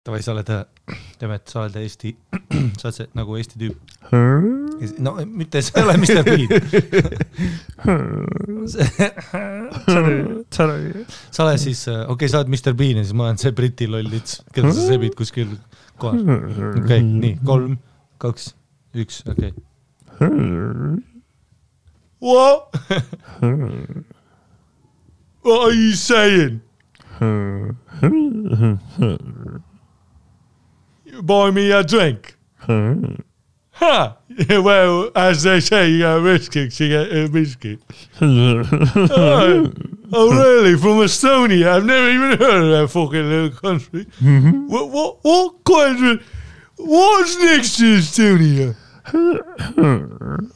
Tavai, sa oled, Demet, sa oled Eesti, sa oled see, nagu Eesti tüüp. No, mitte sa ole Mr. Bean. Sa oled siis, okei, sa oled Mr. Bean ja siis ma olen see Briti lollits, keda sa sebid kuskil kohas. Okei, nii, 3, 2, 1, okei. What? What are you saying? You buy me a drink? Ha! Well, as they say, you get a biscuit, you get a biscuit. Oh, really? From Estonia? I've never even heard of that fucking little country. What country? What's next to Estonia?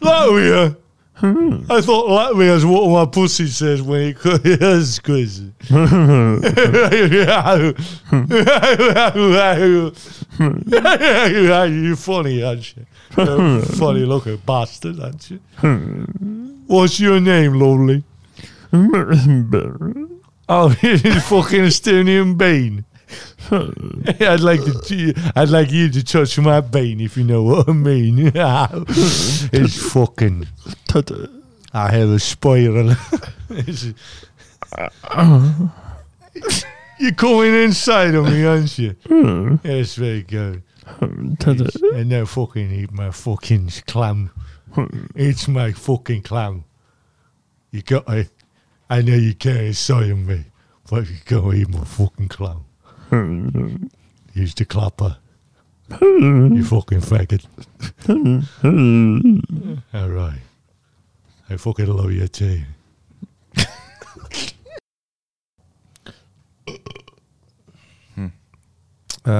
Latvia? I thought Latvia's what my pussy says when it is crazy. You're funny, aren't you? You're a funny looking bastard, aren't you? What's your name, lovely? Oh, it's fucking Estonian Bean. I'd like you to touch my bean, if you know what I mean. It's fucking. I have a spiral. You're coming inside of me, aren't you? Yes, very good. And now fucking eat my fucking clam. It's my fucking clam. You got it. I know you can't say me, but you gotta eat my fucking clam. Use the clapper. You fucking faggot. All right. I fucking love you too.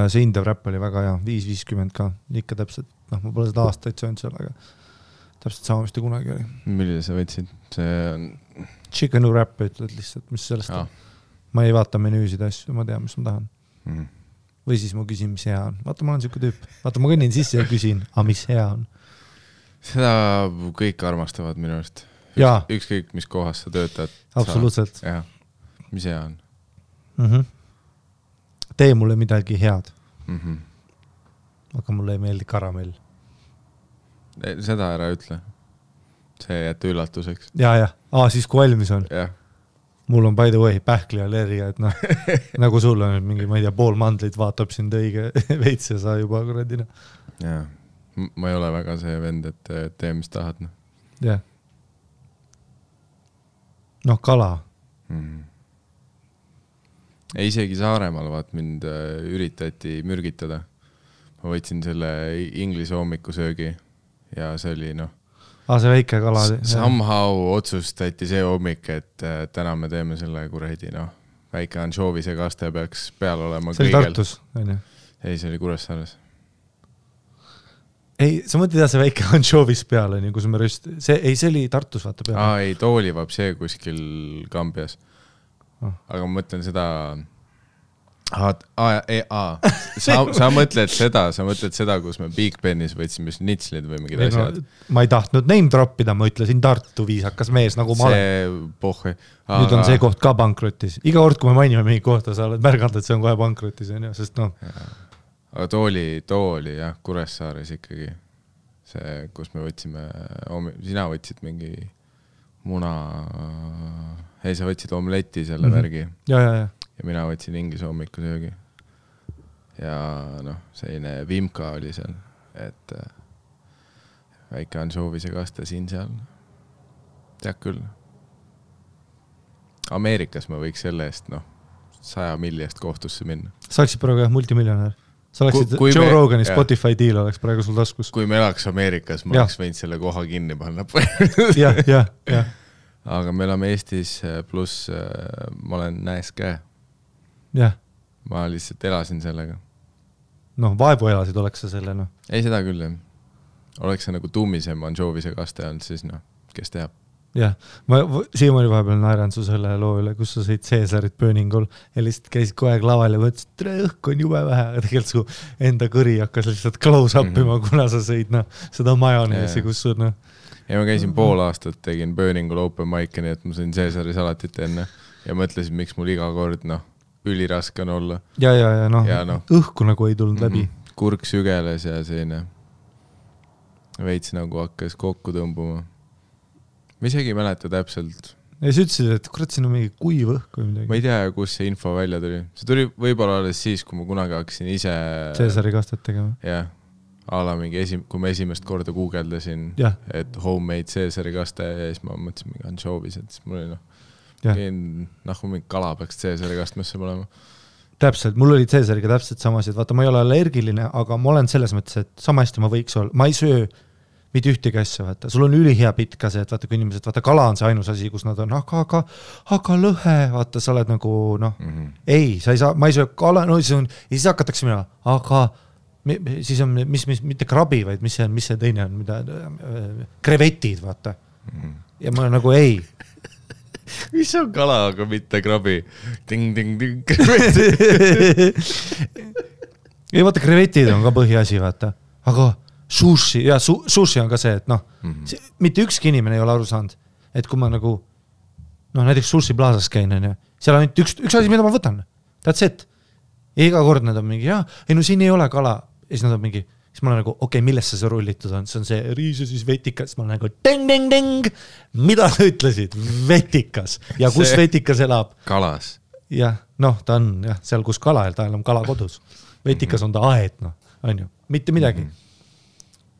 See Indev räpp oli väga hea, 5.50 ka, ikka täpselt, ma pole seda aastaid söönud seal, aga täpselt sama, mis ta kunagi oli. Millise sa võtsid? See on... Chickenu räpp ütled lihtsalt, mis sellest on. Ma ei vaata menüüsid asju, ma tean, mis ma tahan. Või siis ma küsin, mis hea on. Vaata, ma olen siuke tüüp. Vaata, ma kõnnin sisse ja küsin, mis hea on. Seda kõik armastavad minu arust. Ükskõik, mis kohas sa töötad. Absoluutselt. Jah, mis hea on. Tee mulle midagi head. Aga mulle ei meeldi karamell. Seda ära ütle. See jätta üllatuseks. Ja. Siis kui valmis on. Jah. Mul on by the way pähkli allergia, et noh, nagu sul on mingi, ma ei tea, pool mandlit vaatab sind õige veits ja sa juba kuradina. Jaa, ma ei ole väga see vend, et tee, mis tahad. Jah. Noh, kala. Isegi Saaremaal vaat mind üritati mürgitada. Ma võtsin selle inglise hommikusöögi ja see oli see väike kala. Somehow otsustati see hommik, et täna me teeme selle kuredi, väike ansjoovise kaste peaks peal olema kõigel. See oli Tartus, on ju? Ei, see oli Kuressaares. Ei, sa mõtled see väike ansjoovis peal, on ju, kus me see oli Tartus, vaata peal. Ei, toolivab see kuskil Kambias. Aga ma mõtlen seda... Sa mõtled seda, kus me Big Benis võtsime snitslid või mingid asjad. Ma ei tahtnud name droppida, ma ütlesin Tartu viisakas mees, nagu ma olen. Nüüd on see koht ka bankrotis. Iga kord, kui me mainime mingi kohta, sa oled märganud, et see on kohe bankrotis, sest Aga tooli, jah, Kuressaares ikkagi. See, kus me võtsime, sina võtsid mingi muna, sa võtsid omletti selle värgi. Ja mina võtsin inglise hommikusöögi. Ja selline vimka oli seal, et väike ansjoovise kaste siin seal. Tead küll. Ameerikas ma võiks selle eest 100 milliest kohtusse minna. Sa oleksid praegu multimiljonär. Sa oleksid Joe Rogani Spotify deal oleks praegu sul taskus. Kui me elaks Ameerikas, ma oleks võinud selle koha kinni panna. Ja. Aga me oleme Eestis pluss ma olen näes käe. Jah. Ma lihtsalt elasin sellega. Vaevu elasid oleks sa selle, Ei, seda küll, jah. Oleks see nagu tuumisem ansjoovise kaste olnud, siis kes teab. Jah. Ma siiamaani vahepeal naeran su selle loo üle, kus sa sõid Caesarit Burningul ja lihtsalt käisid kogu aeg laval ja mõtlesid, et õhk on jube vähe, aga tegelikult su enda kõri hakkas lihtsalt close-upima, kuna sa sõid seda majoneesi, kus sul Ja ma käisin pool aastat, tegin Burningul open mic'i, nii et ma sõin Caesari salatit enne ja mõtlesin, miks mul iga kord, üliraske on olla. Ja õhku nagu ei tulnud läbi. Kurk sügeles ja selline veits nagu hakkas kokku tõmbuma. Ma isegi ei mäleta täpselt. Ja sa ütlesid, et kurat, siin on mingi kuiv õhk või midagi. Ma ei tea, kus see info välja tuli. See tuli võib-olla alles siis, kui ma kunagi hakkasin ise Caesari kastet tegema. Jah, mingi kui ma esimest korda guugeldasin, et homemade Caesari kaste ja siis ma mõtlesin mingi anchovis, et siis mul oli mingi kala peaks Caesari kastmesse olema. Täpselt, mul oli Caesariga täpselt samasid. Vaata, ma ei ole allergiline, aga ma olen selles mõttes, et sama hästi ma võiks olla. Ma ei söö mitte ühtegi asja, vaata. Sul on ülihea pitt ka see, et vaata, kui inimesed, vaata, kala on see ainus asi, kus nad on, aga lõhe, vaata, sa oled nagu, ei, sa ei saa, ma ei söö kala, ja siis hakatakse mina, aga siis on, mitte krabi, vaid mis see teine on, mida, krevetid, vaata. Ja ma nagu ei. Mis on kala, aga mitte krabi? Ting, ei, vaata, krevetid on ka põhiasi, vaata. Aga sushi on ka see, et mitte ükski inimene ei ole aru saanud, et kui ma nagu, näiteks sushi plaasas käin, seal on üks asi, mida ma võtan. That's it. Ja iga kord nad on mingi, siin ei ole kala. Ja siis nad on mingi, siis ma olen nagu, millesse see rullitud on? See on see riis ja siis vetikas. Ma olen nagu, ding. Mida sa ütlesid? Vetikas. Ja kus vetikas elab? Kalas. Jah, ta on seal, kus kala, ta elab kala kodus. Vetikas on ta aed, on ju. Mitte midagi.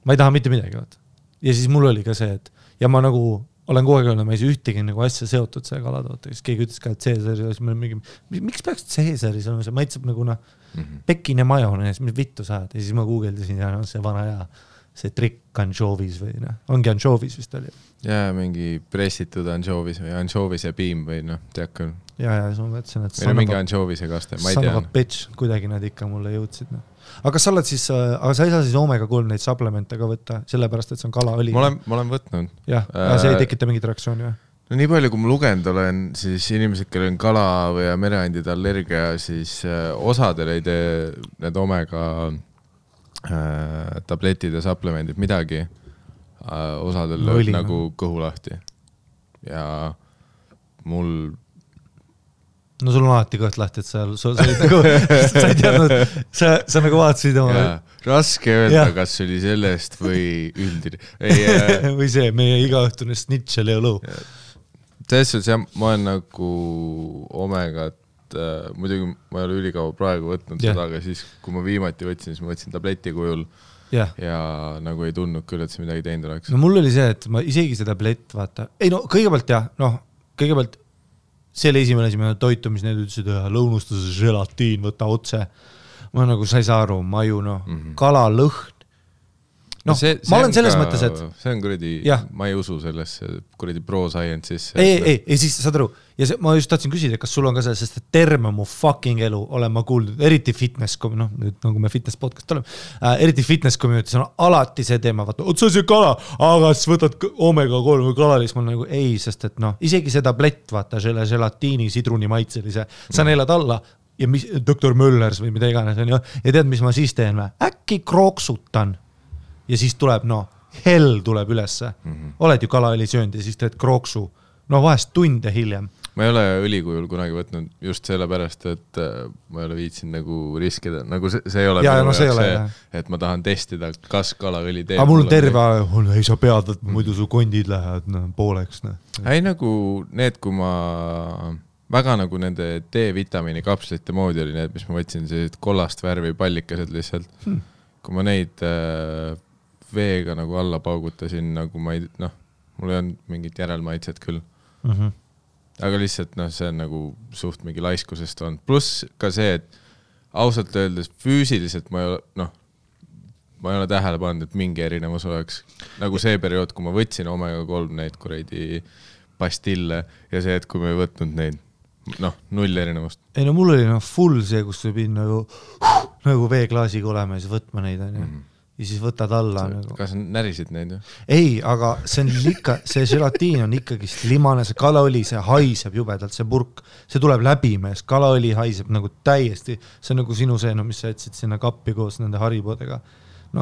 Ma ei taha mitte midagi, vaata. Ja siis mul oli ka see, et ja ma nagu olen kogu aeg öelnud, ma ei saa ühtegi nagu asja seotud see kalatoota, siis keegi ütles ka, et Caesari, miks peaks Caesari olema, see maitseb nagu pekin ja majonees, mis vittu saad, ja siis ma guugeldasin ja see vana ja see trikk anchovis või ongi anchovis vist oli. Ja mingi pressitud anchovis või anchovis ja piim või tead küll. Ja siis ma mõtlesin, et mingi anchovis ja kaste, ma ei tea. Bitch, kuidagi nad ikka mulle jõudsid. Aga sa oled siis, aga sa ei saa siis omega-3 neid supplemente ka võtta, sellepärast, et see on kalaõli. Ma olen võtnud. Jah, see ei tekita mingit reaktsiooni või? No nii palju, kui ma lugenud olen, siis inimesed, kellel on kala või mereandide allergia, siis osadel ei tee need omega tabletid ja supplemendid midagi. Osadel lööb nagu kõhu lahti. Ja mul no sul on alati kõht lahti, et sa ei teadnud, sa nagu vaatasid oma... Raske öelda, kas oli sellest või üldine. Või see, meie igaõhtune snitšel ja lõu. Selles suhtes, ma olen nagu omegat, muidugi ma ei ole ülikaua praegu võtnud seda, aga siis, kui ma viimati võtsin, siis ma võtsin tableti kujul ja nagu ei tundnud küll, et see midagi teinud oleks. No mul oli see, et ma isegi see tablett, vaata, kõigepealt see oli esimene asi, toitu, mis need ütlesid, lõunustuse želatiin, võta otse. Ma nagu, sa ei saa aru, maju, kala, lõhn. Ma olen selles mõttes, et... See on kuradi, ma ei usu sellesse kuradi pro-science sisse. Ei, siis saad aru. Ja ma just tahtsin küsida, kas sul on ka see, sest terve mu fucking elu olen ma kuuldud, eriti fitness, nüüd nagu me fitness podcast oleme, eriti fitness community, on alati see teema, vaata, see on see kala, aga siis võtad omega-3 või kalalis, ma nagu ei, sest et isegi see tablett, vaata, želatiini, sidruni maitselise, sa neelad alla ja doktor Möllers või mida iganes on ju, ja tead, mis ma siis teen või? Äkki krooksutan. Ja siis tuleb, hell tuleb ülesse. Oled ju kalaõli söönud ja siis teed krooksu. Vahest tunde hiljem. Ma ei ole õlikujul kunagi võtnud just selle pärast, et ma ei ole viitsinud nagu riskida. Nagu see ei ole minu jaoks, et ma tahan testida, kas kalaõli teeb. Aga mul on terve, ei sa pead, et muidu su kondid lähevad pooleks. Ei nagu need, kui ma väga nagu nende D-vitamiini kapslite moodi oli need, mis ma võtsin sellised kollast värvi pallikased lihtsalt. Kui ma neid veega nagu alla paugutasin, nagu ma ei, mul ei olnud mingit järelmaitset küll. Aga lihtsalt, see on nagu suht mingi laiskusest on. Pluss ka see, et ausalt öeldes füüsiliselt ma ei ole tähele pannud, et mingi erinevus oleks. Nagu see periood, kui ma võtsin omega-3 neid kuradi pastille ja see, et kui ma ei võtnud neid, null erinevust. Ei, mul oli full see, kus võib nagu veeklaasiga olema ja siis võtma neid on ju. Ja siis võtad alla. Kas närisid neid? Ei, aga see želatiin on ikkagi limane, see kalaõli, see haiseb jubedalt, see purk, see tuleb läbi mees, kalaõli haiseb nagu täiesti, see on nagu sinu see, mis sa jätsid sinna kappi koos nende haribodega.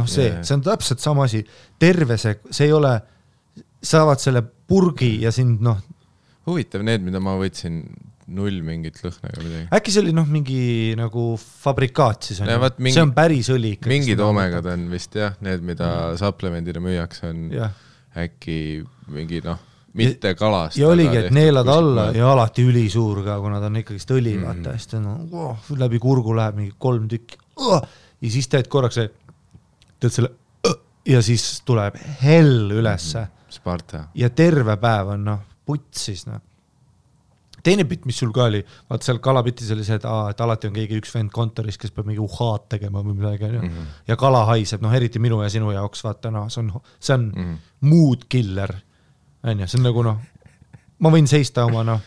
See on täpselt sama asi, terve see ei ole, saavad selle purgi ja sind huvitav, need, mida ma võtsin null mingit lõhna ega midagi. Äkki see oli mingi nagu fabrikaat siis on Ja, ju? vaat mingi- See on päris õli ikka. Mingid omegad on vist jah, need, mida supplemendina müüakse, on Jah. äkki mingi mitte kalast. Ja oligi, et neelad alla ja alati ülisuur ka, kuna ta on ikkagist õli, vaata, hästi läbi kurgu läheb mingi 3 tükki. Ja siis teed korraks teed selle ja siis tuleb hell ülesse. Sparta. Ja terve päev on putsis. Teine pitt, mis sul ka oli, vaata seal kalapitis oli see, et alati on keegi üks vend kontoris, kes peab mingi uhaad tegema või midagi. Ja kala haiseb, eriti minu ja sinu jaoks, vaata, see on mood killer. See on nagu, ma võin seista oma,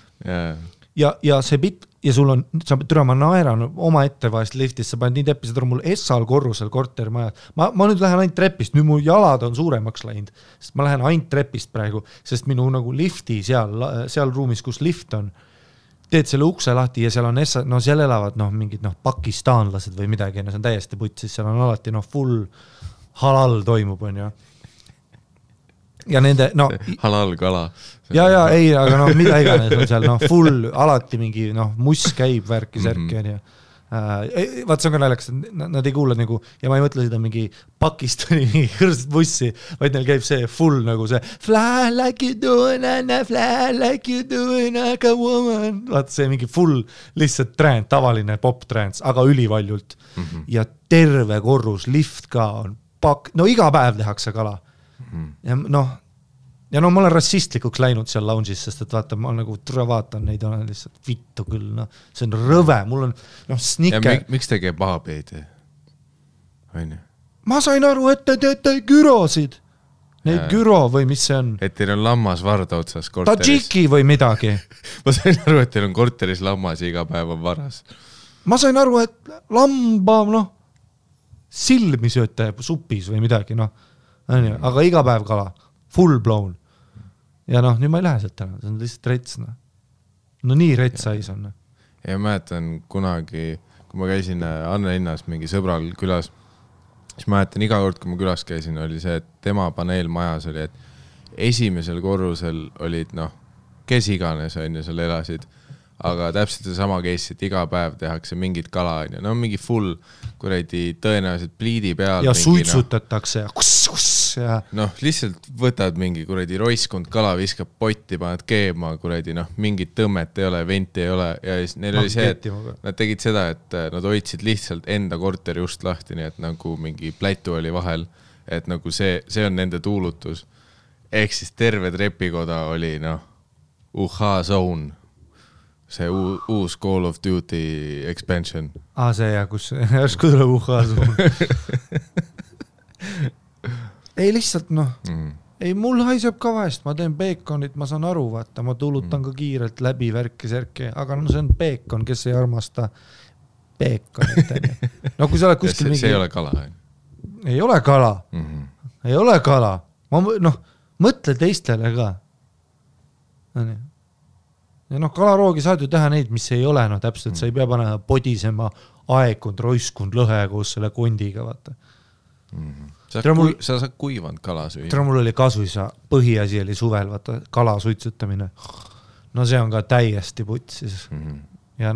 ja see pitt, ja sul on, türa, ma naeran oma ette vahest liftis, sa paned nii teppi, seda on mul Essal korrusel kortermaja. Ma nüüd lähen ainult trepist, nüüd mu jalad on suuremaks läinud, sest ma lähen ainult trepist praegu, sest minu nagu lifti seal ruumis, kus lift on, teed selle ukse lahti ja seal on seal elavad mingid pakistaanlased või midagi, see on täiesti putsis, seal on alati full halal toimub, on ju. Ja nende, halal kala. Ja, ei, aga mida iganes on seal, full, alati mingi, muss käib värki särki, on ju. Vaat see on ka naljakas, nad ei kuule nagu, ja ma ei mõtle seda mingi Pakistani mingi kõrst bussi, vaid neil käib see full nagu see fly like you doing, fly like you doing like a woman. Vaat see mingi full lihtsalt trend, tavaline pop trends, aga ülivaljult. Ja terve korrus, lift ka on iga päev tehakse kala. Ja ma olen rassistlikuks läinud seal lounge'is, sest et vaata, ma nagu vaatan neid, olen lihtsalt vittu küll, see on rõve, mul on sniker. Miks te käib pahapeedi? Ma sain aru, et te teete gyrosid. Neid gyro või mis see on? Et teil on lammas varda otsas korteris. Tadžiki või midagi. Ma sain aru, et teil on korteris lammas ja iga päev on varas. Ma sain aru, et lamba, silmi sööte supis või midagi, aga iga päev kala. Full blown. Ja nüüd ma ei lähe sealt täna, see on lihtsalt rets. Nii retsais on. Ja mäletan kunagi, kui ma käisin Anne linnas mingi sõbral külas, siis mäletan iga kord, kui ma külas käisin, oli see, et tema paneelmajas oli, et esimesel korrusel olid, kes iganes on ja seal elasid, aga täpselt see sama case, et iga päev tehakse mingit kala, mingi full kuradi tõenäoliselt pliidi peal. Ja suitsutatakse ja lihtsalt võtad mingi kuradi roiskund kala, viskab potti, paned keema, kuradi, mingit tõmmet ei ole, venti ei ole ja siis neil oli see, et nad tegid seda, et nad hoidsid lihtsalt enda korteri just lahti, nii et nagu mingi plätu oli vahel, et nagu see on nende tuulutus. Ehk siis terve trepikoda oli, zone. See uus Call of Duty expansion. See kus järsku tuleb uhhasu. Ei lihtsalt, ei mul haiseb ka vahest, ma teen beekonit, ma saan aru, vaata, ma tulutan ka kiirelt läbi värki särki, aga see on beekon, kes ei armasta beekonit. Kui sa oled kuskil mingi... See ei ole kala. Ei ole kala. Ei ole kala. Ma mõtle teistele ka. Ja kalaroogi saad ju teha neid, mis ei ole, täpselt, sa ei pea panema podisema aekund, roiskund, lõhe koos selle kondiga, vaata. Sa saad kuivanud kala süüa. Tere mul oli kasuisa, põhiasi oli suvel, vaata, kala suitsutamine. See on ka täiesti putsis. Ja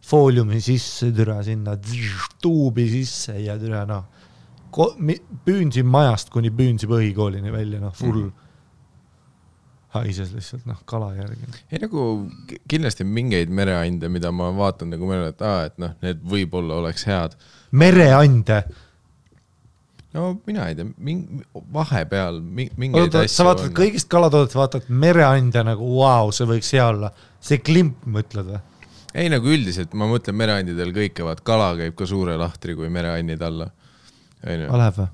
fooliumi sisse türa sinna, tuubi sisse ja türa, püünsin majast kuni püünsi põhikoolini välja, full haises lihtsalt, kala järgi. Ei kindlasti mingeid mereande, mida ma vaatan nagu meile, et need võib-olla oleks head. Mereande? Mina ei tea, vahepeal mingeid asju sa vaatad kõigist kalatoodet, vaatad mereande nagu, see võiks hea olla. See klimp mõtled või? Ei, üldiselt, ma mõtlen mereandidel kõike, kala käib ka suure lahtri kui mereandid alla. Läheb või?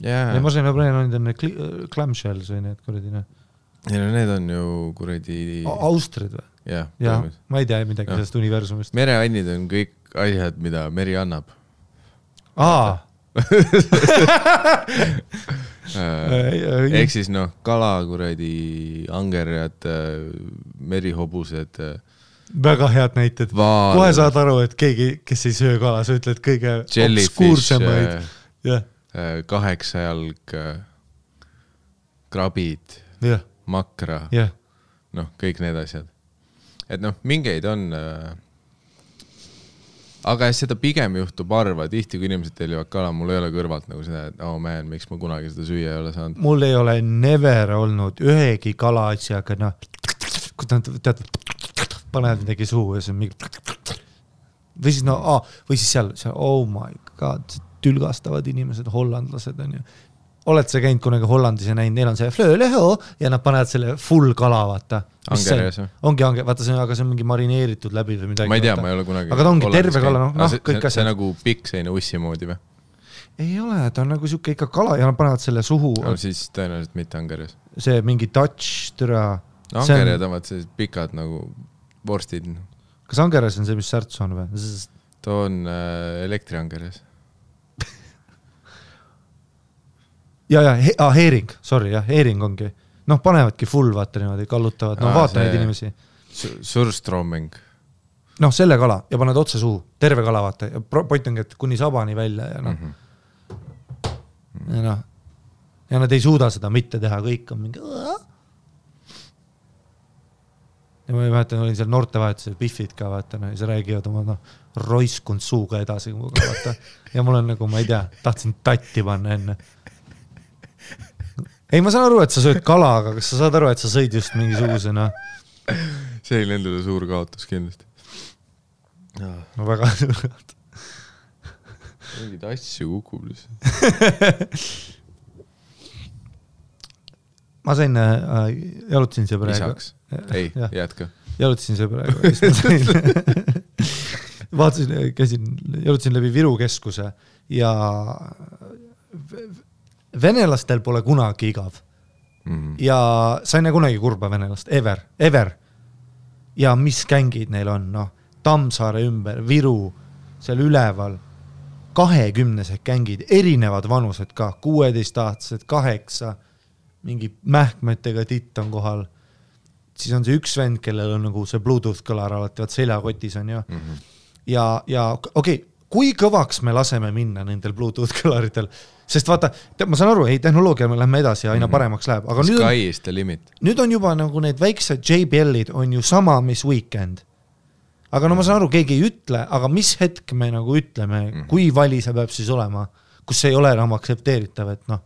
Yeah. Ma sain mereandid on need clamshells või need kuradine. Need on ju kuradi... Austrid või? Jah, ma ei tea midagi sellest universumist. Mereannid on kõik asjad, mida meri annab. Ehk siis kala, kuradi angerjad, merihobused. Väga head näited. Kohe saad aru, et keegi, kes ei söö kala, sa ütled kõige obskuursemaid. 8 jalg, krabid, makra, kõik need asjad. et noh, mingeid on aga seda pigem juhtub harva, tihti kui inimesed tellivad kala, mul ei ole kõrvalt nagu seda, et man, miks ma kunagi seda süüa ei ole saanud. Mul ei ole never olnud ühegi kala asjaga, noh, kui tead, panevad midagi suhu ja see on mingi või siis, või siis seal, oh my god, tülgastavad inimesed, hollandlased on ju. Oled sa käinud kunagi Hollandis ja näinud, neil on see flööleho ja nad panevad selle full kala, vaata. Angeres või? Ongi, vaata see, aga see on mingi marineeritud läbi või midagi. Ma ei tea, ma ei ole kunagi. Aga ta ongi terve kala, noh, kõik asjad. See nagu pikk seine ussi moodi või? Ei ole, ta on nagu siuke ikka kala ja nad panevad selle suhu. No siis tõenäoliselt mitte Angeres. See mingi Dutch türa. No Angered on see pikad nagu vorstid. Kas Angeres on see, mis särts on või? Ta on elektri Angeres. Ja, heering, sorry, heering ongi. Noh, panevadki full, vaata niimoodi, kallutavad, no vaata neid inimesi. Surströmming. Noh, selle kala ja paned otse suhu, terve kala, vaata. Ja point ongi, et kuni sabani välja ja noh. Ja noh. Ja nad ei suuda seda mitte teha, kõik on mingi... Ja ma ei mäletan, olin seal noortevahetusel Biffid ka, vaata, no, ja see räägivad oma roiskund suuga edasi, vaata. Ja mul on nagu, ma ei tea, tahtsin tatti panna enne. Ei, ma saan aru, et sa sööd kala, aga kas sa saad aru, et sa sõid just mingisugusena? See oli endale suur kaotus kindlasti. No väga suur kaotus. Mingid asju kukub lihtsalt. Ma sain, jalutasin see praegu. Lisaks. Ei, jätka. Jalutasin see praegu. Vaatasin, jalutasin läbi Viru keskuse ja venelastel pole kunagi igav. Ja sa ei näe kunagi kurba venelast. Ever. Ja mis kängid neil on? No, Tammsaare ümber, Viru, seal üleval. 20-sed kängid, erinevad vanused ka. 16-aastased, 8, mingi mähkmetega titt on kohal. Siis on see üks vend, kellel on nagu see Bluetooth kõlar alati, vaat seljakotis on ju. Ja okei, kui kõvaks me laseme minna nendel Bluetooth kõlaritel? Sest vaata, ma saan aru, ei, tehnoloogia me lähme edasi ja aina paremaks läheb. Aga Sky is the limit. Nüüd on juba nagu need väiksed JBL-id on ju sama, mis Weekend. Aga no ma saan aru, keegi ei ütle, aga mis hetk me nagu ütleme, kui vali see peab siis olema, kus see ei ole enam aktsepteeritav, et noh.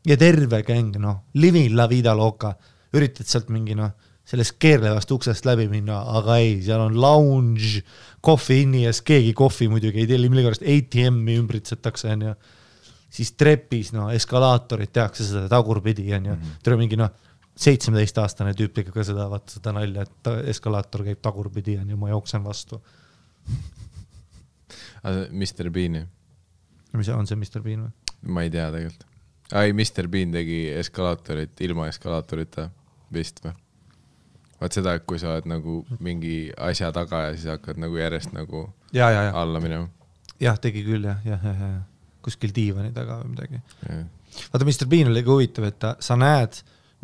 Ja terve käng, noh, living la vida loca, üritad sealt mingi, noh, sellest keerlevast uksest läbi minna, aga ei, seal on lounge, kohvi inni ja keegi kohvi muidugi ei telli, millegipärast ATM-i ümbritsetakse, on ju. Siis trepis, no, eskalaatorid tehakse seda tagurpidi, on ju. Tere mingi, noh, 17-aastane tüüp tegeb ka seda, vaata seda nalja, et eskalaator käib tagurpidi, on ju, ma jooksen vastu. Mr. Bean. Mis on see Mr. Bean või? Ma ei tea tegelikult. Ai, Mr. Bean tegi eskalaatorit ilma eskalaatorita vist või? Vaat seda, et kui sa oled nagu mingi asja taga ja siis hakkad nagu järjest nagu alla minema. Jah, tegi küll, jah. Kuskil diivani taga või midagi. Vaata, Mr. Bean oli huvitav, et sa näed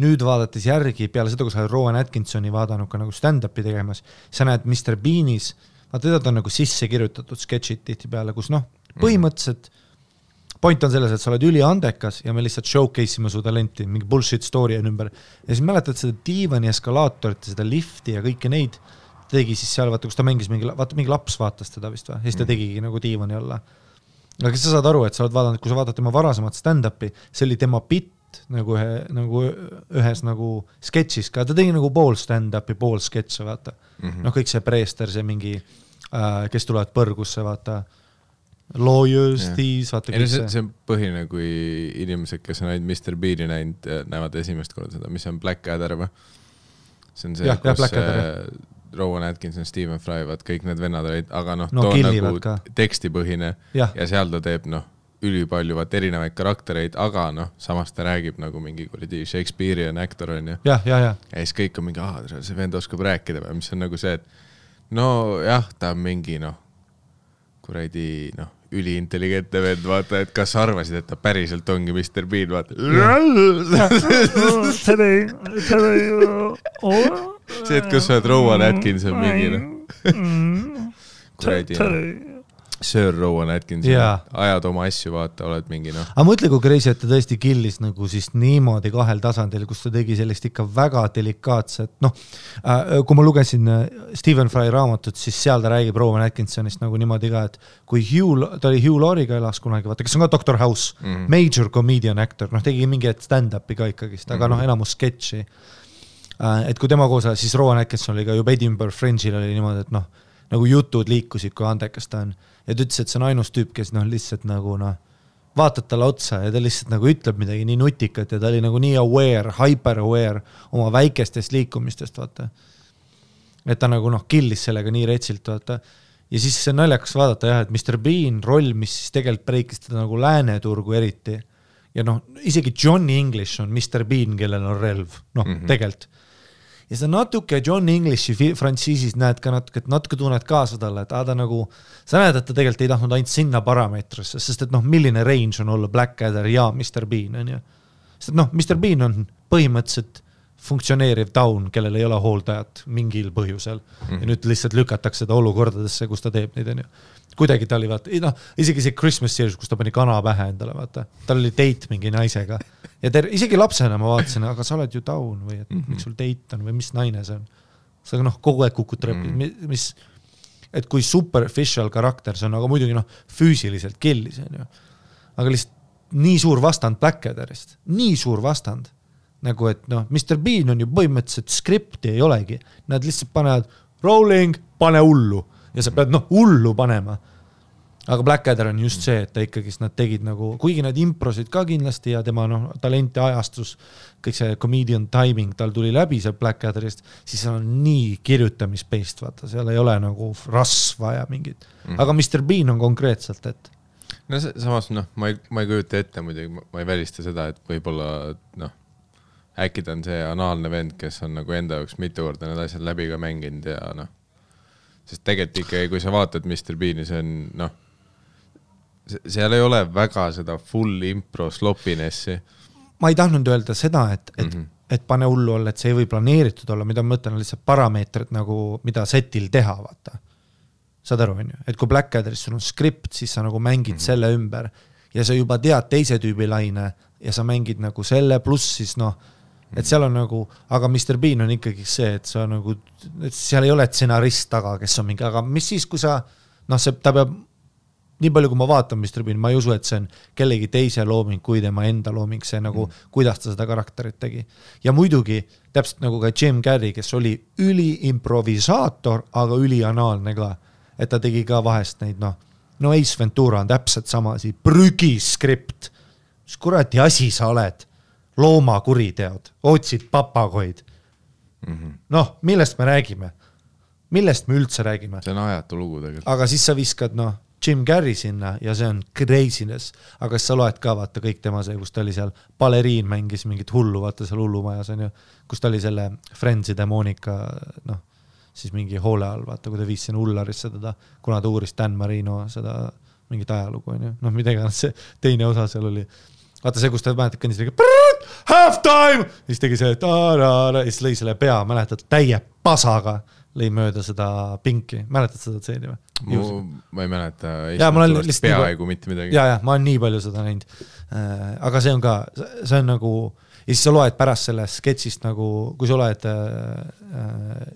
nüüd vaadates järgi, peale seda, kui sa oled Rowan Atkinsoni vaadanud ka nagu stand-upi tegemas, sa näed Mr. Beanis, vaata, teda on nagu sisse kirjutatud sketšid tihti peale, kus noh, põhimõtteliselt point on selles, et sa oled üliandekas ja me lihtsalt showcase'ime su talenti, mingi bullshit story on ümber. Ja siis mäletad seda diivani eskalaatorit, seda lifti ja kõike neid tegi siis seal, vaata, kus ta mängis mingi laps vaatas teda vist või, ja siis ta tegigi nagu diivani alla. Aga kes sa saad aru, et sa oled vaadanud, kui sa vaatad tema varasemat stand-upi, see oli tema bitt nagu ühes nagu sketšis ka, ta tegi nagu pool stand-upi, pool sketše, vaata. Noh, kõik see preester, see mingi, kes tulevad põrgusse, vaata, lawyers, thieves, vaata kõik see. See on põhine, kui inimesed, kes on ainult Mr. Beani näinud, näevad esimest korda seda, mis on Blackadder või? See on see, kus Rowan Atkinson, Stephen Fry, vaat kõik need vennad olid, aga noh, too nagu tekstipõhine ja seal ta teeb noh, ülipalju vaat erinevaid karaktereid, aga noh, samas ta räägib nagu mingi kuradi Shakespearean actor on ju. Ja siis kõik on mingi, see vend oskab rääkida või, mis on nagu see, et no jah, ta on mingi noh, kuradi noh, üliintelligentne vend, vaata, et kas arvasid, et ta päriselt ongi Mr. Bean, vaata. See, et kus sa oled Rowan Atkinson mingi noh. Kuradi. Sir Rowan Atkinson, ajad oma asju, vaata, oled mingi Aga mõtle, kui crazy, et ta tõesti killis nagu siis niimoodi 2 tasandil, kus ta tegi sellist ikka väga delikaatset, kui ma lugesin Stephen Fry raamatut, siis seal ta räägib Rowan Atkinsonist nagu niimoodi ka, et kui ta oli Hugh Laurie'ga elas kunagi, vaata, kes on ka Dr. House, major comedian actor, tegi mingi stand-upi ka ikkagist, aga enamus sketši. Et kui tema koos, siis Rowan Atkinson oli ka juba Edinburgh Fringe'il oli niimoodi, et nagu jutud liikusid, kui andekas ta on. Ja ta ütles, et see on ainus tüüp, kes lihtsalt nagu vaatad talle otsa ja ta lihtsalt nagu ütleb midagi nii nutikat ja ta oli nagu nii aware, hyper aware oma väikestest liikumistest, vaata. Et ta nagu killis sellega nii retsilt, vaata. Ja siis see naljakas vaadata jah, et Mr. Bean roll, mis siis tegelikult breikis teda nagu lääneturgu eriti. Ja isegi Johnny English on Mr. Bean, kellel on relv, tegelikult. Ja sa natuke John Englishi frantsiisis näed ka natuke tunned kaasa talle, et ta nagu, sa näed, et ta tegelikult ei tahtnud ainult sinna parameetrisse, sest et milline range on olla Blackadder ja Mr. Bean, on ju. Sest et Mr. Bean on põhimõtteliselt funktsioneeriv taun, kellel ei ole hooldajat mingil põhjusel. Ja nüüd lihtsalt lükatakse ta olukordadesse, kus ta teeb neid, on ju. Kuidagi ta oli, vaata, isegi see Christmas series, kus ta pani kana pähe endale, vaata. Tal oli date mingi naisega. Ja isegi lapsena ma vaatasin, aga sa oled ju taun või et miks sul date on või mis naine see on. Sa kogu aeg kukut repid, et kui superficial karakter see on, aga muidugi füüsiliselt killis, on ju. Aga lihtsalt nii suur vastand Blackadderist, nii suur vastand. Nagu et Mr. Bean on ju põhimõtteliselt skripti ei olegi. Nad lihtsalt panevad rolling, pane hullu. Ja sa pead hullu panema. Aga Blackadder on just see, et ta ikkagi nad tegid nagu, kuigi nad improsid ka kindlasti ja tema talenti ajastus, kõik see comedian timing tal tuli läbi seal Blackadderist, siis seal on nii kirjutamispeist, vaata, seal ei ole nagu rasva ja mingid. Aga Mr. Bean on konkreetselt, et samas, ma ei kujuta ette muidugi, ma ei välista seda, et võib-olla, äkki ta on see anaalne vend, kes on nagu enda jaoks mitu korda need asjad läbi ka mänginud ja sest tegelikult ikkagi, kui sa vaatad Mr. Beani, see on, seal ei ole väga seda full impro slopinessi. Ma ei tahtnud öelda seda, et pane hullu olla, et see ei või planeeritud olla, mida ma mõtlen, on lihtsalt parameetrid nagu, mida setil teha, vaata. Saad aru, on ju? Et kui Blackadderis sul on skript, siis sa nagu mängid selle ümber ja sa juba tead teise tüübi laine ja sa mängid nagu selle pluss siis et seal on nagu, aga Mr. Bean on ikkagi see, et sa nagu, et seal ei ole stsenarist taga, kes on mingi, aga mis siis, kui sa, ta peab, nii palju kui ma vaatan Mr. Bean, ma ei usu, et see on kellegi teise looming, kui tema enda looming, see nagu, kuidas ta seda karakterit tegi. Ja muidugi, täpselt nagu ka Jim Carrey, kes oli üliimprovisaator, aga ülianaalne ka, et ta tegi ka vahest neid, Ace Ventura on täpselt sama, prügiskript, mis kurati asi sa oled, loomakuriteod, otsid papagoid. Millest me räägime? Millest me üldse räägime? See on ajatu lugu tegelikult. Aga siis sa viskad, Jim Carrey sinna ja see on craziness. Aga sa loed ka, vaata, kõik tema see, kus ta oli seal, baleriin mängis mingit hullu, vaata seal hullumajas on ju, kus ta oli selle Friendside Monika, siis mingi hoole all, vaata, kui ta viis sinna Ullarisse teda, kuna ta uuris Dan Marino seda mingit ajalugu, on ju. Midagi, see teine osa seal oli. Vaata see, kus ta mäletad kõndis halftime! Ja siis tegi see ja siis lõi selle pea, mäletad, täie pasaga lõi mööda seda pinki. Mäletad seda tseeni või? Ma ei mäleta. Ja, ma olen lihtsalt peaaegu mitte midagi. Ja, ma olen nii palju seda näinud. Aga see on ka, see on nagu, ja siis sa loed pärast sellest sketsist nagu, kui sa loed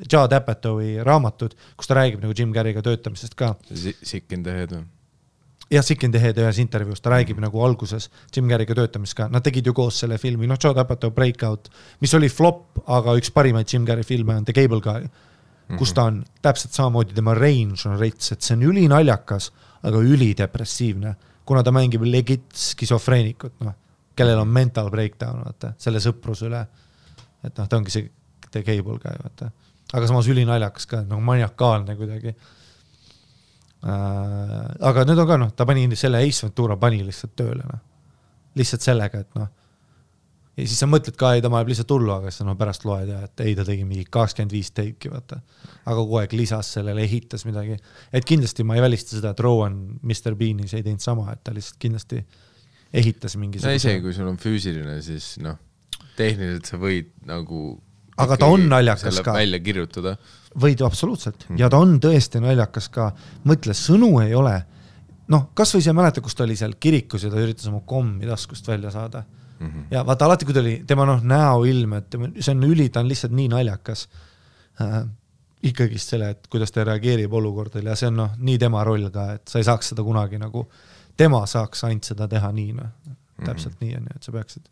Judd Apatowi raamatud, kus ta räägib nagu Jim Carreyga töötamisest ka. Sick in the head või? Ja Sick in the Head ühes intervjuus, ta räägib nagu alguses Jim Carreyga töötamist ka. Nad tegid ju koos selle filmi, Judd Apatow Breakout, mis oli flop, aga üks parimaid Jim Carrey filme on The Cable Guy, kus ta on täpselt samamoodi, tema range on reits, et see on ülinaljakas, aga ülidepressiivne, kuna ta mängib legit skisofreenikut, kellel on mental breakdown, vaata, selle sõprus üle. Et ta ongi see The Cable Guy, vaata. Aga samas ülinaljakas ka, maniakaalne kuidagi. Aga nüüd on ka, ta pani selle Ace Ventura pani lihtsalt tööle, lihtsalt sellega, et ja siis sa mõtled ka, ei ta maeb lihtsalt hullu, aga siis pärast loed ja, et ei ta tegi mingi 25 teiki, vaata. Aga kogu aeg lisas sellele, ehitas midagi, et kindlasti ma ei välista seda, et Rowan Mr. Beanis ei teinud sama, et ta lihtsalt kindlasti ehitas mingi isegi kui sul on füüsiline, siis tehniliselt sa võid nagu aga ta on naljakas ka välja kirjutada võid absoluutselt. Ja ta on tõesti naljakas ka. Mõtle, sõnu ei ole noh, kas või see mäleta, kus ta oli seal kirikus ja ta üritas oma kommi taskust välja saada. Ja vaata alati, kui ta oli tema näoilm, et see on ta on lihtsalt nii naljakas ikkagist selle, et kuidas ta reageerib olukordil ja see on nii tema roll ka, et sa ei saaks seda kunagi nagu, tema saaks ainult seda teha nii, täpselt nii on, et sa peaksid.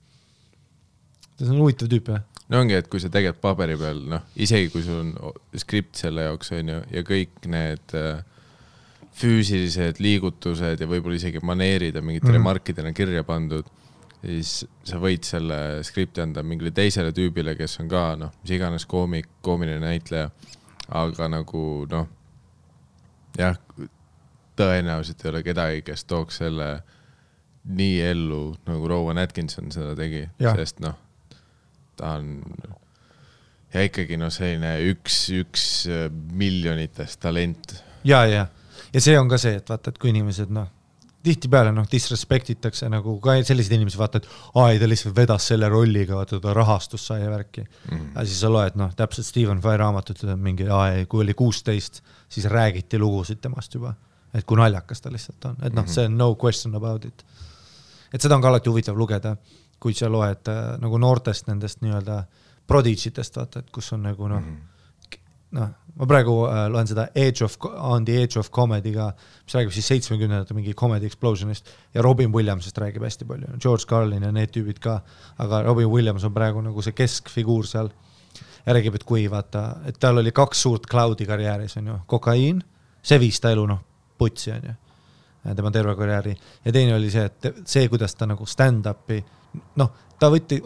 See on huvitav tüüp, jah? No ongi, et kui sa teged paberi peal, isegi kui sul on skript selle jaoks on ju, ja kõik need füüsilised liigutused ja võib-olla isegi maneerid ja mingid remarkidena kirja pandud, siis sa võid selle skripti anda mingile teisele tüübile, kes on ka, mis iganes koomiline näitleja, aga nagu, jah, tõenäoliselt ei ole kedagi, kes tooks selle nii ellu, nagu Rowan Atkinson seda tegi, sest ta on ja ikkagi selline üks miljonitest talent. Ja see on ka see, et vaata, et kui inimesed, tihti peale disrespektitakse nagu ka sellised inimesed vaata, et ta lihtsalt vedas selle rolliga, vaata ta rahastus sai ja värki. Ja siis sa loed, täpselt Stephen Fry raamatut, mingi kui oli 16, siis räägiti lugusid temast juba, et kui naljakas ta lihtsalt on. Et see on no question about it. Et seda on ka alati huvitav lugeda, kui sa loed nagu noortest nendest nii-öelda prodigitest, vaata, et kus on nagu ma praegu loen seda On the Age of Comedy'ga, mis räägib siis 70 mingi comedy explosionist ja Robin Williamsist räägib hästi palju. George Carlin ja need tüübid ka, aga Robin Williams on praegu nagu see keskfiguur seal. Ja räägib, et kui vaata, et tal oli 2 suurt cloudi karjääris, on ju, kokaiin, see viis ta elu, putsi on ju, tema terve karjääri. Ja teine oli see, et see, kuidas ta nagu stand-upi, ta võtti,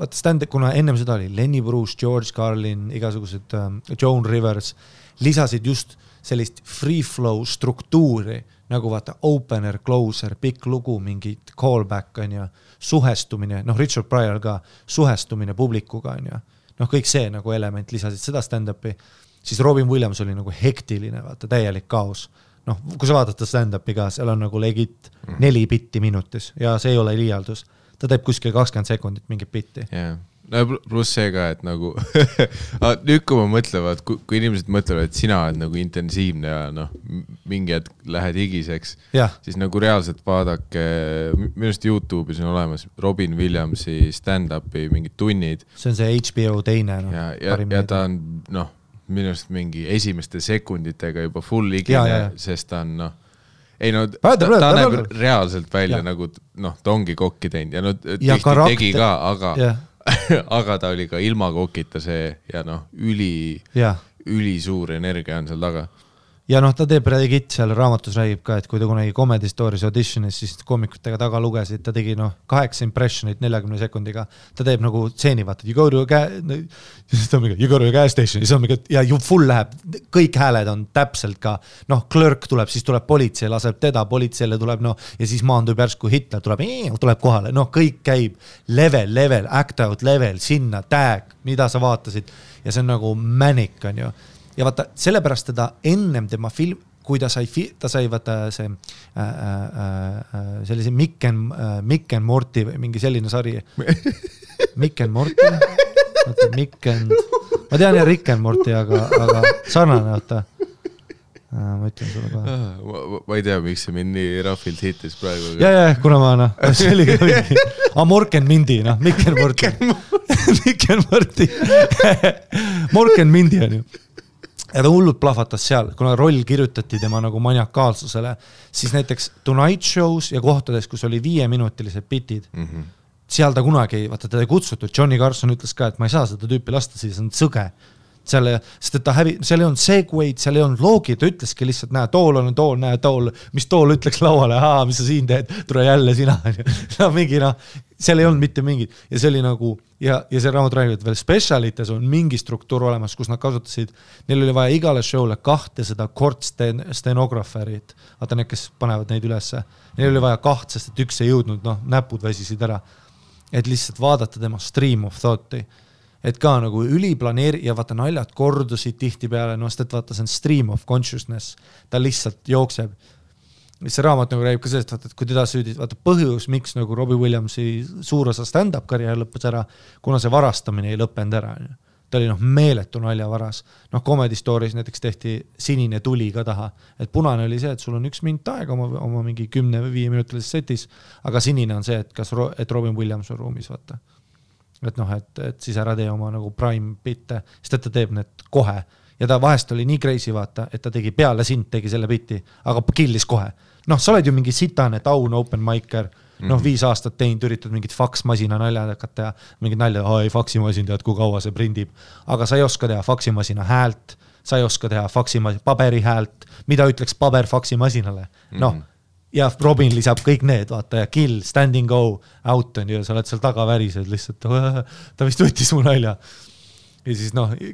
kuna ennem seda oli Lenny Bruce, George Carlin, igasugused Joan Rivers, lisasid just sellist free flow struktuuri, nagu vaata opener, closer, pikk lugu, mingid callback on ja suhestumine, Richard Pryor ka, suhestumine publikuga on ja kõik see nagu element lisasid seda stand-upi, siis Robin Williams oli nagu hektiline, vaata, täielik kaos. Kui sa vaadata stand-upi ka, seal on nagu legit 4 bitti minutis ja see ei ole liialdus. Ta teeb kuskil 20 sekundit mingit bitti. Pluss see ka, et nagu nüüd kui ma mõtlevad, kui inimesed mõtlevad, et sina oled nagu intensiivne ja mingi hetk lähed higiseks, siis nagu reaalselt vaadake, minust YouTube'is on olemas Robin Williamsi stand-upi mingid tunnid. See on see HBO teine. Ja ta on minust mingi esimeste sekunditega juba full higine, sest ta on ta näeb reaalselt välja nagu ta ongi kokki teinud ja tihti tegi ka, aga ta oli ka ilma kokita see ja üli suur energia on seal taga. Ja ta teeb Reddit seal raamatus räägib ka, et kui ta kunagi Comedy Stories auditionis, siis koomikutega taga lugesid, ta tegi 8 impressionit 40 sekundiga. Ta teeb nagu tseeni, vaata, you go to a gas station, ja full läheb, kõik hääled on täpselt ka, klörk tuleb, siis tuleb politsei, laseb teda, politseile tuleb, ja siis maandub järsku Hitler, tuleb kohale, kõik käib level, act out level, sinna, tag, mida sa vaatasid, ja see on nagu manic, on ju. Ja vaata, sellepärast teda ennem tema film, kui ta sai vaata see sellise Mick and Morty või mingi selline sari. Mick and Morty? Ma tean ja Rick and Morty, aga sarnane, vaata. Ma ütlen sulle ka. Ma ei tea, miks see mind nii rahvilt hitis praegu. Ja, kuna ma, see oli ka mingi. Mork and Mindy, Mick and Morty. Mick and Morty. Mork and Mindy on ju. Ja ta hullult plahvatas seal, kuna roll kirjutati tema nagu maniakaalsusele, siis näiteks Tonight Shows ja kohtades, kus oli 5-minutilised bitid, seal ta kunagi, vaata ta ei kutsutud, Johnny Carson ütles ka, et ma ei saa seda tüüpi lasta, siis on sõge. Sest et seal ei olnud segwaid, seal ei olnud loogi, ta ütleski lihtsalt, näe, tool, mis tool ütleks lauale, mis sa siin teed, tule jälle sina. Mingi, seal ei olnud mitte mingid. Ja see oli nagu, ja see raamat räägib, et veel specialites on mingi struktuur olemas, kus nad kasutasid, neil oli vaja igale showle 2 seda stenografärit, vaata need, kes panevad neid ülesse. Neil oli vaja 2, sest et üks ei jõudnud, näpud väsisid ära. Et lihtsalt vaadata tema stream of thought'i. Et ka nagu üliplaneeri ja vaata naljad kordusid tihti peale, sest et vaata see on stream of consciousness, ta lihtsalt jookseb. See raamat nagu räägib ka sellest, vaata, et kui teda süüdid, vaata põhjus, miks nagu Robbie Williamsi suur osa stand-up karjäär lõppes ära, kuna see varastamine ei lõppenud ära. ta oli meeletu naljavaras. Comedy Stories näiteks tehti sinine tuli ka taha, et punane oli see, et sul on 1 minut aega oma mingi 10 või 5 minutilises setis, aga sinine on see, et Robin Williams on ruumis, vaata. Et siis ära tee oma nagu prime bitte, sest et ta teeb need kohe. Ja ta vahest oli nii crazy, vaata, et ta tegi peale sind, tegi selle biti, aga killis kohe. Sa oled ju mingi sitane taun open micer, 5 aastat teinud, üritad mingit faksmasina naljad hakata ja mingid naljad, ei faksimasin tead, kui kaua see prindib. Aga sa ei oska teha faksimasina häält, sa ei oska teha paberi häält, mida ütleks paber faksimasinale. Ja Robin lisab kõik need, vaata, ja kill, standing go, out on ju, sa oled seal taga värised lihtsalt, ta vist võttis mu nalja. Ja siis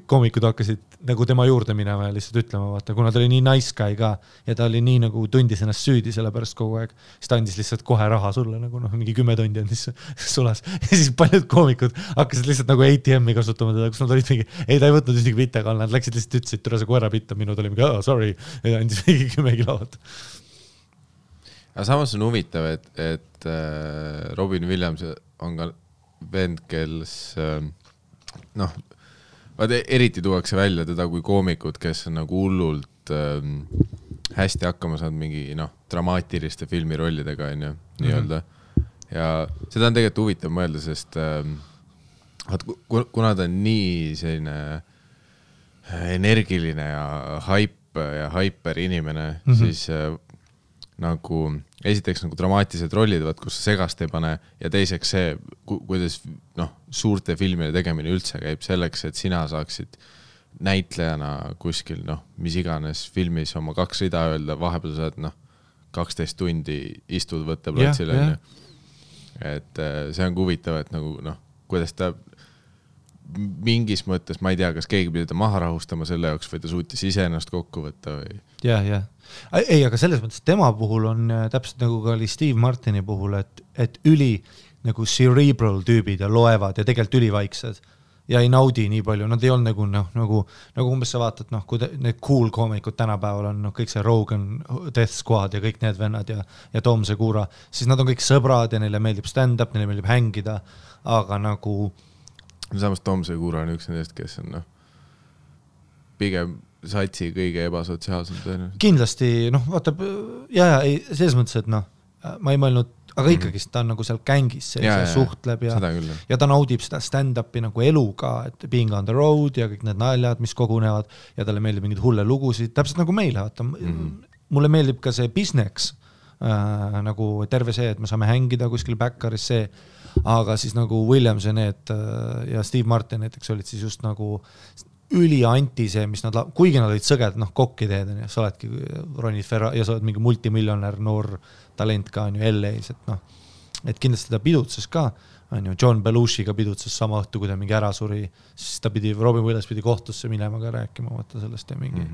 koomikud hakkasid nagu tema juurde minema ja lihtsalt ütlema, vaata, kuna ta oli nii nice guy ka ja ta oli nii nagu tundis ennast süüdi selle pärast kogu aeg, siis ta andis lihtsalt kohe raha sulle, nagu mingi 10 tundi andis sulas. Ja siis paljud koomikud hakkasid lihtsalt nagu ATM-i kasutama teda, kus nad olid mingi, ei ta ei võtnud ühtegi bitte kall, nad läksid lihtsalt ütlesid, türa see koera bitta, minu tuli mingi, sorry, ja andis mingi 10 kilovat. Aga samas on huvitav, et Robin Williams on ka vend, kes eriti tuuakse välja teda kui koomikud, kes on nagu hullult hästi hakkama saanud mingi dramaatiliste filmirollidega nii-öelda. Ja seda on tegelikult huvitav mõelda, sest kuna ta on nii selline energiline ja hyper inimene, siis nagu esiteks nagu dramaatilised rollid, kus sa segast ei pane ja teiseks see, kuidas suurte filmide tegemine üldse käib selleks, et sina saaksid näitlejana kuskil, mis iganes filmis oma 2 rida öelda, vahepeal saad 12 tundi istud võtteplatsile. Et see on huvitav, et nagu kuidas ta mingis mõttes, ma ei tea, kas keegi pidi ta maha rahustama selle jaoks või ta suutis ise ennast kokku võtta või... Ja. Ei, aga selles mõttes tema puhul on täpselt nagu ka oli Steve Martini puhul, et üli nagu cerebral tüübid ja loevad ja tegelikult ülivaiksed ja ei naudi nii palju, nad ei olnud nagu umbes sa vaatad, kui need cool koomikud tänapäeval on, kõik see Rogan, Death Squad ja kõik need vennad ja Tom Segura, siis nad on kõik sõbrad ja neile meeldib stand-up, neile meeldib hängida, aga nagu samas Tom Segura on üks nendest, kes on pigem satsi kõige ebasotsiaalsem. Kindlasti, vaatab, ei, selles mõttes, et ma ei mõelnud, aga ikkagi ta on nagu seal kängis, see suhtleb ja ta naudib seda stand-upi nagu elu ka, et being on the road ja kõik need naljad, mis kogunevad ja talle meeldib mingid hulle lugusid, täpselt nagu meile, vaata. Mulle meeldib ka see business, nagu terve see, et me saame hängida kuskil backeris see, aga siis nagu Williams ja need ja Steve Martin näiteks olid siis just nagu ülianti see, mis nad, kuigi nad olid sõged, kokkiteed, sa oledki Ronnie Ferra ja sa oled mingi multimiljonär noor talent ka on ju LA-s, et kindlasti ta pidutses ka, on ju, John Belushiga pidutses sama õhtu, kui ta mingi ära suri, siis ta Robin Williams pidi kohtusse minema ka rääkima, vaata sellest ja mingi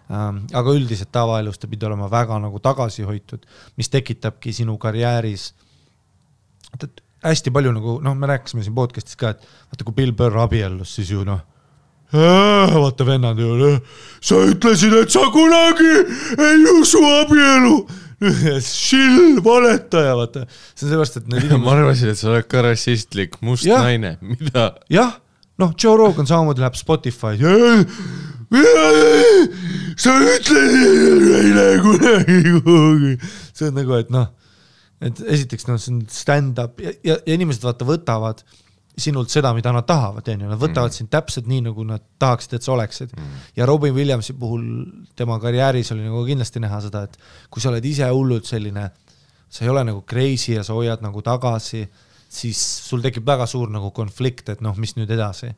aga üldiselt tavaelus ta pidi olema väga nagu tagasihoitud, mis tekitabki sinu karjääris hästi palju nagu, me rääkisime siin podcastis ka, et vaata, kui Bill Burr abiellus, siis ju vaata vennad ju, sa ütlesid, et sa kunagi ei usu abielu. Shill, valetaja, vaata. See on sellepärast, et need ma arvasin, et sa oled ka rassistlik, must naine. Mida? Jah, Joe Rogan samamoodi läheb Spotify. Sa ütlesid eile kunagi. See on nagu, et esiteks see on stand-up ja inimesed vaata võtavad sinult seda, mida nad tahavad, nad võtavad sind täpselt nii, nagu nad tahaksid, et sa oleksid. Ja Robin Williamsi puhul tema karjääris oli nagu kindlasti näha seda, et kui sa oled ise hullult selline, sa ei ole nagu crazy ja sa hoiad nagu tagasi, siis sul tekib väga suur nagu konflikt, et mis nüüd edasi.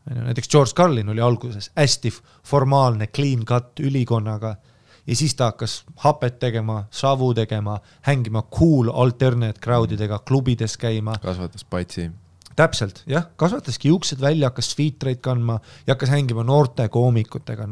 Näiteks George Carlin oli alguses hästi formaalne, clean cut ülikonnaga ja siis ta hakkas hapet tegema, savu tegema, hängima cool alternate crowdidega, klubides käima. Kasvatas patsi. Täpselt, jah, kasvataski juuksed välja, hakkas featrate kandma ja hakkas hängima noorte koomikutega,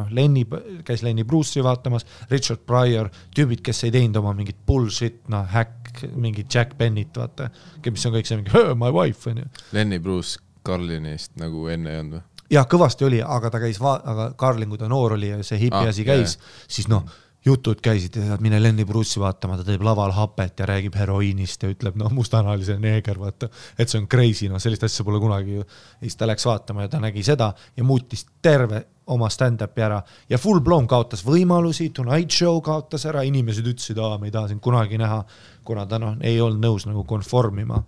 käis Lenny Bruce'i vaatamas, Richard Pryor, tüübid, kes ei teinud oma mingit bullshit, hack, mingit Jack Bennett, vaata, mis on kõik see mingi, my wife, on ju. Lenny Bruce Carlinist nagu enne ei olnud või? Jah, kõvasti oli, aga ta käis, aga Carlin, kui ta noor oli ja see hipi asi käis, siis jutud käisid ja mine Lenny Bruce'i vaatama, ta teeb laval hapet ja räägib heroiinist ja ütleb, mustanalise neeger, vaata, et see on crazy, sellist asja pole kunagi ju. Ja siis ta läks vaatama ja ta nägi seda ja muutis terve oma stand-upi ära ja full blown kaotas võimalusi, Tonight Show kaotas ära, inimesed ütlesid, me ei taha sind kunagi näha, kuna ta ei olnud nõus nagu konformima.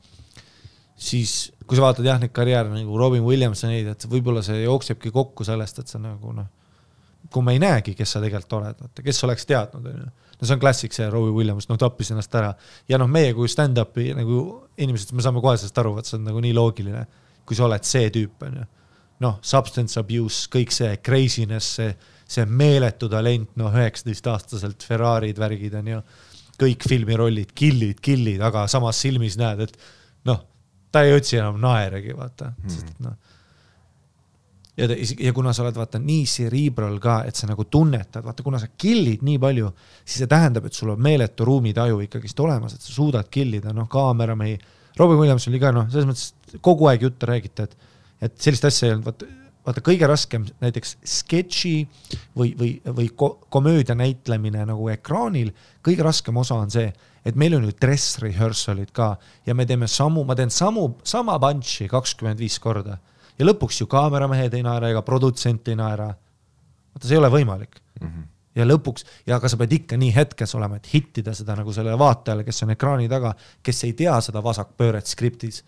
Siis, kui sa vaatad neid karjääre nagu Robin Williams ja neid, et võib-olla see jooksebki kokku sellest, et sa nagu kui ma ei näegi, kes sa tegelikult oled, kes oleks teadnud. See on klassik see Robin Williams, tappis ennast ära. Ja meie kui stand-upi nagu inimesed, me saame kohe sellest aru, et see on nagu nii loogiline, kui sa oled see tüüp. Substance abuse, kõik see craziness, see meeletu talent, 19-aastaselt Ferrarid, värgid on ju, kõik filmirollid, killid, aga samas silmis näed, et ta ei otsi enam naeregi, vaata. Ja kuna sa oled vaata nii cerebral ka, et sa nagu tunnetad, vaata kuna sa killid nii palju, siis see tähendab, et sul on meeletu ruumitaju ikkagist olemas, et sa suudad killida, kaameramehi. Robin Williams oli ka, selles mõttes kogu aeg juttu räägite, et sellist asja ei olnud, vaata kõige raskem näiteks sketši või komöödia näitlemine nagu ekraanil, kõige raskem osa on see, et meil on ju dress rehearsalid ka ja ma teen sama punchi 25 korda ja lõpuks ju kaameramehed ei naera ega produtsent ei naera. Vaata, see ei ole võimalik. Ja lõpuks, ja aga sa pead ikka nii hetkes olema, et hittida seda nagu sellele vaatajale, kes on ekraani taga, kes ei tea seda vasakpööret skriptis.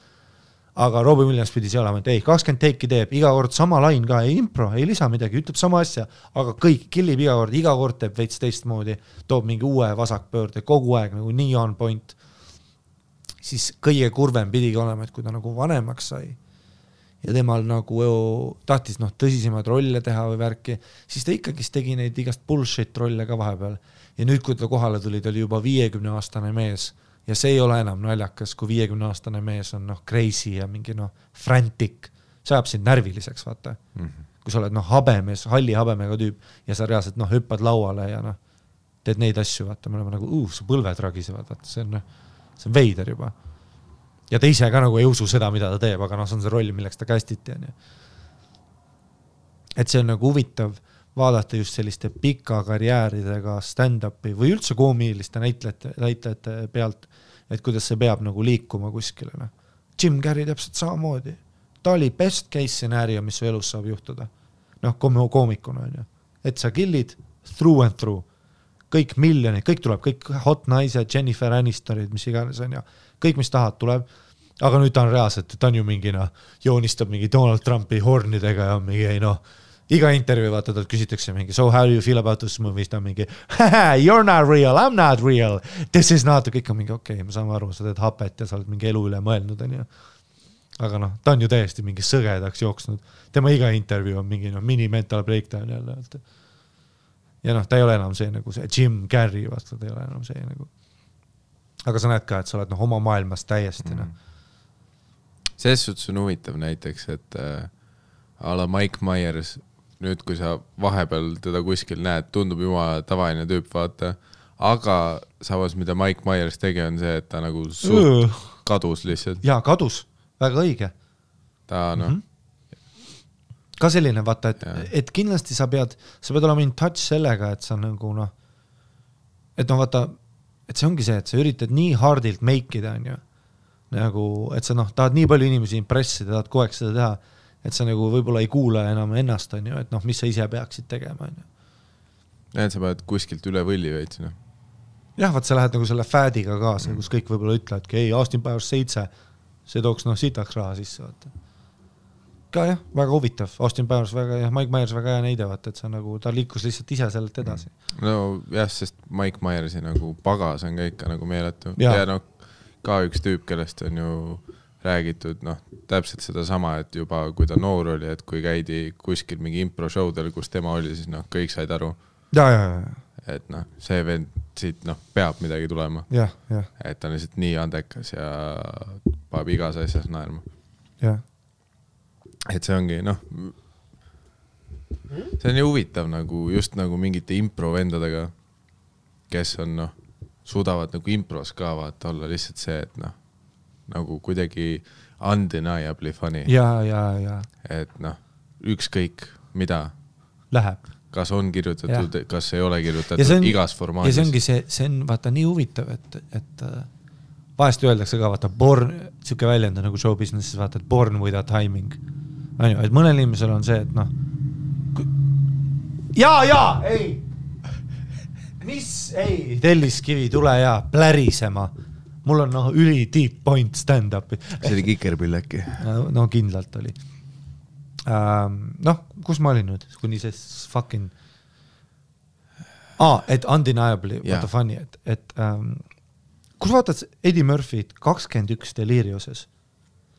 Aga Robin Williams pidi see olema, et 20 teiki teeb, iga kord sama lain ka, ei impro, ei lisa midagi, ütleb sama asja, aga kõik killib iga kord teeb veits teistmoodi, toob mingi uue vasakpöörde, kogu aeg nagu nii on point. Siis kõige kurvem pidigi olema, et kui ta nagu vanemaks sai ja temal nagu tahtis tõsisemad rolle teha või värki, siis ta ikkagi tegi neid igast bullshit rolle ka vahepeal. Ja nüüd, kui ta kohale tuli, ta oli juba 50-aastane mees ja see ei ole enam naljakas, kui 50-aastane mees on crazy ja mingi frantic. See ajab sind närviliseks, vaata. Kui sa oled habemees, halli habemega tüüp ja sa reaalselt hüppad lauale ja teed neid asju, vaata. Me oleme nagu, su põlved ragisevad, vaata. See on veider juba. Ja ta ise ka nagu ei usu seda, mida ta teeb, aga see on see roll, milleks ta kästiti. Et see on nagu huvitav vaadata just selliste pika karjääridega stand-upi või üldse koomiliste näitlejate pealt, et kuidas see peab nagu liikuma kuskile. Jim Carrey täpselt samamoodi. Ta oli best case scenario, mis su elus saab juhtuda. Koomikuna on ju. Et sa killid through and through. Kõik miljonid, kõik tuleb, kõik hot naised, Jennifer Anistorid, mis iganes on ju. Kõik, mis tahad, tuleb. Aga nüüd ta on reaalselt, ta on ju mingi, joonistab mingi Donald Trumpi hornidega ja mingi, iga intervjuu vaata, talt küsitakse mingi, so how do you feel about this movie? Ta on mingi, you're not real, I'm not real. This is not, kõik on mingi, okei, me saame aru, sa teed hapet ja sa oled mingi elu üle mõelnud. On ju. Aga ta on ju täiesti mingi sõgedaks jooksnud. Tema iga intervjuu on mingi mini-mental breakdown jälle. Ja ta ei ole enam see nagu see Jim Carrey, vaata, ta ei ole enam see nagu. Aga sa näed ka, et sa oled oma maailmas täiesti. Selles suhtes on huvitav näiteks, et a la Mike Myers, nüüd kui sa vahepeal teda kuskil näed, tundub jumala tavaline tüüp, vaata, aga samas, mida Mike Myers tegi, on see, et ta nagu kadus lihtsalt. Jaa, kadus, väga õige. Ta Ka selline, vaata, et kindlasti sa pead olema in touch sellega, et sa nagu et vaata, et see ongi see, et sa üritad nii hardilt make'ida, on ju, nagu, et sa tahad nii palju inimesi impressida, tahad kogu aeg seda teha, et sa nagu võib-olla ei kuule enam ennast, on ju, et mis sa ise peaksid tegema, on ju. Et sa pead kuskilt üle võlli veits, Jah, vaat sa lähed nagu selle fädiga kaasa, kus kõik võib-olla ütlevad, ei, Austin Powers 7, see tooks sitaks raha sisse, vaata. Ka jah, väga huvitav. Austin Powers väga, Mike Myers väga hea näide, vaata, et see nagu, ta liikus lihtsalt ise sellelt edasi. No jah, sest Mike Myersi nagu pagas on ka ikka nagu meeletu. Ja ka üks tüüp, kellest on ju räägitud, täpselt seda sama, et juba kui ta noor oli, et kui käidi kuskil mingi impro-showdel, kus tema oli, siis kõik said aru. Ja. Et see vend siit peab midagi tulema. Ja. Et ta on lihtsalt nii andekas ja paab igas asjas naerma. Ja. Et see ongi, see on ju huvitav nagu, just nagu mingite impro-vendadega, kes on, suudavad nagu impros ka vaata olla lihtsalt see, et nagu kuidagi undeniably funny. Ja. Et ükskõik mida läheb. kas on kirjutatud, kas ei ole kirjutatud igas formaadis. Ja see ongi see on vaata nii huvitav, et vahest öeldakse ka, vaata, siuke väljend nagu show businesses, vaata, et born with a timing. Et mõnel inimesel on see, et noh, ei! Ei, Telliskivi, tule ja plärisema. Mul on üli deep point stand-up. See oli Kikerpill äkki? No kindlalt oli. Kus ma olin nüüd? Kuni see fucking... et undeniably, what the funny, et kus vaatad Eddie Murphy't 21 Deliriuses?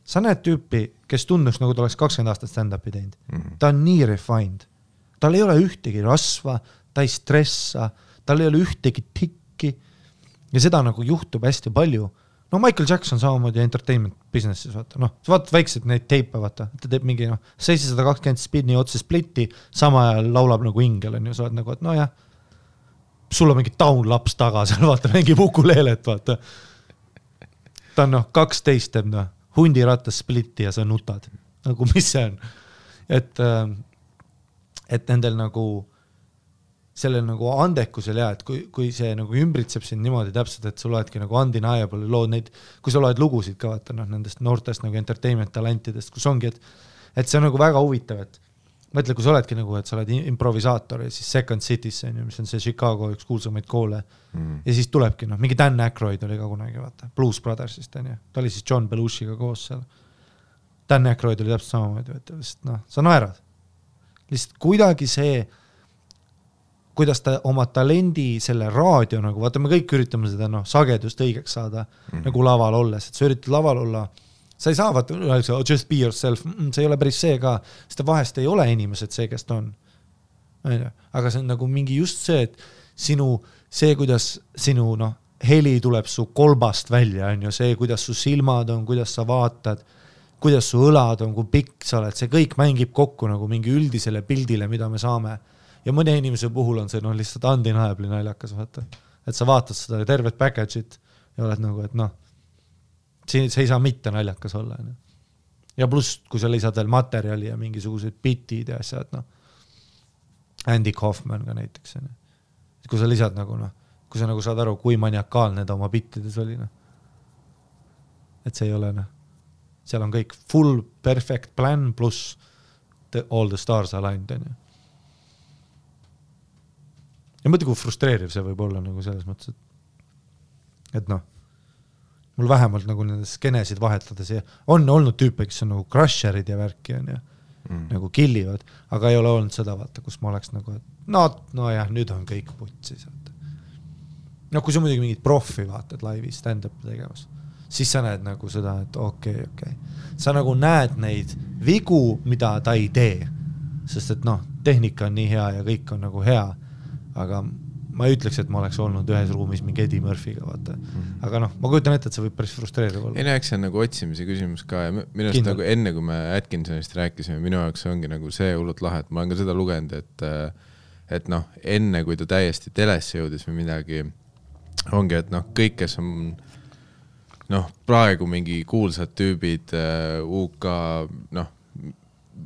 Sa näed tüüpi, kes tundus nagu ta oleks 20 aastat stand-upi teinud. Ta on nii refined. Tal ei ole ühtegi rasva, ta ei stressa, tal ei ole ühtegi tikki ja seda nagu juhtub hästi palju. No Michael Jackson samamoodi entertainment businesses, vaata. Sa vaatad väiksed neid teipe, vaata. Ta teeb mingi 720 spinni otse splitti, sama ajal laulab nagu ingel, on ju, sa oled nagu, et jah, sul on mingi taunlaps taga, seal vaata, mingi ukulelelet, vaata. Ta on 12 teeb, hundirattas splitti ja sa nutad. Nagu mis see on? Et nendel nagu sellel nagu andekusel et kui see nagu ümbritseb sind niimoodi täpselt, et sul oledki nagu undeniable lood neid, kui sa loed lugusid ka vaata, nendest noortest nagu entertainment talentidest, kus ongi, et see on nagu väga huvitav, et mõtle, kui sa oledki nagu, et sa oled improvisaator ja siis Second Cities, mis on see Chicago üks kuulsamaid koole ja siis tulebki, mingi Dan Aykroyd oli ka kunagi, vaata, Blues Brothersist, ta oli siis John Belushiga koos seal. Dan Aykroyd oli täpselt samamoodi, sa naerad. Lihtsalt kuidagi see kuidas ta oma talendi selle raadio nagu, vaata me kõik üritame seda sagedust õigeks saada nagu laval olles, et sa üritad laval olla, sa ei saa vaata, just be yourself, see ei ole päris see ka, sest vahest ei ole inimesed see, kes ta on. Aga see on nagu mingi just see, et see, kuidas sinu heli tuleb su kolbast välja, on ju see, kuidas su silmad on, kuidas sa vaatad, kuidas su õlad on, kui pikk sa oled, see kõik mängib kokku nagu mingi üldisele pildile, mida me saame. Ja mõne inimese puhul on see lihtsalt undeniably naljakas, vaata. Et sa vaatad seda tervet package'it ja oled nagu, et see ei saa mitte naljakas olla. Ja pluss, kui sa lisad veel materjali ja mingisugused bitid ja asjad, Andy Kaufman ka näiteks. Kui sa lisad nagu, kui sa nagu saad aru, kui maniakaalne ta oma bittides oli. Et see ei ole, seal on kõik full perfect plan pluss all the stars aligned, on ju. Ja mõtle, kui frustreeriv see võib olla nagu selles mõttes, et mul vähemalt nagu nendes skenesid vahetades on olnud tüüpe, kes on nagu crusherid ja värki on ja nagu killivad, aga ei ole olnud seda vaata, kus ma oleks nagu, et nüüd on kõik putsis. Kui sa muidugi mingid profi vaatad laivi stand-up tegemas, siis sa näed nagu seda, et okei. Sa nagu näed neid vigu, mida ta ei tee, sest et tehnika on nii hea ja kõik on nagu hea, aga ma ei ütleks, et ma oleks olnud ühes ruumis mingi Eddie Murphy'ga, vaata. Aga ma kujutan ette, et see võib päris frustreeriv olla. Eks see on nagu otsimise küsimus ka ja minust nagu enne, kui me Atkinsonist rääkisime, minu jaoks ongi nagu see hullult lahe, et ma olen ka seda lugenud, et enne, kui ta täiesti telesse jõudis või midagi, ongi, et kõik, kes on praegu mingi kuulsad tüübid, UK,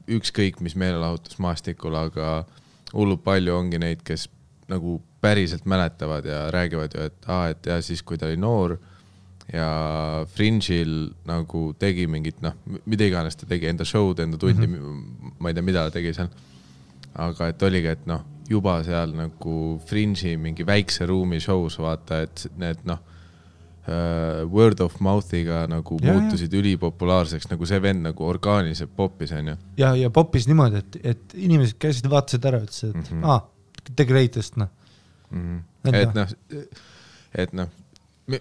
ükskõik mis meelelahutus maastikul, aga hullult palju ongi neid, kes nagu päriselt mäletavad ja räägivad ju, et ja siis, kui ta oli noor ja Fringe'il nagu tegi mingit, mida iganes ta tegi, enda show'd, enda tundi, ma ei tea, mida ta tegi seal, aga et oligi, et juba seal nagu Fringe'i mingi väikse ruumi show's vaata, et need word of mouth'iga nagu muutusid ülipopulaarseks, nagu see vend nagu orgaaniliselt poppis, on ju. Ja poppis niimoodi, et inimesed käisid vaatasid ära, ütlesid, et the greatest, et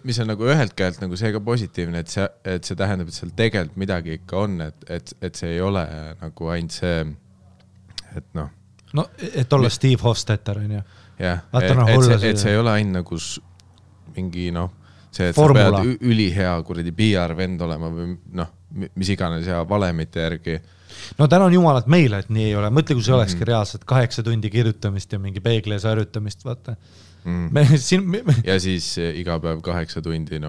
mis on nagu ühelt käelt nagu see ka positiivne, et see tähendab, et seal tegelikult midagi ikka on, et see ei ole nagu ainult see, et et olla Steve Hofstetter, on ju. Jah, et see ei ole ainult nagu mingi see, et formula. Sa pead ülihea kuradi PR-vend olema või mis iganes ja valemite järgi. Tänan jumalat meile, et nii ei ole. Mõtle, kui see olekski reaalselt 8 tundi kirjutamist ja mingi peeglees harjutamist, vaata. Ja siis iga päev 8 tundi,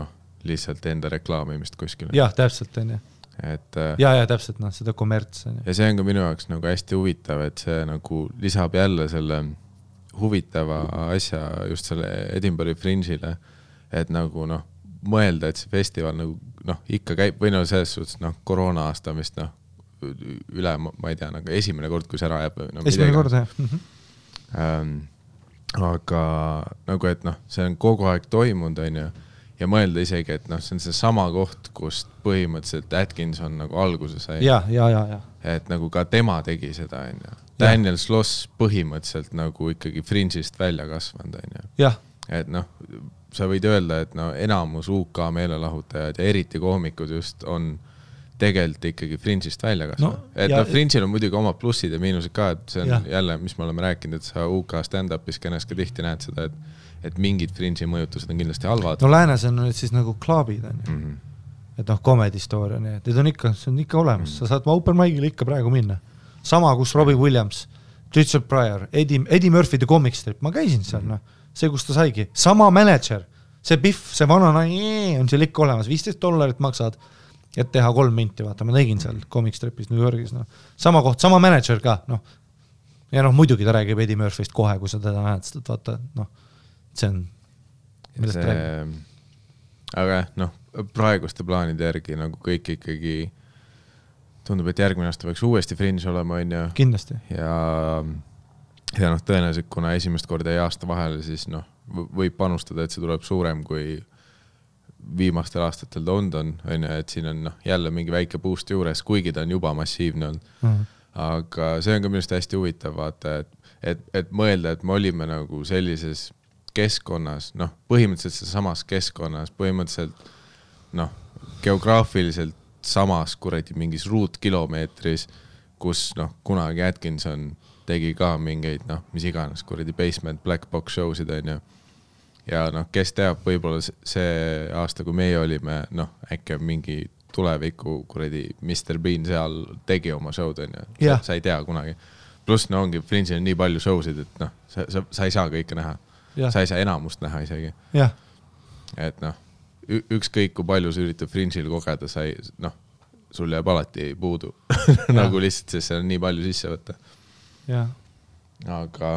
lihtsalt enda reklaamimist kuskil. Jah, täpselt on, jah. et ja täpselt, noh, seda kommerts. Ja see on ka minu jaoks nagu hästi huvitav, et see nagu lisab jälle selle huvitava asja just selle Edinburghi Fringe'ile, et nagu noh, mõelda, et see festival nagu noh, ikka käib, või no selles suhtes noh, koroona aasta vist noh, üle, ma ei tea, nagu esimene kord, kui see ära jääb. No, esimene kord, jah. Aga nagu, et noh, see on kogu aeg toimunud, on ju, ja mõelda isegi, et noh, see on see sama koht, kust põhimõtteliselt Atkinson nagu alguse sai. Ja. Et nagu ka tema tegi seda, on ju. Daniel Sloss põhimõtteliselt nagu ikkagi Fringe'ist välja kasvanud, on ju. Jah. Et noh, sa võid öelda, et no enamus UK meelelahutajad ja eriti koomikud just on tegelikult ikkagi Fringe'ist välja kasvanud. No, et noh, Fringe'il on muidugi oma plussid ja miinused ka, et see on jälle, mis me oleme rääkinud, et sa UK stand-upis kennes ka tihti näed seda, et mingid Fringe'i mõjutused on kindlasti halvad. No läänes on nüüd siis nagu klubid, on ju. Et noh, comedy story on, et see on ikka olemas. Sa saad open mic'ile ikka praegu minna. Sama, kus Robbie Williams, Richard Pryor, Eddie Murphy The Comic Strip, ma käisin seal, noh. See, kus ta saigi. Sama manager, see Biff, see vana on seal ikka olemas, $15 maksad, et teha 3 minti, vaata, ma tegin seal Comic Stripis New Yorgis, noh. Sama koht, sama manager ka, noh. Ja noh, muidugi ta räägib Eddie Murphy'st kohe, kui sa teda näed, sest vaata, noh, see on, millest ta räägib. Aga noh, praeguste plaanide järgi nagu kõik ikkagi tundub, et järgmine aasta võiks uuesti Fringe olema, on ju. Kindlasti. Ja noh, tõenäoliselt, kuna esimest korda jäi aasta vahele, siis noh, võib panustada, et see tuleb suurem kui viimastel aastatel London, on ju, et siin on noh, jälle mingi väike boost juures, kuigi ta on juba massiivne olnud. Aga see on ka minust hästi huvitav, vaata, et mõelda, et me olime nagu sellises keskkonnas, noh, põhimõtteliselt samas keskkonnas, põhimõtteliselt noh, geograafiliselt samas kuradi mingis ruutkilomeetris, kus noh, kunagi Atkinson tegi ka mingeid, noh, mis iganes kuradi basement black box showsid, on ju. Ja noh, kes teab, võib-olla see aasta, kui meie olime, noh, äkki mingi tuleviku kuradi Mr. Bean seal tegi oma showd, on ju. Sa ei tea kunagi. Plus no ongi, Fringe'il on nii palju showsid, et noh, sa ei saa kõike näha. Sa ei saa enamust näha isegi. Et noh, ükskõik kui palju sa üritab Fringe'il kogeda, noh, sul jääb alati puudu. Nagu lihtsalt, sest see on nii palju sisse võtta. Aga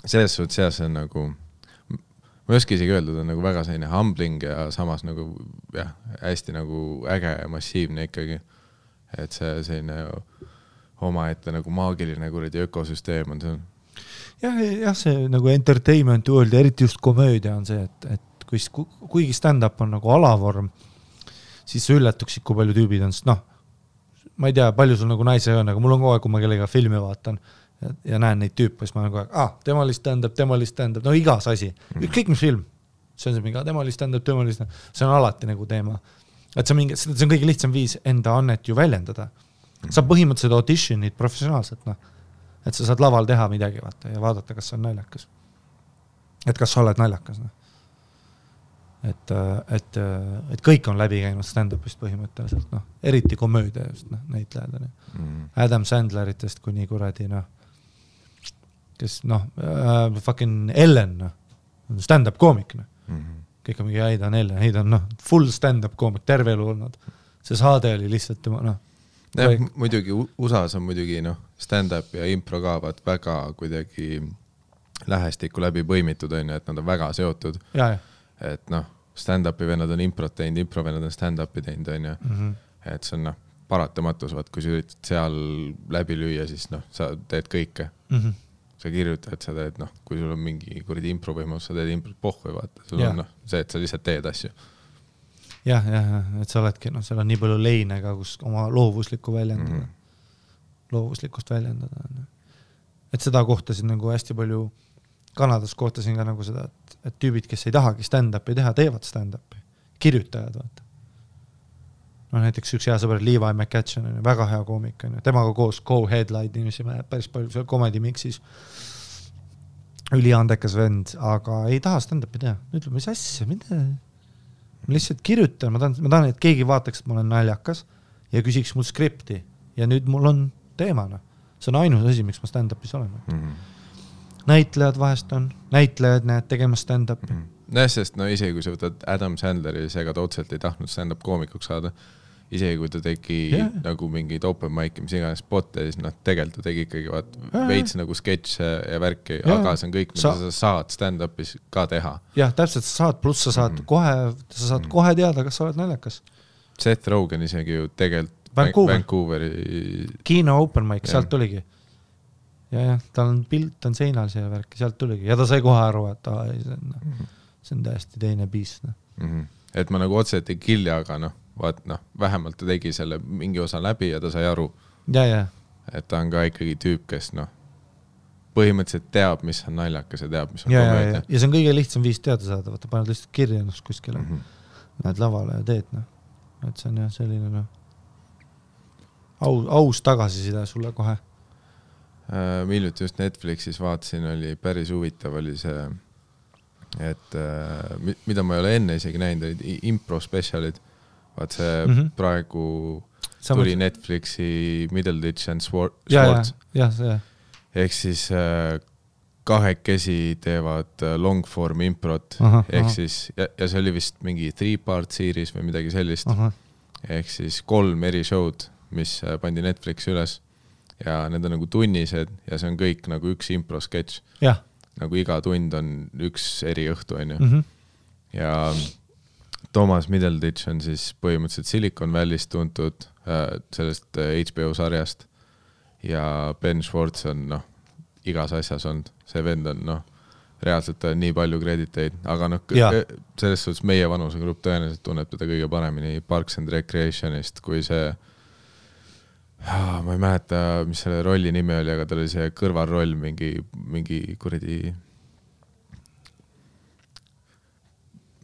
selles suhtes see on nagu, ma ei oska isegi öelda, on nagu väga selline humbling ja samas nagu jah, hästi nagu äge ja massiivne ikkagi. Et see selline omaette nagu maagiline kuradi ökosüsteem on see. Jah, see nagu entertainment world ja eriti just komöödia on see, et kuigi stand-up on nagu alavorm, siis sa ülletuksid, kui palju tüübid on, sest noh, ma ei tea, palju sul nagu naise on, aga mul on kogu aeg, kui ma kellega filmi vaatan ja näen neid tüüpe, siis ma olen kogu aeg, tema oli stand-up, no igas asi. Kõik mis film, see on see mingi, tema oli stand-up, see on alati nagu teema. Et see on kõige lihtsam viis enda annet ju väljendada. Sa põhimõtteliselt auditionid professionaalselt, noh. Et sa saad laval teha midagi vaata, ja vaadata, kas see on naljakas. Et kas sa oled naljakas, noh. Et kõik on läbi käinud stand-upist põhimõtteliselt, noh. Eriti komöödia just, noh, näitlejad. Adam Sandleritest kuni kuradi, noh, kes, noh, fucking Ellen, noh, stand-up koomik, noh. Kõik on mingi Heidan, noh, full stand-up koomik, terve elu olnud. See saade oli lihtsalt tema, noh. Muidugi, USAs on muidugi, noh, stand-up ja impro kaavad väga kuidagi lähestikku läbi põimitud, on ju, et nad on väga seotud. Et noh, stand-upi vennad on improt teinud, impro vennad on stand-upi teinud, on ju. Et see on, noh, paratamatus, vaat, kui sa üritad seal läbi lüüa, siis noh, sa teed kõike. Sa kirjutad, sa teed, noh, kui sul on mingi kuradi impro võimalus, sa teed improt pohhu, vaata. Sul on, noh, see, et sa lihtsalt teed asju. Jah, et sa oledki, noh, seal on nii palju leine ka, kus oma loovuslikku väljendada. Loovuslikust väljendada. Et seda kohtasin nagu hästi palju, Kanadas kohtasin ka nagu seda, et tüübid, kes ei tahagi stand-upi teha, teevad stand-upi. Kirjutajad, vaata. No näiteks üks hea sõber Levi McCatchen, väga hea koomik, temaga koos co-headline inimesime päris palju seal comedy mixis. Üliandekas vend, aga ei taha stand-upi teha. Ütleb, mis asja, mida? Ma lihtsalt kirjutan, ma tahan, et keegi vaataks, et ma olen naljakas ja küsiks mul skripti ja nüüd mul on teemana. See on ainus asi, miks ma stand-upis olen. Näitlejad vahest on, näitlejad näed tegema stand-upi. Sest no isegi kui sa võtad Adam Sandleri, seega ta otseselt ei tahtnud stand-up koomikuks saada isegi kui ta tegi nagu mingid open mic'i, mis iganes spotte, siis tegelikult ta tegi ikkagi veits nagu sketše ja värki, aga see on kõik, mida sa saad stand-up'is ka teha. Jah, täpselt sa saad, pluss sa saad kohe teada, kas sa oled naljakas. Seth Rogen isegi ju tegelikult Vancouveri Kino open mic, sealt tuligi. Ja, tal on pilt, on seinal see värk, sealt tuligi. Ja ta sai kohe aru, et see on täiesti teine piis. Et ma nagu otseselt ei killi, aga vähemalt ta tegi selle mingi osa läbi ja ta sai aru. Ja. Et ta on ka ikkagi tüüp, kes põhimõtteliselt teab, mis on naljakas ja teab, mis on komöödia. Ja see on kõige lihtsam viis teada saada, vaata paned lihtsalt kirja ennast kuskile, näed lavale ja teed. Et see on jah selline aus tagasiside sulle kohe. Miljuti just Netflixis vaatasin, oli päris huvitav, oli see, et mida ma ei ole enne isegi näinud, olid impro specialid. Vaat see praegu tuli Netflixi Middleditch and Swords. Ja, see. Ehk siis kahekesi teevad long form improt. Ehk siis, ja see oli vist mingi 3-part series või midagi sellist. Ehk siis 3 eri show'd, mis pandi Netflixi üles ja need on nagu tunnised ja see on kõik nagu üks impro sketš. Nagu iga tund on üks eri õhtu, on ju. Ja Thomas Middleditch on siis põhimõtteliselt Silicon Valley'st tuntud sellest HBO sarjast ja Ben Schwartz on igas asjas olnud. See vend on reaalselt nii palju krediteid, aga selles suhtes meie vanusegrupp tõenäoliselt tunneb teda kõige paremini Parks and Recreationist, kui see ma ei mäleta, mis selle rolli nimi oli, aga tal oli see kõrvalroll mingi kuradi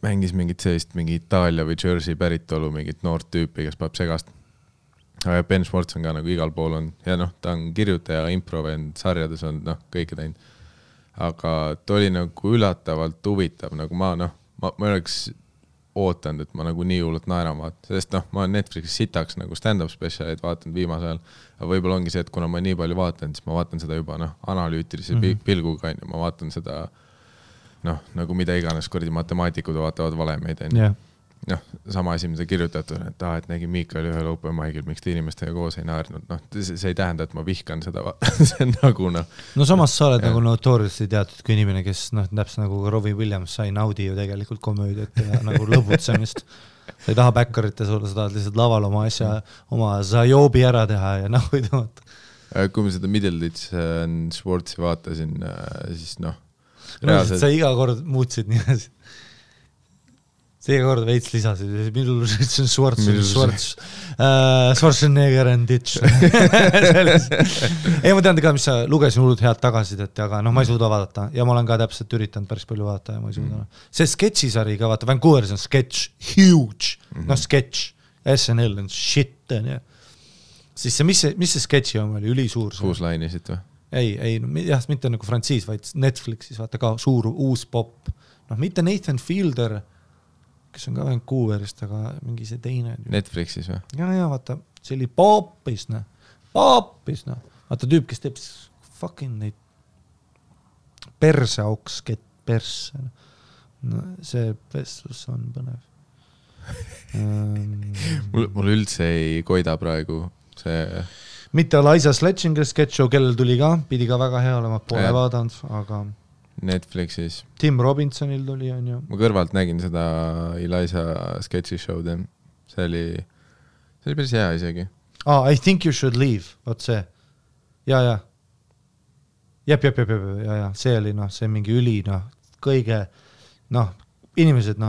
mängis mingit sellist mingi Itaalia või Jersey päritolu mingit noort tüüpi, kes paneb segast. Aga Ben Schwartz on ka nagu igal pool on ja ta on kirjutaja, improvend, sarjades on kõike teinud. Aga ta oli nagu üllatavalt huvitav, nagu ma oleks ootanud, et ma nagu nii hullult naeran vaatan, sest ma olen Netflixis sitaks nagu stand-up specialid vaatanud viimasel ajal, aga võib-olla ongi see, et kuna ma nii palju vaatan, siis ma vaatan seda juba analüütilise pilguga, ma vaatan seda nagu mida iganes kuradi matemaatikud vaatavad valemeid, sama asi, mida kirjutatud, et nägi Miikal ühel open mic'il, miks te inimestega koos ei naernud. See ei tähenda, et ma vihkan seda. See on nagu samas sa oled nagu notoriously teatud kui inimene, kes täpselt nagu Robbie Williams sai naudi ju tegelikult komöödiat ja nagu lõbutsemist. Sa ei taha backerite sulle, sa tahad lihtsalt laval oma asja, oma zajoobi ära teha ja nagu ei tõmata. Kui ma seda Middleditch and Schwartzi vaatasin, siis sa iga kord muutsid nii asi. See iga kord veits lisasid, Middleditch and Schwarzenegger and Ditch. Ei, ma tean ka, mis sa lugesin hullud head tagasidet, aga ma ei suuda vaadata ja ma olen ka täpselt üritanud päris palju vaadata ja ma ei suuda. See sketšisari ka, vaata, Vancouveris on sketš, huge, sketš, SNL on shit, siis see, mis see sketši on, oli ülisuur? Kuuslainisid või? Ei, mitte nagu frantsiis, vaid Netflixis, vaata ka suur uus pop. Mitte Nathan Fielder, kes on ka Vancouverist, aga mingi see teine. Netflixis või? Ja, vaata, see oli popis. Vaata tüüp, kes teeb fucking neid perseauks, perse. See vestlus on põnev. Mul üldse ei koida praegu see... Mitte Eliza Sledginger sketch show, kellel tuli ka, pidi ka väga hea olema, pole vaadanud, aga... Netflixis. Tim Robinsonil tuli, on ju. Ma kõrvalt nägin seda Eliza sketchi show'd. See oli päris hea isegi. I think you should leave, vaat see. Ja. Jep. See oli, see mingi üli, kõige, inimesed,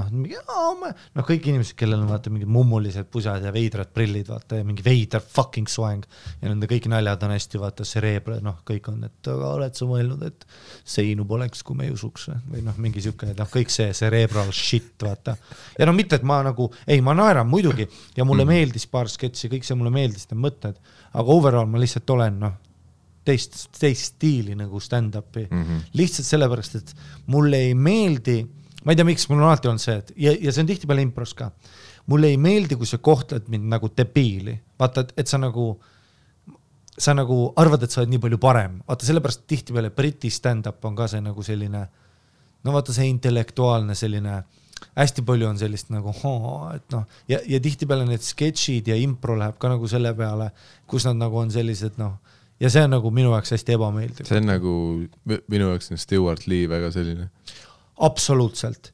kõik inimesed, kellel on vaata mingid mummulised pusad ja veidrad prillid, vaata, ja mingi veidar fucking soeng ja nende kõik naljad on hästi, vaata, cerebra, kõik on, et aga oled sa mõelnud, et seinu poleks, kui me ei usuks või mingi siuke, kõik see cerebral shit, vaata. Ja mitte, et ma nagu, ma naeran muidugi ja mulle meeldis paar sketši, kõik see mulle meeldis, need mõtted, aga overall ma lihtsalt olen, teist stiili nagu stand-upi. Lihtsalt sellepärast, et mulle ei meeldi ma ei tea, miks mul on alati olnud see, et ja see on tihti peale impros ka. Mulle ei meeldi, kui sa kohtled mind nagu debiili. Vaata, et sa nagu arvad, et sa oled nii palju parem. Vaata, sellepärast tihti peale Briti stand-up on ka see nagu selline, vaata see intellektuaalne selline hästi palju on sellist nagu, et noh, ja tihti peale need sketšid ja impro läheb ka nagu selle peale, kus nad nagu on sellised, noh, ja see on nagu minu jaoks hästi ebameeldiv. See on nagu, minu jaoks on Stewart Lee väga selline. Absoluutselt.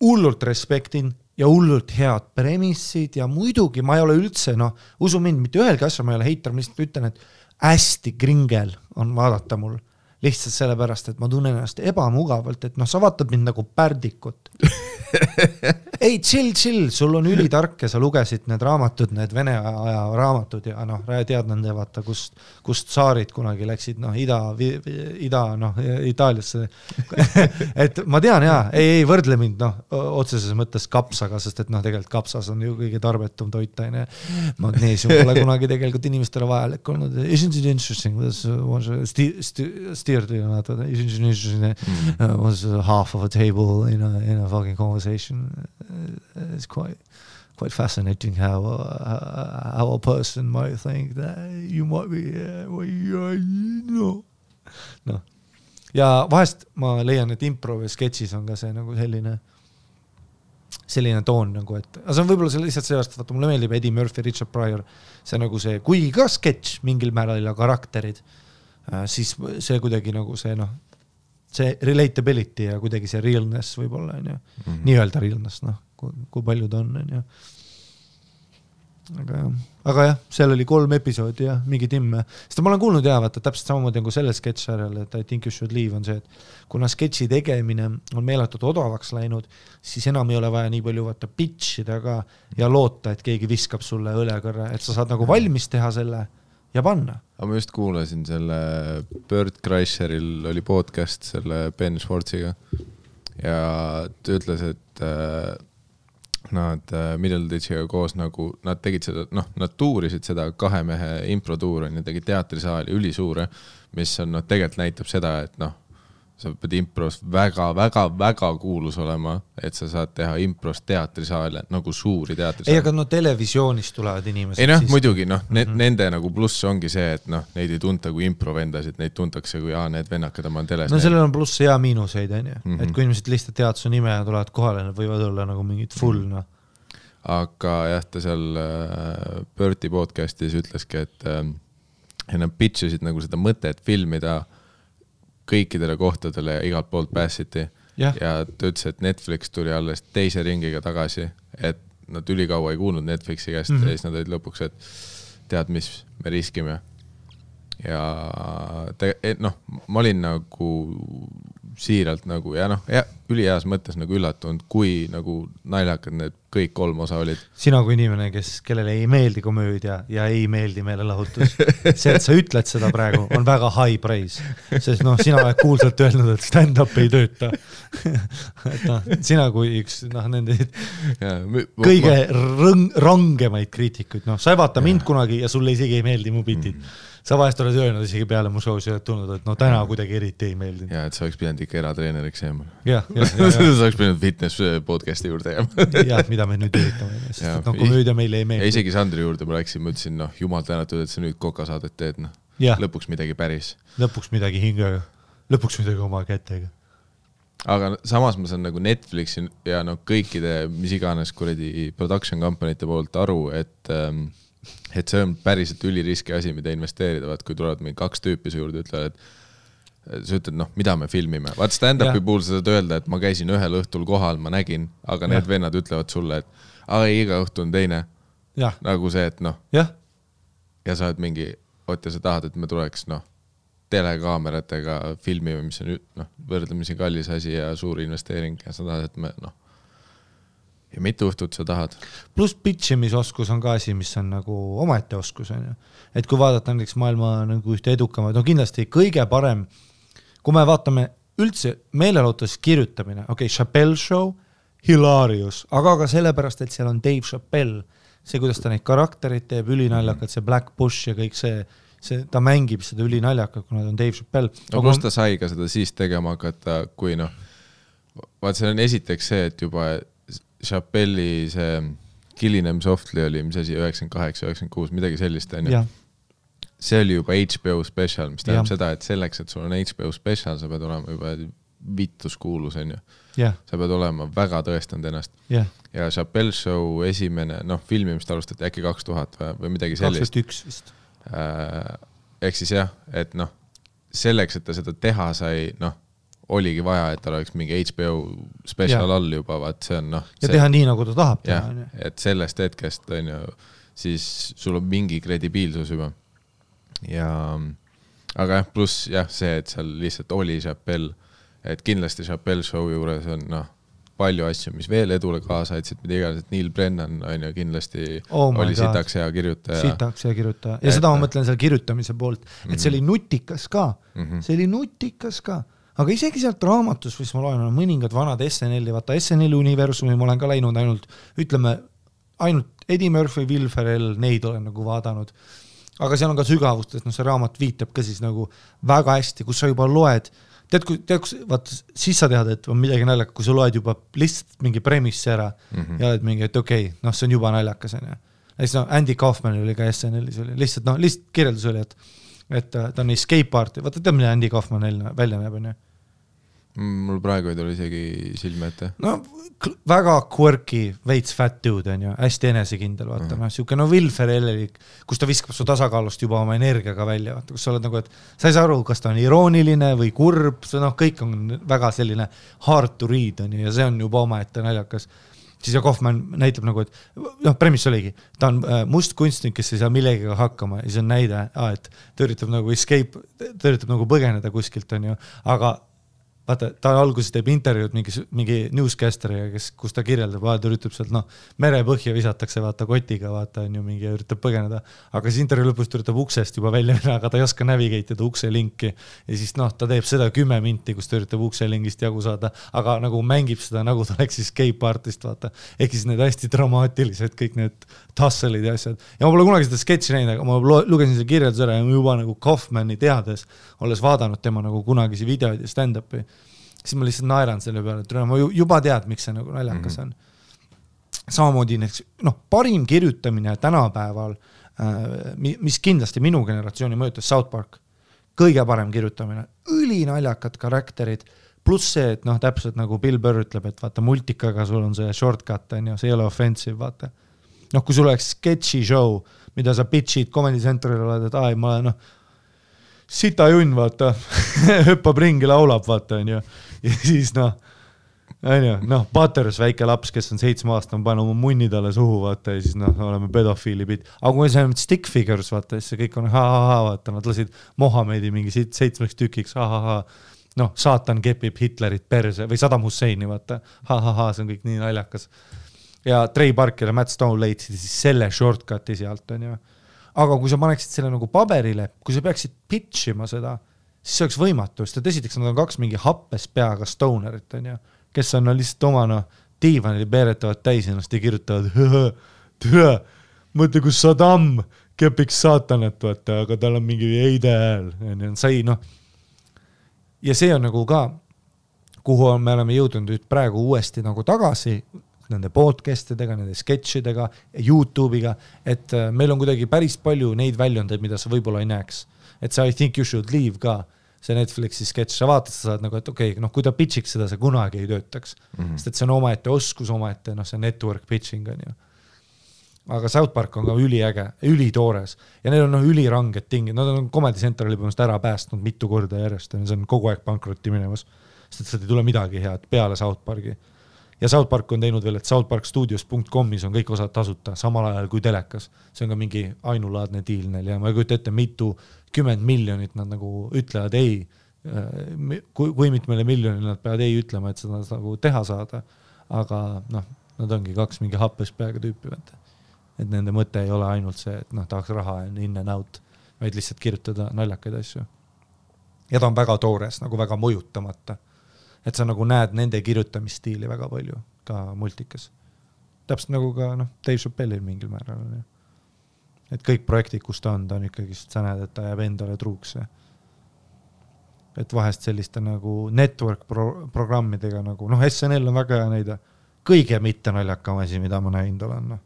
Hullult respektin ja hullult head premissid ja muidugi ma ei ole üldse, noh, usu mind, mitte ühelgi asja ma ei ole heitar, ma lihtsalt ütlen, et hästi kringel on vaadata mul. Lihtsalt sellepärast, et ma tunnen ennast ebamugavalt, et noh, sa vaatad mind nagu pärdikut. Ei, chill, sul on ülitark ja sa lugesid need raamatud, need Vene aja raamatud ja noh, tead nende vaata, kust saarid kunagi läksid, noh, ida noh, Itaaliasse. Et ma tean jaa, ei võrdle mind, noh, otseses mõttes kapsaga, sest et noh, tegelikult kapsas on ju kõige tarbetum toitaine. Magneesium pole kunagi tegelikult inimestele vajalik olnud. Isn't it interesting? Steer was half of a table in a fucking conversation. It's quite fascinating how a person might think that you might be no. Ja vahest ma leian, et impro või sketšis on ka see nagu selline toon nagu, et see on võib-olla lihtsalt sellest, vaata mulle meeldib Eddie Murphy, Richard Pryor, see nagu see, kuigi ka sketš mingil määral ja karakterid, siis see kuidagi nagu see noh, see relatability ja kuidagi see realness võib-olla on ju, nii-öelda realness, noh, kui palju ta on ju. Aga jah, seal oli 3 episoodi ja mingi timme. Sest ma olen kuulnud vaata, täpselt samamoodi nagu selle sketšarjal, et I think you should leave on see, et kuna sketši tegemine on meeletult odavaks läinud, siis enam ei ole vaja nii palju vaata pitchida ka ja loota, et keegi viskab sulle õlekõrre, et sa saad nagu valmis teha selle ja panna. Aga ma just kuulasin selle Bert Kreischeril oli podcast selle Ben Schwartziga ja ta ütles, et nad Middleditchiga koos nagu, nad tegid seda, noh, nad tuurisid seda 2 mehe improtuur on ja tegid teatrisaali ülisuure, mis on, noh, tegelikult näitab seda, et noh, sa pead impros väga kuulus olema, et sa saad teha impros teatrisaale, nagu suuri teatrisaale. Ei, aga no televisioonist tulevad inimesed. Ei noh, muidugi, noh, nende nagu pluss ongi see, et noh, neid ei tunta kui improvendasid, neid tuntakse kui need vennakad oma teles. No sellel on pluss ja miinuseid, on ju. Et kui inimesed lihtsalt tead su nime ja tulevad kohale, nad võivad olla nagu mingid full, noh. Aga jah, ta seal Berti podcastis ütleski, et nad pitchisid nagu seda mõtet filmida kõikidele kohtadele igalt poolt pääsiti ja ta ütles, et Netflix tuli alles 2. ringiga tagasi, et nad ülikaua ei kuulnud Netflixi käest ja siis nad olid lõpuks, et tead, mis me riskime ja noh, ma olin nagu siiralt nagu ja noh, üliheas mõttes nagu üllatunud, kui nagu naljakad need kõik 3 osa olid. Sina kui inimene, kellele ei meeldi komöödia ja ei meeldi meelelahutus, see, et sa ütled seda praegu, on väga high praise, sest noh, sina oled kuulsalt öelnud, et stand-up ei tööta. Et noh, sina kui üks noh, nende kõige rangemaid kriitikuid, noh, sa ei vaata mind kunagi ja sulle isegi ei meeldi mu bitid. Sa vahest oled öelnud isegi peale mu show's ja tulnud, et no täna kuidagi eriti ei meeldinud. Ja, et sa oleks pidanud ikka eratreeneriks jääma. Ja. Sa oleks pidanud fitness podcasti juurde jääma. Ja, mida me nüüd üritame. Sest no komöödia meile ei meeldi. Ja isegi Sandri juurde ma läksin, ma ütlesin, noh, jumal tänatud, et sa nüüd kokasaadet teed, noh. Lõpuks midagi päris. Lõpuks midagi hingega. Lõpuks midagi oma kätega. Aga samas ma saan nagu Netflixi ja no kõikide, mis iganes kuradi production company'te poolt aru, et see on päriselt üliriski asi, mida investeerida, kui tulevad mingi 2 tüüpi su juurde, ütlevad, et sa ütled, noh, mida me filmime. Vaat stand-upi puhul sa saad öelda, et ma käisin ühel õhtul kohal, ma nägin, aga need vennad ütlevad sulle, et iga õhtu on teine. Nagu see, et noh. Ja sa oled mingi, ja sa tahad, et me tuleks, noh, telekaameratega filmime, mis on, noh, võrdlemisi kallis asi ja suur investeering ja sa tahad, et me, noh, ja mitu õhtut sa tahad. Plus pitchimisoskus on ka asi, mis on nagu omaette oskus. On ju. Et kui vaadata näiteks maailma nagu ühte edukamaid, no kindlasti kõige parem, kui me vaatame üldse meelelahutus kirjutamine, Chappelle Show, hilarious, aga ka sellepärast, et seal on Dave Chappelle, see, kuidas ta neid karakterid teeb, ülinaljakad, see Black Bush ja kõik see, ta mängib seda ülinaljakad, kuna ta on Dave Chappelle. No kus ta sai ka seda siis tegema hakata, kui noh, vaat see on esiteks see, et juba Chappelli see Killing Them Softly oli, mis asi, 98, 96, midagi sellist, on ju. See oli juba HBO special, mis tähendab seda, et selleks, et sul on HBO special, sa pead olema juba vittuskuulus, on ju. Yeah. Sa pead olema väga tõestanud ennast. Yeah. Ja Chappelle Show esimene, filmimist alustati äkki 2000 või midagi sellist. 2001 vist. Ehk siis jah, et selleks, et ta seda teha sai, oligi vaja, et tal oleks mingi HBO special all juba, vaat see on ja teha nii, nagu ta tahab teha. Et sellest hetkest on ju, siis sul on mingi kredibiilsus juba. Aga pluss see, et seal lihtsalt oli Chappelle, et kindlasti Chappelle Show juures on palju asju, mis veel edule kaasa aitsid, mida iganes, et Neil Brennan on ju kindlasti oli sitaks hea kirjutaja. Ja seda ma mõtlen seal kirjutamise poolt, et see oli nutikas ka. See oli nutikas ka. Aga isegi sealt raamatus, mis ma loen, on mõningad vanad SNL-i, vaata SNL universumi ma olen ka läinud ainult Eddie Murphy, Will Ferrell, neid olen nagu vaadanud. Aga seal on ka sügavust, et see raamat viitab ka siis nagu väga hästi, kus sa juba loed, vaat siis sa tead, et on midagi naljaka, kui sa loed juba lihtsalt mingi premissi ära ja oled mingi, et okei, see on juba naljakas. Andy Kaufman oli ka SNL-is, lihtsalt kirjeldus oli, et ta on escape arti, vaata tead, mida Andy Kaufman välja näeb, on ju? Mul praegu ei tule isegi silme ette. Väga quirky, veits fat dude on ju, hästi enesekindel, vaata, siuke Will Ferrell, kus ta viskab su tasakaalust juba oma energiaga välja, vaata, kus sa oled nagu, et sa ei saa aru, kas ta on irooniline või kurb, kõik on väga selline hard to read on ju, ja see on juba oma ette naljakas. Siis ja Kaufman näitab nagu, et premis oligi, ta on must kunstnik, kes ei saa millegiga hakkama ja see on näide, et ta üritab nagu escape, ta üritab nagu põgeneda kuskilt on ju, aga vaata, ta alguses teeb intervjuud mingi newscasteriga, kus ta kirjeldab, ta üritab sealt, merepõhja visatakse, vaata, kotiga, vaata, on ju mingi, üritab põgeneda, aga siis intervjuu lõpust üritab uksest juba välja minna, aga ta ei oska navigate'ida ukse linki ja siis ta teeb seda 10 minti, kus ta üritab ukse lingist jagu saada, aga nagu mängib seda, nagu ta oleks escape artist, vaata, ehk siis need hästi dramaatilised, kõik need tasselid ja asjad. Ja ma pole kunagi seda sketši näinud, aga ma lugesin selle kirjeldus ära ja juba nagu Kaufmani teades, olles vaadanud tema nagu kunagisi videoid ja stand-upi, siis ma lihtsalt naeran selle peale, et ma juba tead, miks see nagu naljakas on. Samamoodi parim kirjutamine tänapäeval, mis kindlasti minu generatsiooni mõjutas South Park, kõige parem kirjutamine, ülinaljakad karakterid, pluss see, et täpselt nagu Bill Burr ütleb, et vaata multikaga sul on see shortcut, see ei ole offensive, vaata. Kui sul oleks sketši show, mida sa pitchid Comedy Centeril oled, et ma olen sita junn, vaata, hüppab ringi, laulab, vaata, on ju. Ja siis Butters, väike laps, kes on 7-aastane, pane oma munni talle suhu, vaata, ja siis oleme pedofiili pid. Aga kui see on stick figures, vaata, siis see kõik on vaata, nad lasid Mohamedi mingi 7 tükiks, saatan kepib Hitlerit perse või Saddam Husseini, vaata, see on kõik nii naljakas. Ja Trey Parker ja Matt Stone leidsid siis selle shortcuti sealt, on ju. Aga kui sa paneksid selle nagu paberile, kui sa peaksid pitchima seda, siis see oleks võimatu, sest esiteks nad on 2 mingi happes peaga stonerit, on ju, kes on lihtsalt oma diivanil peeretavad täis ennast ja kirjutavad, türa, mõtle, kus Saddam kepiks saatanat, vaata, aga tal on mingi heide hääl, sai, ja see on nagu ka, kuhu me oleme jõudnud nüüd praegu uuesti nagu tagasi, nende podcastidega, nende sketšidega, YouTube'iga, et meil on kuidagi päris palju neid väljundeid, mida sa võib-olla ei näeks. Et see I think you should leave ka, see Netflixi sketš, sa vaatad, sa saad nagu, et okei, kui ta pitchiks seda, see kunagi ei töötaks. Sest et see on omaette oskus, omaette, see network pitching on ju. Aga South Park on ka üliäge, ülitoores ja neil on üliranged tingid, nad on Comedy Central juba ära päästnud mitu korda järjest, see on kogu aeg pankrotti minemas, sest et sealt ei tule midagi head peale South Parki. Ja South Park on teinud veel, et southparkstudios.comis on kõik osad tasuta, samal ajal kui telekas. See on ka mingi ainulaadne diil neil ja ma ei kujuta ette, mitu 10 miljonit nad nagu ütlevad ei. Kui mitmele miljonile nad peavad ei ütlema, et seda nagu teha saada. Aga nad ongi 2 mingi happes peaga tüüpi. Et nende mõte ei ole ainult see, et tahaks raha in and out, vaid lihtsalt kirjutada naljakaid asju. Ja ta on väga toores, nagu väga mõjutamata. Et sa nagu näed nende kirjutamisstiili väga palju, ka multikas. Täpselt nagu ka Dave Chappelle'il mingil määral. Et kõik projektid, kus ta on ikkagi, sa näed, et ta jääb endale truuks. Et vahest selliste nagu network programmidega nagu, SNL on väga hea näide, kõige mitte naljakam asi, mida ma näinud olen.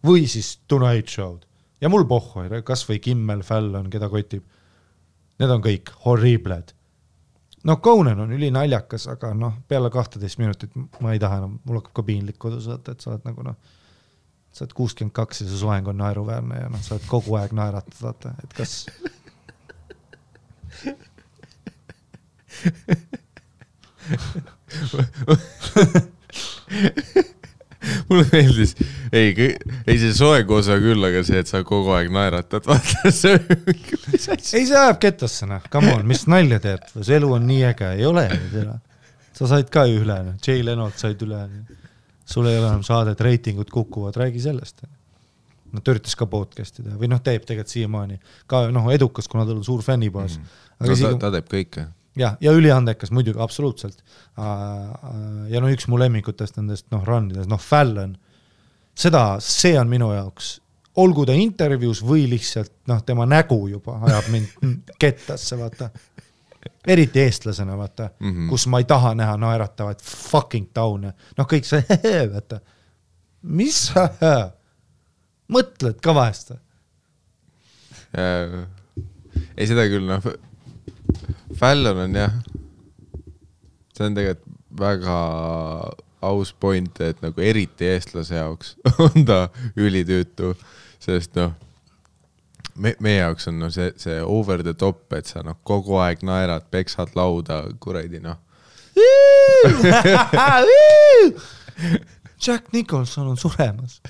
Või siis Tonight Show'd. Ja mul pohhu, kas või Kimmel, Fallon, keda kotib. Need on kõik horribled. noh, Conan on üli naljakas, aga noh, peale 12 minutit ma ei taha enam, mul hakkab ka piinlik kodus võtta, et sa oled nagu noh, sa oled 62 ja see soeng on naeruväärne ja noh, sa oled kogu aeg naeratad, vaata, et kas... mulle meeldis, ei see soeng osa küll, aga see, et sa kogu aeg naeratad, vaata see ei, see ajab kettasse, noh, come on, mis nalja teed, see elu on nii äge, ei ole sa said ka ju üle, Jay Lenolt said üle, sul ei ole enam saadet, reitingud kukuvad, räägi sellest. No ta üritas ka podcasti teha või noh, teeb tegelikult siiamaani ka noh, edukas, kuna tal on suur fännibaas. Ta teeb kõike. Ja üliandekas muidugi, absoluutselt. Ja no üks mu lemmikutest nendest noh, rannides, noh, Fallon, see on minu jaoks, olgu ta intervjuus või lihtsalt noh, tema nägu juba ajab mind kettasse, vaata. Eriti eestlasena, vaata, kus ma ei taha näha naeratavaid fucking taune. Noh, kõik see, vaata, mis mõtled ka vahest? Ei, seda küll, noh, Fallon on jah, see on tegelikult väga aus point, et nagu eriti eestlase jaoks on ta ülitüütu, sest noh, meie jaoks on no, see over the top, et sa noh, kogu aeg naerad, peksad lauda, kuradi noh. Jack Nicholson on suremas.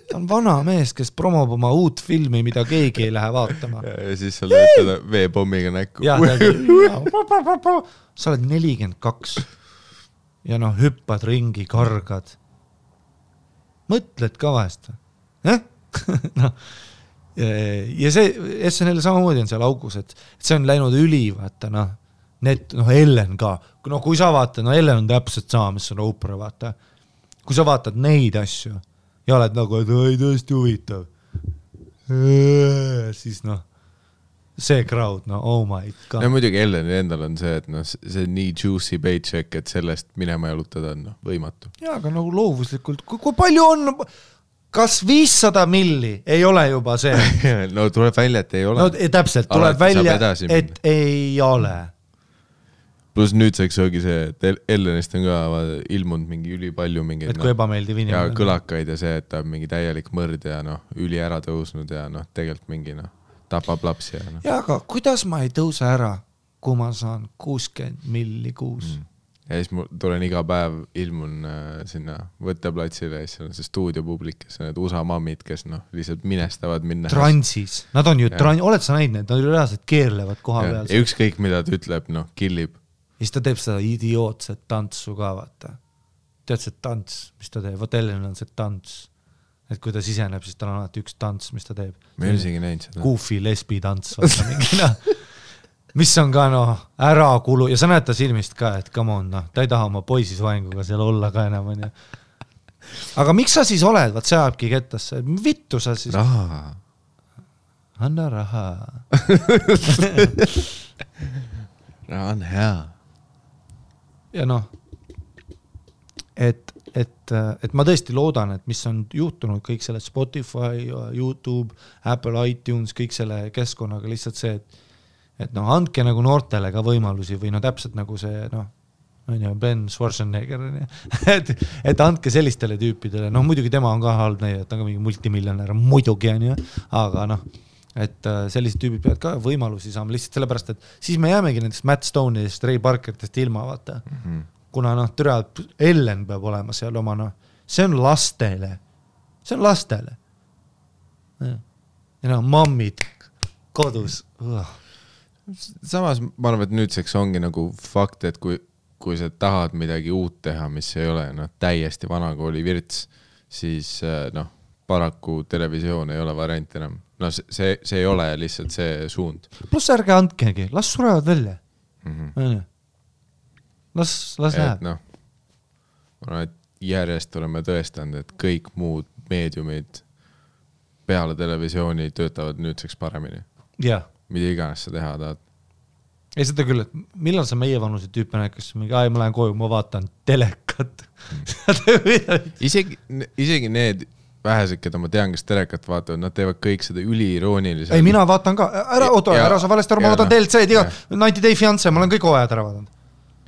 Ta on vana mees, kes promob oma uut filmi, mida keegi ei lähe vaatama. Ja siis sa lööd teda veepommiga näkku. Sa oled 42 ja noh, hüppad ringi, kargad. Mõtled ka vahest. No. Ja see SNL samamoodi on seal augus, et see on läinud üli, vaata, noh, Ellen ka. No kui sa vaatad, Ellen on täpselt sama, mis on Oprah, vaata. Kui sa vaatad neid asju ja oled nagu, et ei tõesti huvitav, siis noh, see crowd, no oh my god. Ja muidugi Elleni endal on see, et noh, see nii juicy paycheck, et sellest minema jalutada on võimatu. Ja, aga nagu loovuslikult, kui palju on, kas 500 milli ei ole juba see? No tuleb välja, et ei ole. No täpselt, tuleb välja, et ei ole. Plus nüüdseks ongi see, et Ellenist on ka ilmunud mingi üli palju mingi et kui ebameeldiv inimene. Ja kõlakaid ja see, et ta on mingi täielik mõrd ja noh, üli ära tõusnud ja noh, tegelikult mingi noh, tapab lapsi ja noh. Ja, aga kuidas ma ei tõuse ära, kui ma saan 60 milli kuus? Ja siis mul tulen iga päev ilmun sinna võtteplatsile ja siis on see stuudiopublik, kes on need USA mammid, kes noh, lihtsalt minestavad minna. Transis. Nad on ju oled sa näinud need? Nad ju reaalselt keerlevad koha peal. Ja ükskõik mida ta ütleb, noh, killib. Ja siis ta teeb seda idiootset tantsu ka, vaata. Tead see tants, mis ta teeb? Vot Ellen on see tants. Et kui ta siseneb, siis tal on alati üks tants, mis ta teeb. Me ei isegi näinud seda. Goofy lesbi tants, vaata mingina. Mis on ka noh, ära kulu ja sa näed ta silmist ka, et come on, noh, ta ei taha oma poisis vaenguga seal olla ka enam. On, aga miks sa siis oled? Vaat see ajabki kettasse. Vittu sa siis? Raha. Anna raha. Raha on hea. Ja noh, et ma tõesti loodan, et mis on juhtunud kõik selle Spotify, YouTube, Apple, iTunes, kõik selle keskkonnaga lihtsalt see, et noh, andke nagu noortele ka võimalusi või no täpselt nagu see, noh, Ben Schwarzenegger, et andke sellistele tüüpidele, noh, muidugi tema on ka halb näide, et ta on ka mingi multimiljonär, muidugi on ju, aga noh, et sellised tüübid peavad ka võimalusi saama lihtsalt sellepärast, et siis me jäämegi nendest Matt Stone'ist, Ray Parkertest ilma, vaata. Kuna noh, Ellen peab olema seal oma, noh, see on lastele. Ja noh, mammid kodus. Samas ma arvan, et nüüdseks ongi nagu fakt, et kui sa tahad midagi uut teha, mis ei ole noh, täiesti vanakooli virts, siis noh, paraku televisioon ei ole variant enam. No see ei ole lihtsalt see suund. Plus ärge andkegi, las surevad välja. Las läheb. No, ma arvan, et järjest oleme tõestanud, et kõik muud meediumid peale televisiooni töötavad nüüdseks paremini. Jah. Mida iganes sa teha tahad. Ei seda küll, et millal sa meie vanuse tüüpe näikas, ma lähen koju, ma vaatan telekat. Isegi need vähesed, keda ma tean, kes telekat vaatavad, nad teevad kõik seda üliirooniliselt. Ei, mina vaatan ka. Ära sa valesti aru, ma vaatan DLC-d, 90 Day Fiancé, ma olen kõik hooajad ära vaadanud.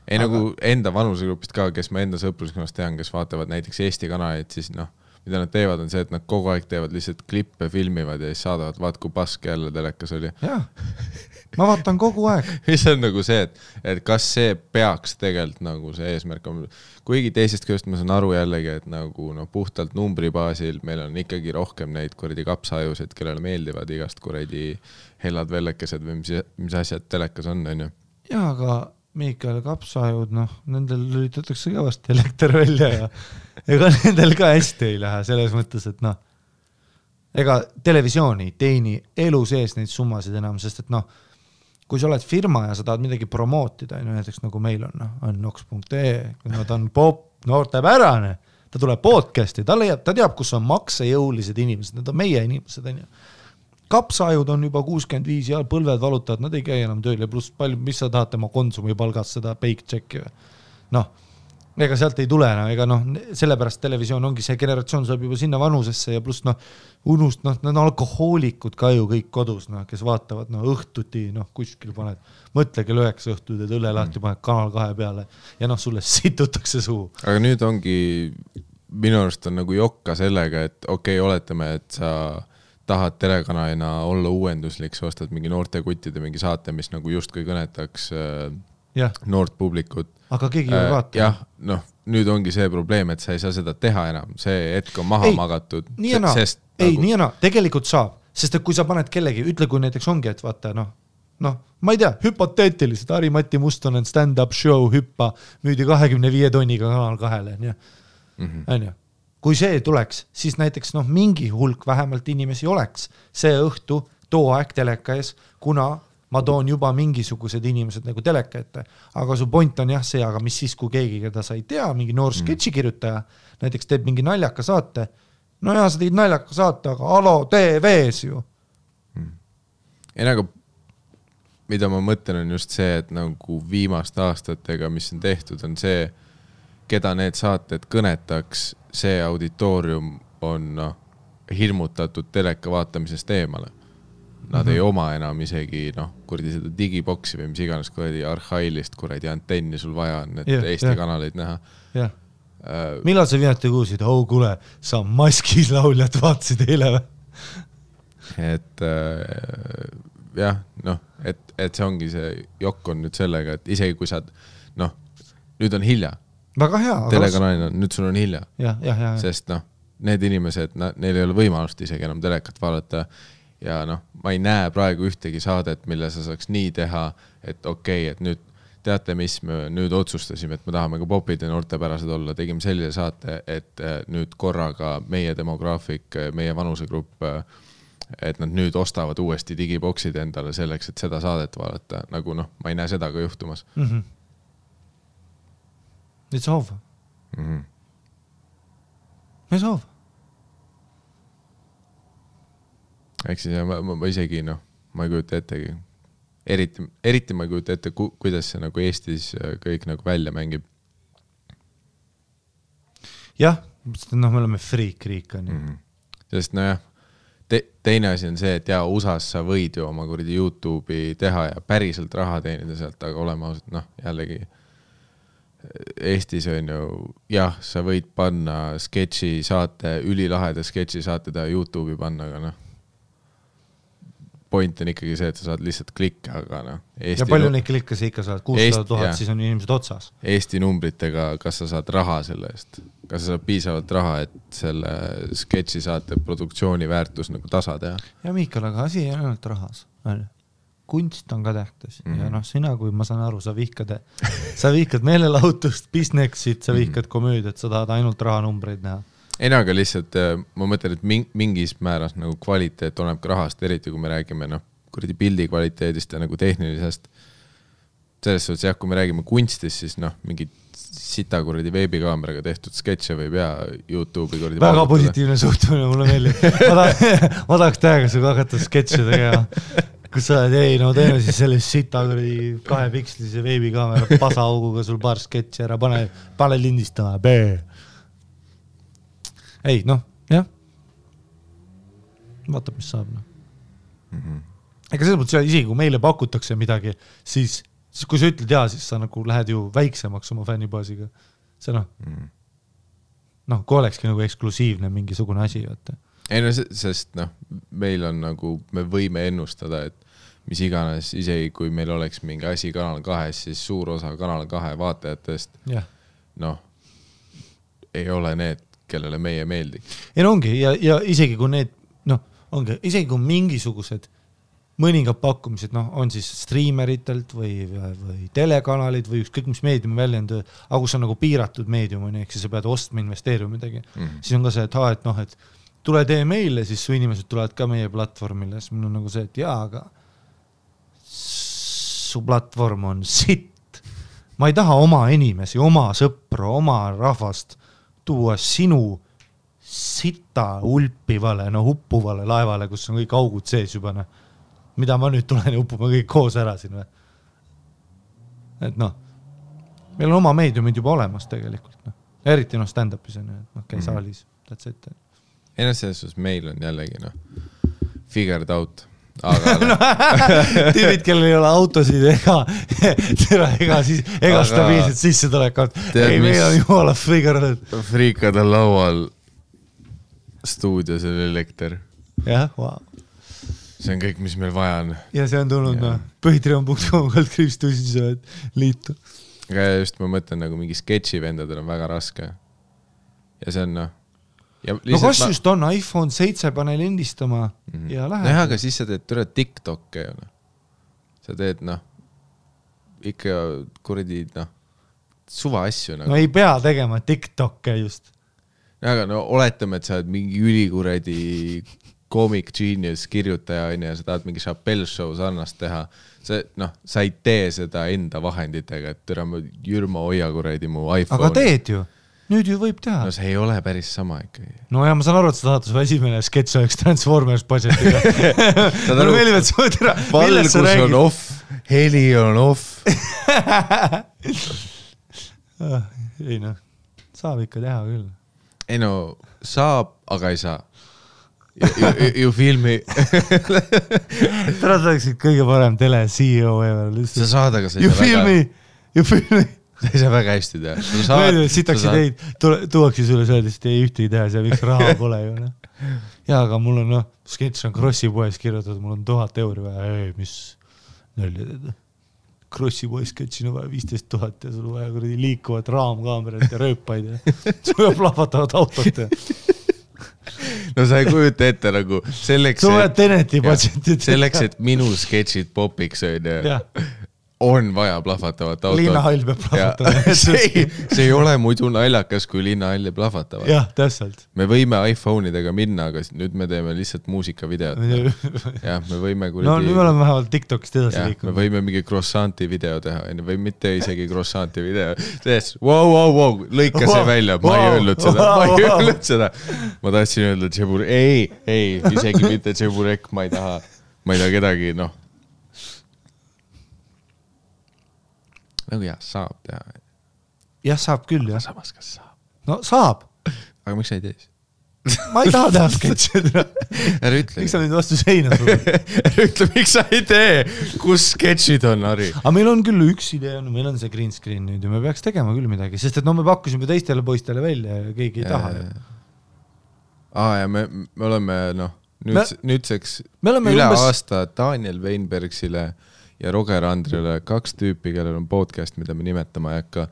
ei nagu enda vanusegrupist ka, kes ma enda sõpruskonnas tean, kes vaatavad näiteks Eesti kanaleid, siis noh, mida nad teevad, on see, et nad kogu aeg teevad lihtsalt klippe, filmivad ja siis saadavad, vaat kui pask jälle telekas oli. Jaa, ma vaatan kogu aeg. Mis on nagu see, et kas see peaks tegelikult nagu see eesmärk on. Kuigi teisest küljest ma saan aru jällegi, et nagu no, puhtalt numbri baasil meil on ikkagi rohkem neid kuradi kapsaajusid, kellele meeldivad igast kuradi hellad vellekesed või mis asjad telekas on ju. Jaa, aga Miikael kapsaajud, noh, nendel lülitatakse kõvasti elekter välja ja ega nendel ka hästi ei lähe selles mõttes, et noh, ega televisiooni teeni elu sees neid summasid enam, sest et noh, kui sa oled firma ja sa tahad midagi promootida, näiteks nagu meil on nox.ee, ta on pop, noortepärane, ta tuleb podcasti, ta teab, kus on maksejõulised inimesed, need on meie inimesed, on ju. Kapsaajud on juba 65 ja põlved valutavad, nad ei käi enam tööl ja pluss palju, mis sa tahad tema konsumi palgast seda paychecki või. Noh, ega sealt ei tule enam, ega noh, sellepärast televisioon ongi see generatsioon saab juba sinna vanusesse ja pluss noh, nad on alkohoolikud ka ju kõik kodus, noh, kes vaatavad noh, õhtuti, noh, kuskil paned, mõtle kell 9 õhtud, et õlle lahti paned Kanal 2 peale ja noh, sulle situtakse suu. Aga nüüd ongi, minu arust on nagu jokka sellega, et okei, oletame, et sa tahad telekanalina olla uuenduslik, sa ostad mingi noorte kuttide mingi saate, mis nagu justkui kõnetaks noort publikut. Aga keegi ei vaata. Jah, noh, nüüd ongi see probleem, et sa ei saa seda teha enam. See hetk on maha magatud. Nii ja naa, tegelikult saab. Sest et kui sa paned kellegi, ütle kui näiteks ongi, et vaata, noh, ma ei tea, hüpoteetiliselt, Ari-Matti Mustonen stand-up show hüppa müüdi 25 tonniga Kanal 2-le, on ju. Kui see tuleks, siis näiteks noh, mingi hulk vähemalt inimesi oleks see õhtu too aeg teleka ees, kuna ma toon juba mingisugused inimesed nagu teleka ette. Aga su point on jah see, aga mis siis, kui keegi, keda sa ei tea, mingi noor sketši kirjutaja, näiteks teeb mingi naljaka saate, no ja sa tegid naljaka saate, aga Alo TV-s ju. Ei nagu, mida ma mõtlen on just see, et nagu viimaste aastatega, mis on tehtud, on see, keda need saated kõnetaks, see auditoorium on hirmutatud teleka vaatamisest eemale. Nad ei oma enam isegi kuradi seda digiboksi või mis iganes kuradi arhailist kuradi antenni sul vaja on, et Eesti kanaleid näha. Millal sa viimati kuulsid, kuule, sa maskis lauljad vaatasid eile või? Et jah, et see ongi see jokk on nüüd sellega, et isegi kui sa nüüd on hilja. Väga hea. Telekanalina, nüüd sul on hilja. Ja. Sest need inimesed, neil ei ole võimalust isegi enam telekat vaadata ja ma ei näe praegu ühtegi saadet, mille sa saaks nii teha, et okei, et nüüd teate, mis me nüüd otsustasime, et me tahame ka popid ja noortepärased olla, tegime sellise saate, et nüüd korraga meie demograafik, meie vanusegrupp, et nad nüüd ostavad uuesti digiboksid endale selleks, et seda saadet vaadata, nagu ma ei näe seda ka juhtumas. It's over. It's over. Ehk siis ma isegi, ma ei kujuta ettegi. Eriti ma ei kujuta ette, kuidas see nagu Eestis kõik nagu välja mängib. Jah, me oleme freak-riik. Sest teine asi on see, et USAs sa võid ju oma kuradi YouTube'i teha ja päriselt raha teenida sealt, aga oleme ausalt, jällegi Eestis on ju, jah, sa võid panna sketši saate, ülilaheda sketši saate teha YouTube'i panna, aga point on ikkagi see, et sa saad lihtsalt klikke, aga ja palju neid klikke sa ikka saad, 600 000, siis on inimesed otsas. Eesti numbritega, kas sa saad raha selle eest? Kas sa saad piisavalt raha, et selle sketši saate produktsiooni väärtus nagu tasa teha? Ja Miikal, aga asi ei ainult rahas. Kunst on ka tähtis ja sina, kui ma saan aru, sa vihkad meelelahutust, businessit, sa vihkad komöödiat, sa tahad ainult rahanumbreid näha. Ei, aga lihtsalt ma mõtlen, et mingis määras nagu kvaliteet oleneb ka rahast, eriti kui me räägime kuradi pildi kvaliteedist ja nagu tehnilisest. Selles suhtes jah, kui me räägime kunstist, siis mingi sita kuradi veebikaameraga tehtud sketše võib YouTube'i kuradi väga positiivne suhtumine, mulle meeldib. Ma tahaks tähega suga hakata sketše tegema. Kus sa oled, teeme siis sellest sita kuradi 2 pikslise veebikaamera pasauguga sul paar sketši ära, pane lindistama, Ei, jah. Vaatab, mis saab. Ega selles mõttes, isegi kui meile pakutakse midagi, siis siis kui sa ütled jaa, siis sa nagu lähed ju väiksemaks oma fännibaasiga. See kui olekski nagu eksklusiivne mingisugune asi, vaata. Ei no, sest meil on nagu, me võime ennustada, et mis iganes, isegi kui meil oleks mingi asi Kanal 2, siis suur osa Kanal 2 vaatajatest, ei ole need, kellele meie meeldiks. Ei no ongi, ja isegi kui need, ongi, isegi kui mingisugused mõningad pakkumised, on siis streameritelt või telekanalid või ükskõik mis meediumi väljend, aga kus on nagu piiratud meedium, ehk siis sa pead ostma, investeerima midagi. Siis on ka see, et tule tee meile, siis su inimesed tulevad ka meie platvormile, siis mul on nagu see, et aga su platvorm on sitt. Ma ei taha oma inimesi, oma sõpru, oma rahvast tuua sinu sita ulpivale, huppuvale laevale, kus on kõik augud sees juba, mida ma nüüd tulen ja uppuma kõik koos ära siin. Et meil on oma meediumid juba olemas tegelikult. Eriti stand-upis on, et käi saalis, that's it. Ei selles suhtes meil on jällegi figured out. Aga tüübid, kellel ei ole autosid ega stabiilset sissetulekut. Ei, meil on jumala figured out. Friikad on laual stuudios on elekter. Jah, wow. See on kõik, mis meil vaja on. Ja see on tulnud põhitrion.com liitu. Aga just ma mõtlen, nagu mingi sketši vendadel on väga raske. Ja see on kas just on iPhone 7 pane lindistama ja lähed. Aga siis sa teed TikTok'e. Sa teed ikka kuradi suva asju. No ei pea tegema TikTok'e just. Aga oletame, et sa oled mingi ülikuradi comic genius kirjutaja ja sa tahad mingi Chappelle show sarnast teha. Sa ei tee seda enda vahenditega, et Jürma hoia kuradi mu iPhone. Aga teed ju. Nüüd ju võib teha. No see ei ole päris sama ikkagi. No ja ma saan aru, et sa tahad su esimene sketš oleks Transformers budgetiga. Mulle meeldib, et sa teha. Valgus on off, heli on off. Ei saab ikka teha küll. Ei saab, aga ei saa. You feel me? Täna oleksid kõige parem tele CEO ever. Sa saad, aga sa ei saa väga. You feel me? Sa ei saa väga hästi teha. Sitaks ideid, tuuakse sulle öeldes, et ei ühtegi teha, see miks raha pole ju. Ja, aga mul on, sketš on Krossi poes kirjutatud, mul on 1000 euri vaja, mis nölja teed. Krossi poes sketšin on vaja 15 000 ja sul vaja kuradi liikuvat raamkaamerat ja rööpaid ja sul on plahvatavad autot ja. No sa ei kujuta ette nagu selleks, et minu sketšid popiks on vaja plahvatavat autot. Linnahall peab plahvatama. See ei ole muidu naljakas, kui linnahall plahvatavad. Jah, täpselt. Me võime iPhone'idega minna, aga nüüd me teeme lihtsalt muusikavideot. Jah, me võime kuradi... No nüüd me oleme vähemalt TikTokist edasi liikunud. Me võime mingi croissanti video teha, või mitte isegi croissanti video. Wow, lõika see välja, ma ei öelnud seda. Ma tahtsin öelda Tšebur... Ei, isegi mitte Tšeburek, ma ei taha kedagi, Nagu saab teha. Jah, saab küll, jah. Samas, kas saab? No saab. Aga miks sa ei tee? Ma ei taha teha sketšid. Ära ütle. Miks sa nüüd vastu seina sul? Ära ütle, miks sa ei tee? Kus sketšid on, Harri? Aga meil on küll üks idee, meil on see green screen nüüd ja me peaks tegema küll midagi, sest et me pakkusime teistele poistele välja ja keegi ei taha. Ja me oleme, nüüdseks üle aasta Daniel Weinbergsile ja Roger Andrile 2 tüüpi, kellel on podcast, mida me nimetama ei hakka.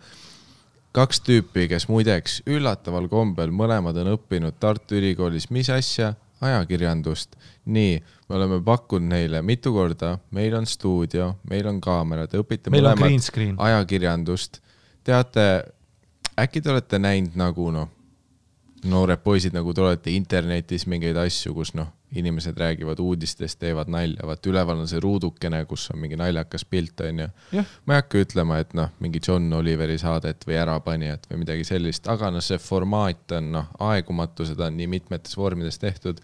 2 tüüpi, kes muideks üllataval kombel mõlemad on õppinud Tartu Ülikoolis mis asja? Ajakirjandust. Nii, me oleme pakkunud neile mitu korda, meil on stuudio, meil on kaamera, te õpite meil mõlemad ajakirjandust. Teate, äkki te olete näinud nagu noored poisid, nagu te olete internetis mingeid asju, kus inimesed räägivad uudistest, teevad nalja, vaat üleval on see ruudukene, kus on mingi naljakas pilt, on ju. Ma ei hakka ütlema, et mingi John Oliveri saadet või ärapanijat või midagi sellist, aga see formaat on aegumatu, seda on nii mitmetes vormides tehtud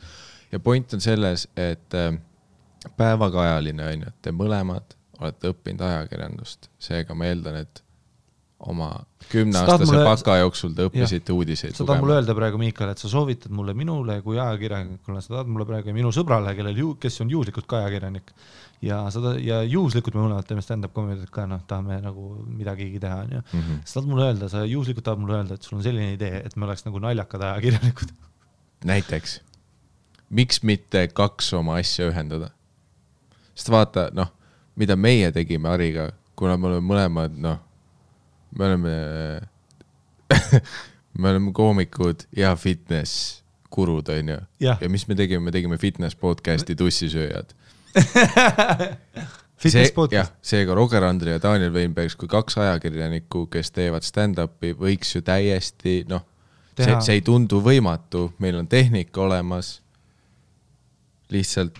ja point on selles, et päevakajaline on ju, et te mõlemad olete õppinud ajakirjandust, seega ma eeldan, et oma 10-aastase baka jooksul te õppisite uudiseid sa tahad mulle öelda praegu, Miikal, et sa soovitad mulle minule kui ajakirjanikule, sa tahad mulle praegu minu sõbrale, kes on juhuslikult ka ajakirjanik ja juhuslikult me mõlemad teeme stand-up comediat ka, tahame nagu midagigi teha, on ju. Sa tahad mulle öelda, sa juhuslikult tahad mulle öelda, et sul on selline idee, et me oleks nagu naljakad ajakirjanikud. Näiteks, miks mitte 2 oma asja ühendada? Sest vaata, mida meie tegime Ariga, kuna me oleme mõlemad, me oleme koomikud ja fitness kurud, on ju. Ja mis me tegime fitness podcasti Tussisööjad. Fitness podcast. Seega Roger Andre ja Daniel Weinbergs kui 2 ajakirjanikku, kes teevad stand-upi, võiks ju täiesti, see ei tundu võimatu, meil on tehnika olemas, lihtsalt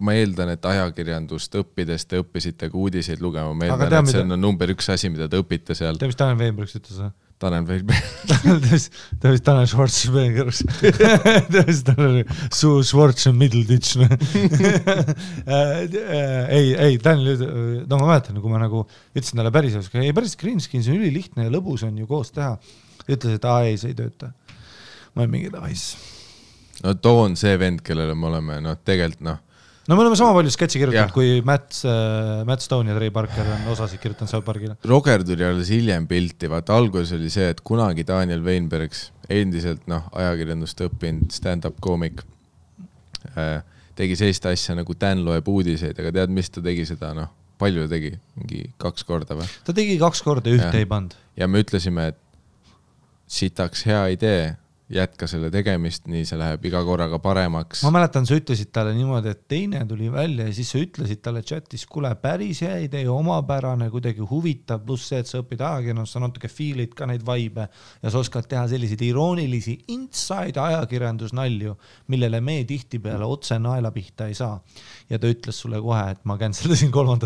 ma eeldan, et ajakirjandust õppides te õppisite ka uudiseid lugema. Ma eeldan, et see on number 1 asi, mida te õpite seal. Mis Daniel Weinbergs ütles? Daniel Weinbergs. Daniel Schwarzenbergs. Schwarz on Middleditch. Ei, Daniel, ma mäletan, kui ma nagu ütlesin talle päris green screen, see on ülilihtne ja lõbus on ju koos teha. Ütles, et ei, see ei tööta. Ma olen mingi tahis. Too on see vend, kellele me oleme, tegelikult me oleme sama palju sketši kirjutanud, kui Matt Stone ja Trey Parker on osasid kirjutanud South Parkile. Roger tuli alles hiljem pilti, vaata alguses oli see, et kunagi Daniel Weinbergs, endiselt ajakirjandust õppinud stand-up koomik, tegi sellist asja nagu Dan loeb uudiseid, aga tead, mis ta tegi seda, palju tegi, mingi 2 korda või? Ta tegi 2 korda, ühte ei pand. Ja me ütlesime, et sitaks hea idee, jätka selle tegemist, nii see läheb iga korraga paremaks. Ma mäletan, sa ütlesid talle niimoodi, et teine tuli välja ja siis sa ütlesid talle chatis, kuule, päris hea idee, omapärane, kuidagi huvitav, pluss see, et sa õpid ajakirjandust, sa natuke feelid ka neid vibe ja sa oskad teha selliseid iroonilisi inside ajakirjandusnalju, millele me tihtipeale otse naela pihta ei saa. Ja ta ütles sulle kohe, et ma canceldasin 3.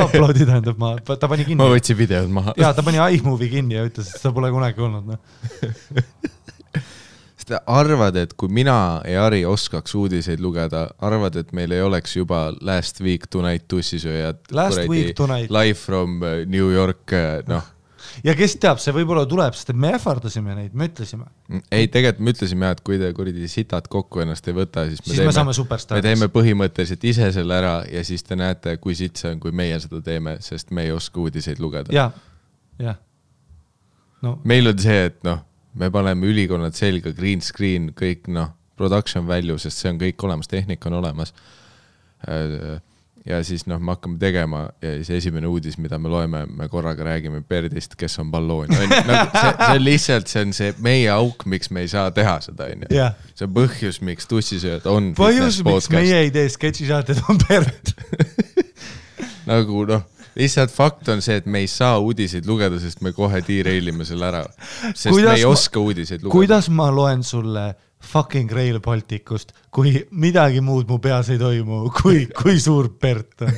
uploadi, tähendab, ta pani kinni. Ma võtsin videod maha. Ja ta pani iMovie kinni ja ütles, et seda pole kunagi olnud. Sest arvad, et kui mina ja Ari oskaks uudiseid lugeda, arvad, et meil ei oleks juba Last Week Tonight Tussisööjad. Last Week Tonight. Live from New York, Ja kes teab, see võib-olla tuleb, sest me ähvardasime neid, me ütlesime. Ei, tegelikult me ütlesime, et kui te kuridi sitad kokku ennast ei võta, siis me saame superstariks. Me teeme põhimõtteliselt ise selle ära ja siis te näete, kui sitt see on, kui meie seda teeme, sest me ei oska uudiseid lugeda. Ja. Meil on see, et me paneme ülikonnad selga, green screen, kõik production value, sest see on kõik olemas, tehnika on olemas. Ja siis me hakkame tegema ja siis esimene uudis, mida me loeme, me korraga räägime Berdist, kes on balloon. See on lihtsalt, see on see meie auk, miks me ei saa teha seda. See on põhjus, miks Tussisööjad on põhjus, miks meie ei tee sketšisaated on Bert. Nagu lihtsalt fakt on see, et me ei saa uudiseid lugeda, sest me kohe derailime selle ära. Sest me ei oska uudiseid lugeda. Kuidas ma loen sulle fucking Rail Balticust, kui midagi muud mu peas ei toimu, kui suur Bert on?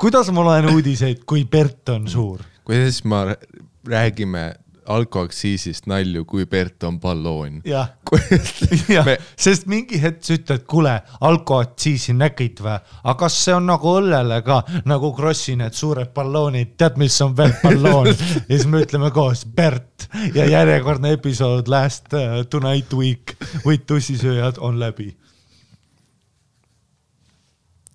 Kuidas ma loen uudiseid, kui Bert on suur? Kuidas ma räägime alkoaksiisist nalju, kui Bert on balloon? Jah, sest mingi hetk sa ütled, kuule, alkoaksiisi nägid või? Aga kas see on nagu õllele ka, nagu Krossi need suured balloonid, tead, mis on veel balloon? Ja siis me ütleme koos Bert ja järjekordne episood Last Tonight Week with Tussisööjad on läbi.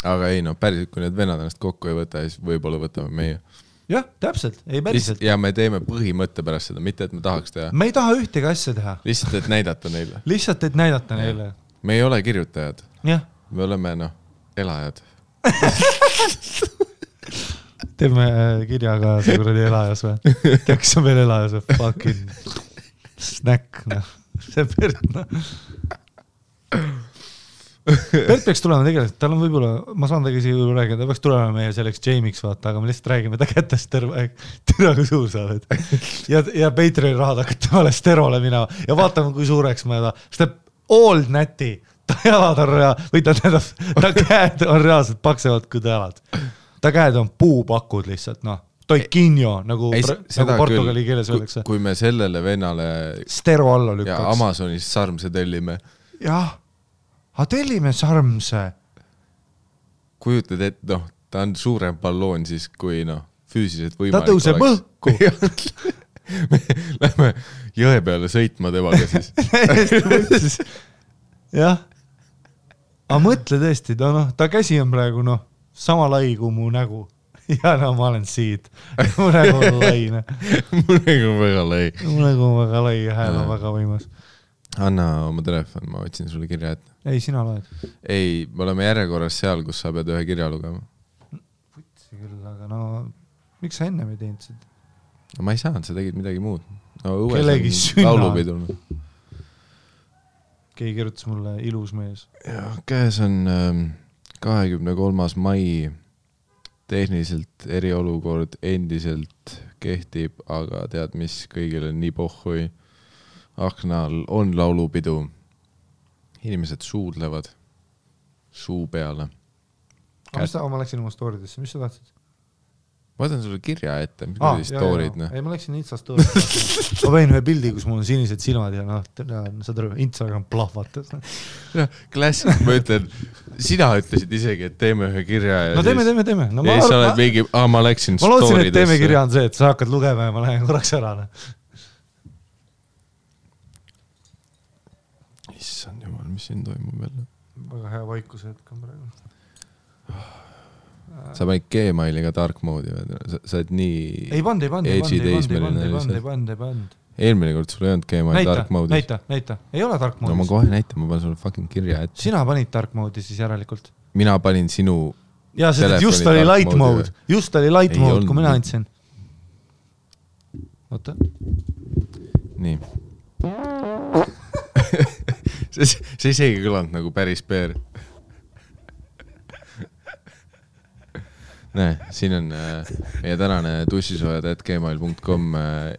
Aga ei, päriselt, kui need vennad ennast kokku ei võta, siis võib-olla võtame meie. Jah, täpselt, ei päriselt. Ja me teeme põhimõtte pärast seda, mitte et me tahaks teha. Me ei taha ühtegi asja teha. Lihtsalt, et näidata neile. Lihtsalt, et näidata neile. Me ei ole kirjutajad. Jah. Me oleme, elajad. Teeme kirjaga see kuradi elajas või? Kes on veel elajas või? Fucking snack, See Bert, Bert peaks tulema tegelikult, tal on võib-olla, ma saan tagi siia rääkida, ta peaks tulema meie selleks Jamie'ks vaata, aga me lihtsalt räägime ta kätest terve aeg, türa kui suur sa oled. Ja Patreoni rahad hakkad temale sterole minema ja vaatame, kui suureks ma sest ta old näti, ta jalad on või ta käed on reaalselt paksevad kui ta jalad. Ta käed on puupakud lihtsalt, Toikinjo, nagu portugali keeles öeldakse. Kui me sellele vennale stero alla lükkaks. Ja Amazonis sarmse tellime. Jah. Tellime sarmse. Kujutad, et ta on suurem balloon siis kui füüsiliselt võimalik ta tõuseb õhku. Lähme jõe peale sõitma temaga siis. Jah. Aga mõtle tõesti, ta käsi on praegu sama lai kui mu nägu. Ja ma olen siit. Mu nägu on lai. Mu nägu on väga lai. Mu nägu on väga lai ja hääl on väga võimas. Anna oma telefon, ma võtsin sulle kirja ette. Ei, sina loed. Ei, me oleme järjekorras seal, kus sa pead ühe kirja lugema. Putsi küll, aga miks sa enne ei teinud seda? No ma ei saanud, sa tegid midagi muud. Kellegi sünna. Laulupidul. Keegi kirjutas mulle ilus mees. Ja, käes on 23. mai. Tehniliselt eriolukord endiselt kehtib, aga tead, mis kõigil on nii pohhui. Aknal on laulupidu. Inimesed suudlevad suu peale. Ma läksin oma storidesse, mis sa tahtsid? Ma võtan sulle kirja ette, mis kui stoorid. Ei, ma läksin Insta storid. Ma võin ühe pildi, kus mul on sinised silmad ja saad aru, Instagram plahvatas. Klassik, ma ütlen, sina ütlesid isegi, et teeme ühe kirja. Ja teeme. Ja siis sa oled mingi, ma läksin storidesse. Ma lootsin, et teeme kirja on see, et sa hakkad lugema ja ma lähen korraks ära. Issand jumal, mis siin toimub jälle? Väga hea vaikuse hetk on praegu. Sa panid Gmailiga dark mode'i või? Sa oled nii... Ei pand. Eelmine kord sul ei olnud Gmail dark mode'is. Näita. Ei ole dark mode'is. No ma kohe näitan, ma panen sulle fucking kirja ette. Sina panid dark mode'i siis järelikult? Mina panin sinu... Jaa, sest just oli light mode. Just oli light mode, kui mina andsin. Oota. Nii. See isegi kõlanud nagu päris peer. Näe, siin on meie tänane tussisoojad@gmail.com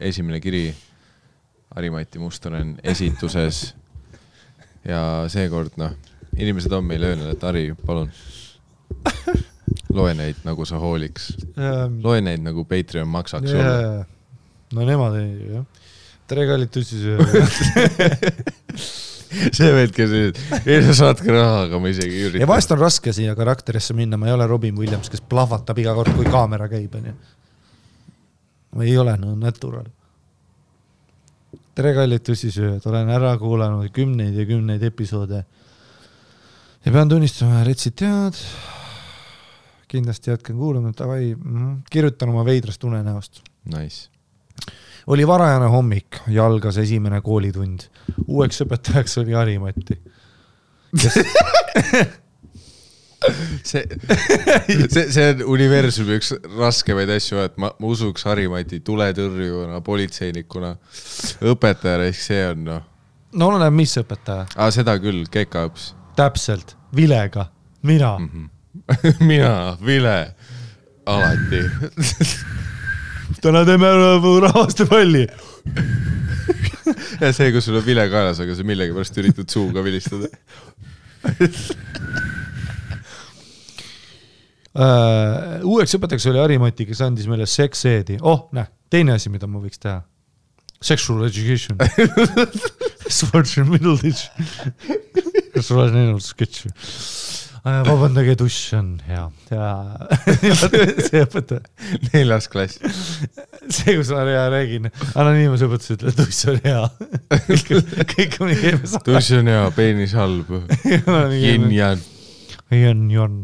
esimene kiri. Harimati Mustonen esituses. Ja seekord, inimesed on meile öelnud, et Hari, palun. Loe neid nagu sa hooliks. Loe neid nagu Patreon maksaks sulle. No nemad ei, jah. Tere kallid tussisoojad. See veedke siis, ei sa saadke raha, aga ma isegi ei ürita. Ja vahest on raske siia karakterisse minna, ma ei ole Robin Williams, kes plahvatab iga kord, kui kaamera käib. Ma ei ole natural. Tere kallid tussisööjad, olen ära kuulanud kümneid episoode ja pean tunnistama, retsid tead, kindlasti jätken kuulama, kirjutan oma veidrast unenäost. Nice. Oli varajane hommik ja algas esimene koolitund. Uueks õpetajaks oli Harimati. See on universumi üks raskemaid asju, et ma usuks Harimati tuletõrjuna, politseinikuna, õpetajana, ehk see on No oleneb, mis õpetaja? Seda küll, kekaõps. Täpselt, vilega, mina. Mina, vile, alati. Täna teeme rahvaste palli. Ja see, kus sul on vile kaelas, aga sa millegi pärast üritad suuga vilistada. Uueks õpetajaks oli Harimati, kes andis meile sex-eedi. Teine asi, mida ma võiks teha. Sexual education. Sports in middle ditch. Kas sul on ennast sketši? Vabandage, duš on hea. See õpetaja. 4. klass. See, kus ma räägin. Anonüümas õpetus ütle, duš on hea. Kõik on nii keemes. Duš on hea, peenis halb. Yin-yan. Yin-yan.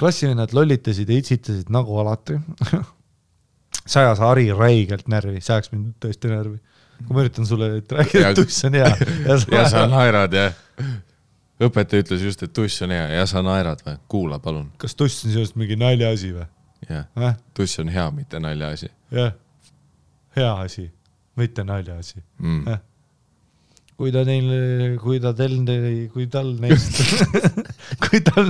Klassivennad lollitasid ja itsitasid nagu alati. Sajas Hari räigelt närvi. Sajaks mind tõesti närvi. Kui ma üritan sulle rääkida, et duš on hea. Ja sa naerad, jah. Õpetaja ütles just, et tuss on hea ja sa naerad või? Kuula, palun. Kas tuss on sellest mingi nalja asi või? Jah, tuss on hea, mitte nalja asi. Jah, hea asi, mitte nalja asi. Kui tal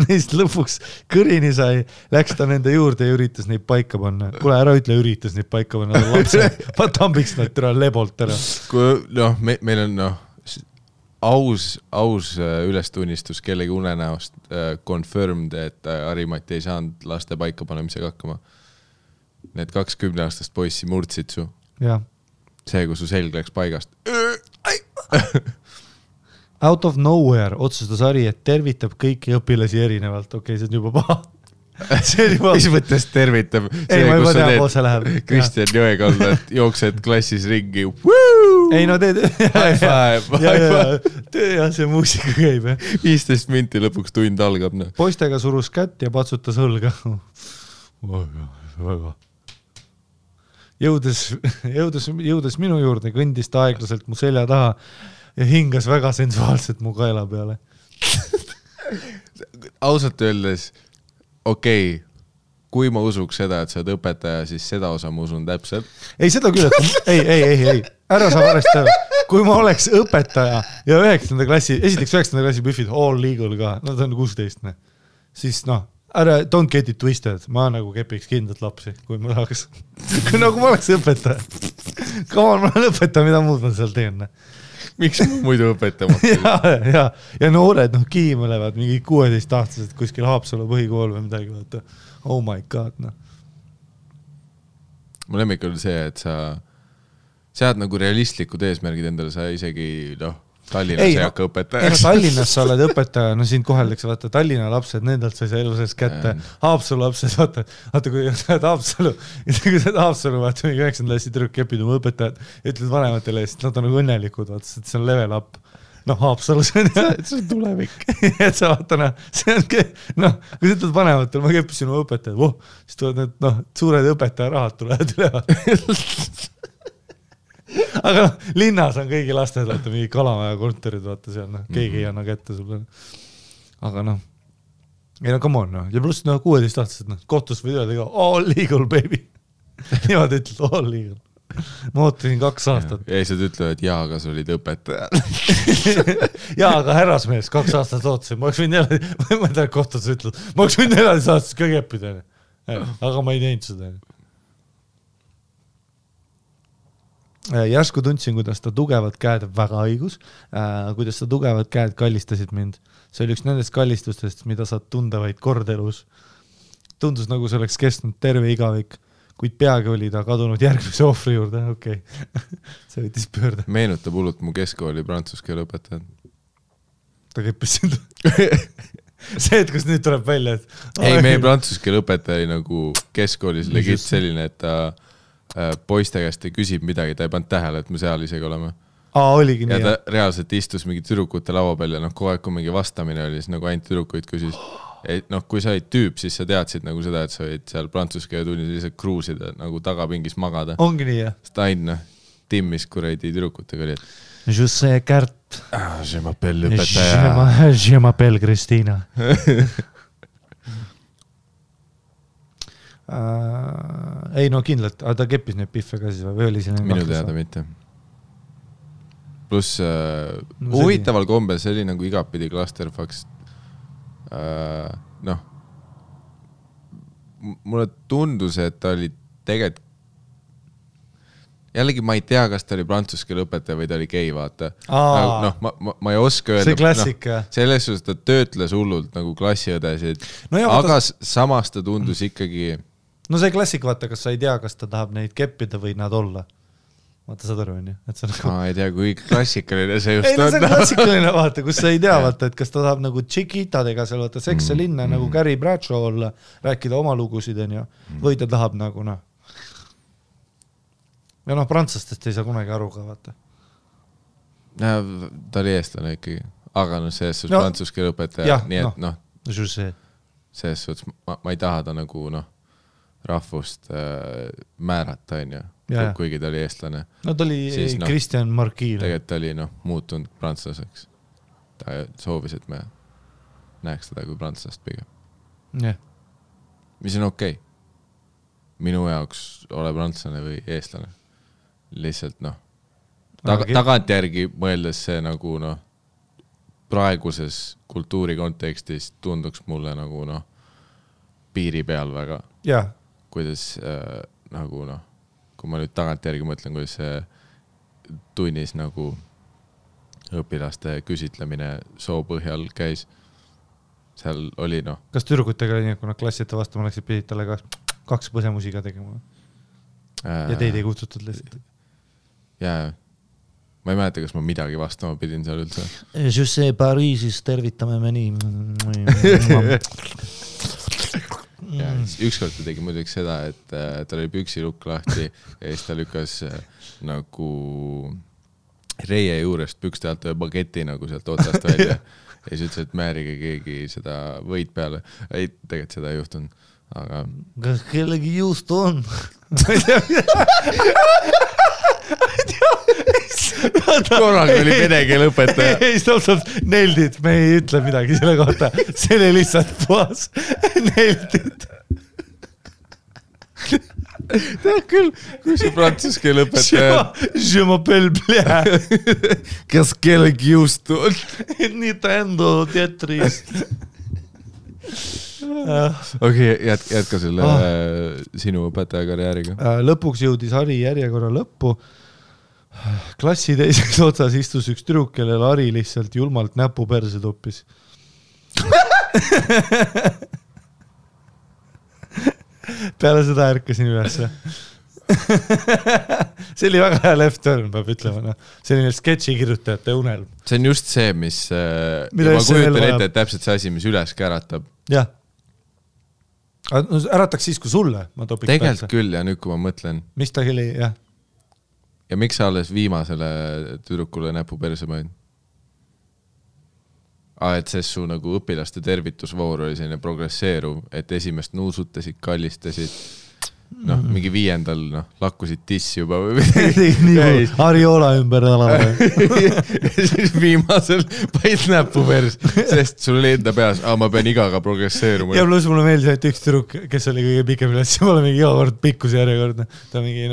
neist lõpuks kõrini sai, läks ta nende juurde ja üritas neid paika panna. Kule, ära ütle, üritas neid paika panna. Ma tambiks nad türa lebolt ära. Meil on aus ülestunnistus kellegi unenäost confirmed, et Harimati ei saanud laste paika panemisega hakkama. Need 20-aastast poissi murdsid su. Ja. See, kui su selg läks paigast. Out of nowhere otsustas Hari, et tervitab kõiki õpilasi erinevalt. Okei, see on juba paha. mis mõttes tervitab? Ei, ma juba tean, kus see läheb. Kristjan Jõekaldalt jooksed klassis ringi. Ei, no teed. Ja see muusika käib. 15 minti lõpuks tund algab. Poistega surus kätt ja patsutas õlga. Väga. Jõudes minu juurde, kõndis ta aeglaselt mu selja taha ja hingas väga sensuaalselt mu kaela peale. Ausalt öeldes, okei, kui ma usuks seda, et sa oled õpetaja, siis seda osa ma usun täpselt. Ei, seda küll, et ei. Ära sa varest ära. Kui ma oleks õpetaja ja 9. klassi, esiteks 9. klassi büfid, all legal ka, no ta on 16, siis ära, don't get it twisted, ma nagu kepiks kindlalt lapsi, kui ma tahaks. Nagu ma oleks õpetaja. Come on, ma olen õpetaja, mida muud ma seal teen. Miks ma muidu õpetama? ja noored, kiimelevad mingi 16-aastased kuskil Haapsalu põhikool või midagi, vaata. Oh my god, Mu lemmik oli see, et sa sead nagu realistlikud eesmärgid endale, sa isegi, Tallinnas ei hakka õpetajaks. Tallinnas sa oled õpetaja, siin koheldakse, vaata, Tallinna lapsed, nendelt sa ei saa elu sees kätte. Haapsalu lapsed, vaata, kui sa oled Haapsalu, vaata, mingi 9. klassi tüdruk kepid oma õpetajad ja ütled vanematele, sest nad on nagu õnnelikud, vaata, see on level up. Haapsalu, see on tulevik. Et sa vaata, see on, kui sa ütled vanematel, ma keppisin oma õpetajad, siis tulevad need, suured õpetaja rahad tulevad üle. Aga linnas on kõigi lasted, vaata, mingi Kalamaja kontorid, vaata seal, keegi ei anna kätte sulle. Aga ei come on, ja pluss 16-aastased, kohtus või öelda ka, all legal, baby. Niimoodi ütled, all legal. Ma ootasin 2 aastat. Ja siis ütlevad, jaa, aga sa olid õpetaja. Jaa, aga härrasmees, 2 aastat ootasin. Ma oleks võinud jälle, ma ei tea, kohtus ütled, ma oleks võinud 14 aastast ka keppida. Aga ma ei teinud seda. Järsku tundsin, kuidas ta tugevad käed, väga õigus, kuidas ta tugevad käed kallistasid mind. See oli üks nendest kallistustest, mida saad tunda vaid kord elus. Tundus nagu see oleks kestnud terve igavik, kuid peagi oli ta kadunud järgmise ohvri juurde. Okei. See võttis pöörde. Meenutab hullult mu keskkooli prantsuskeele õpetajad. Ta keppis sind. See, et kus nüüd tuleb välja, et ei, meie prantsuskeele õpetaja oli nagu keskkoolis legit selline, et ta poiste käest ei küsib midagi, ta ei pannud tähele, et me seal isegi oleme. Oligi nii. Ja ta reaalselt istus mingi tüdrukute laua peal ja kogu aeg, kui mingi vastamine oli, siis nagu ainult tüdrukuid küsis. Kui sa olid tüüp, siis sa teadsid nagu seda, et sa olid seal prantsuskeele tunnis lihtsalt kruusida, nagu tagapingis magada. Ongi nii, jah? Sest aina timmis kuradi tüdrukutega oli, et je sais Kärt. Je m'appelle õpetaja. Je m'appelle Kristina. Ei, kindlalt, aga ta keppis neid piffe ka siis või oli siin? Minu teada mitte. Plus huvitaval kombel, see oli nagu igapidi clusterfucks. Mulle tundus, et ta oli tegelikult jällegi ma ei tea, kas ta oli prantsuskeele õpetaja või ta oli gei, vaata. Ma ei oska öelda. See klassika. Selles suhtes ta töötles hullult nagu klassiõdesid, aga samas ta tundus ikkagi. No see klassik, vaata, kas sa ei tea, kas ta tahab neid keppida või nad olla. Vaata, saad aru, on ju? Ma ei tea, kui klassikaline see just on. Ei, see on klassikaline, vaata, kus sa ei tea, vaata, et kas ta tahab nagu tšikitadega seal, vaata, sekse linna nagu Carrie Bradshaw olla, rääkida oma lugusid, on ju, või ta tahab nagu, ja prantslastest ei saa kunagi aru ka, vaata. Ta oli eestlane ikkagi, aga selles suhtes prantsuskeele õpetaja, nii et selles suhtes ma ei taha ta nagu rahvust määrata, on ju. Kuigi ta oli eestlane. No ta oli Christian Marquis. Tegelikult ta oli muutunud prantslaseks. Ta soovis, et me näeks teda kui prantslast pigem. Mis on okei. Minu jaoks ole prantslane või eestlane. Lihtsalt tagant järgi mõeldes see nagu praeguses kultuuri kontekstis tunduks mulle nagu piiri peal väga. Kuidas nagu kui ma nüüd tagant järgi mõtlen, kuidas see tunnis nagu õpilaste küsitlemine soo põhjal käis, seal oli Kas tüdrukutega oli nii, kui nad klassite vastama läksid, pidid talle 2 põsemusiga tegema? Ja teid ei kutsutud lihtsalt? Jaa, ma ei mäleta, kas ma midagi vastama pidin seal üldse. Je sais, Pariisis tervitame me nii. ja ükskord ta tegi muidugi seda, et tal oli püksilukk lahti ja siis ta lükkas nagu reie juurest pükste alt ühe bageti nagu sealt otsast välja ja siis ütles, et määrige keegi seda võid peale. Ei, tegelikult seda ei juhtunud, aga... Kas kellegi juust on? Korraga oli vene keele õpetaja. Ei, stopp, neldid, me ei ütle midagi selle kohta. See oli lihtsalt puhas neldid. Tead küll, kui see prantsus keele õpetaja... Je m'appelle Blea. Kas kellegi juust on? Nintendo Tetris. Okei, jätka selle sinu õpetaja karjääriga. Lõpuks jõudis Hari järjekorra lõppu. Klassi teiseks otsas istus üks tüdruk, kellel Hari lihtsalt julmalt näpu perse toppis. Peale seda ärkasin ülesse. See oli väga hea left turn, peab ütlema. Selline sketši kirjutajate unelm. See on just see, mis... ma kujutan ette, et täpselt see asi, mis üles käratab. Jah. Ärataks siis, kui sulle ma topiks tegelikult küll ja nüüd, kui ma mõtlen. Mis ta oli, jah. Ja miks sa alles viimasele tüdrukule näpu perse mõin? Et see su nagu õpilaste tervitusvoor oli selline progresseeruv, et esimest nuusutasid, kallistasid, mingi 5. lakkusid tissi juba või midagi. Ariola ümber alama. Ja siis viimasel paid näpu pers, sest sul oli enda peas, ma pean igaga progresseeruma. Ja pluss mulle meeldis, et üks tüdruk, kes oli kõige pikem üles, ma olen mingi iga kord pikkuse järjekordne. Ta on mingi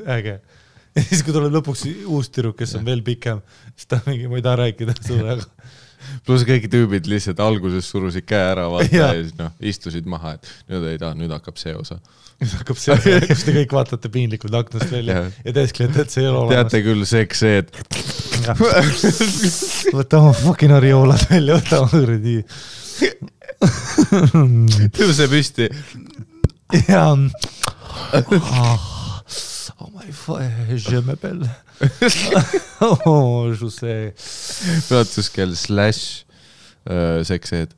äge. Ja siis, kui tuleb lõpuks uus tüdruk, kes on veel pikem, siis ta mingi, ma ei taha rääkida sulle, aga... Plus kõik tüübid lihtsalt alguses surusid käe ära vaata ja siis istusid maha, et nüüd hakkab see osa. Nüüd hakkab see osa, kus te kõik vaatate piinlikult aknast välja ja teesklete, et see ei ole olemas. Teate küll seks see, et... Võta oma fucking arioolad välja, võta oma õrdi. Tõuse püsti. Ja... Oh my god, je m'appelle. Oh, je sais. Praatuskeel / sekseed.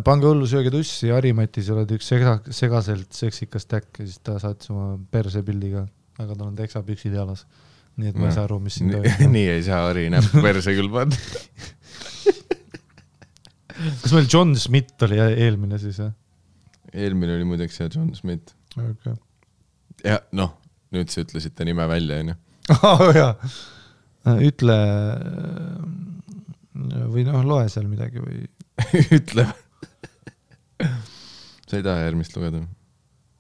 Pange hullu sööge tussi, Harimatis oled üks segaselt seksikas täkk ja siis ta saatis oma perse pildiga, aga tal on teksapüksid jalas. Nii et ma ei saa aru, mis siin toimub. Nii ei saa Hari näppu perse küll panna. Kas meil John Smith oli eelmine siis? Eelmine oli muideks see John Smith. Okay. Ja nüüd sa ütlesid ta nime välja, on ju? Jaa. Ütle või loe seal midagi või... Ütle. Sa ei taha järgmist lugeda?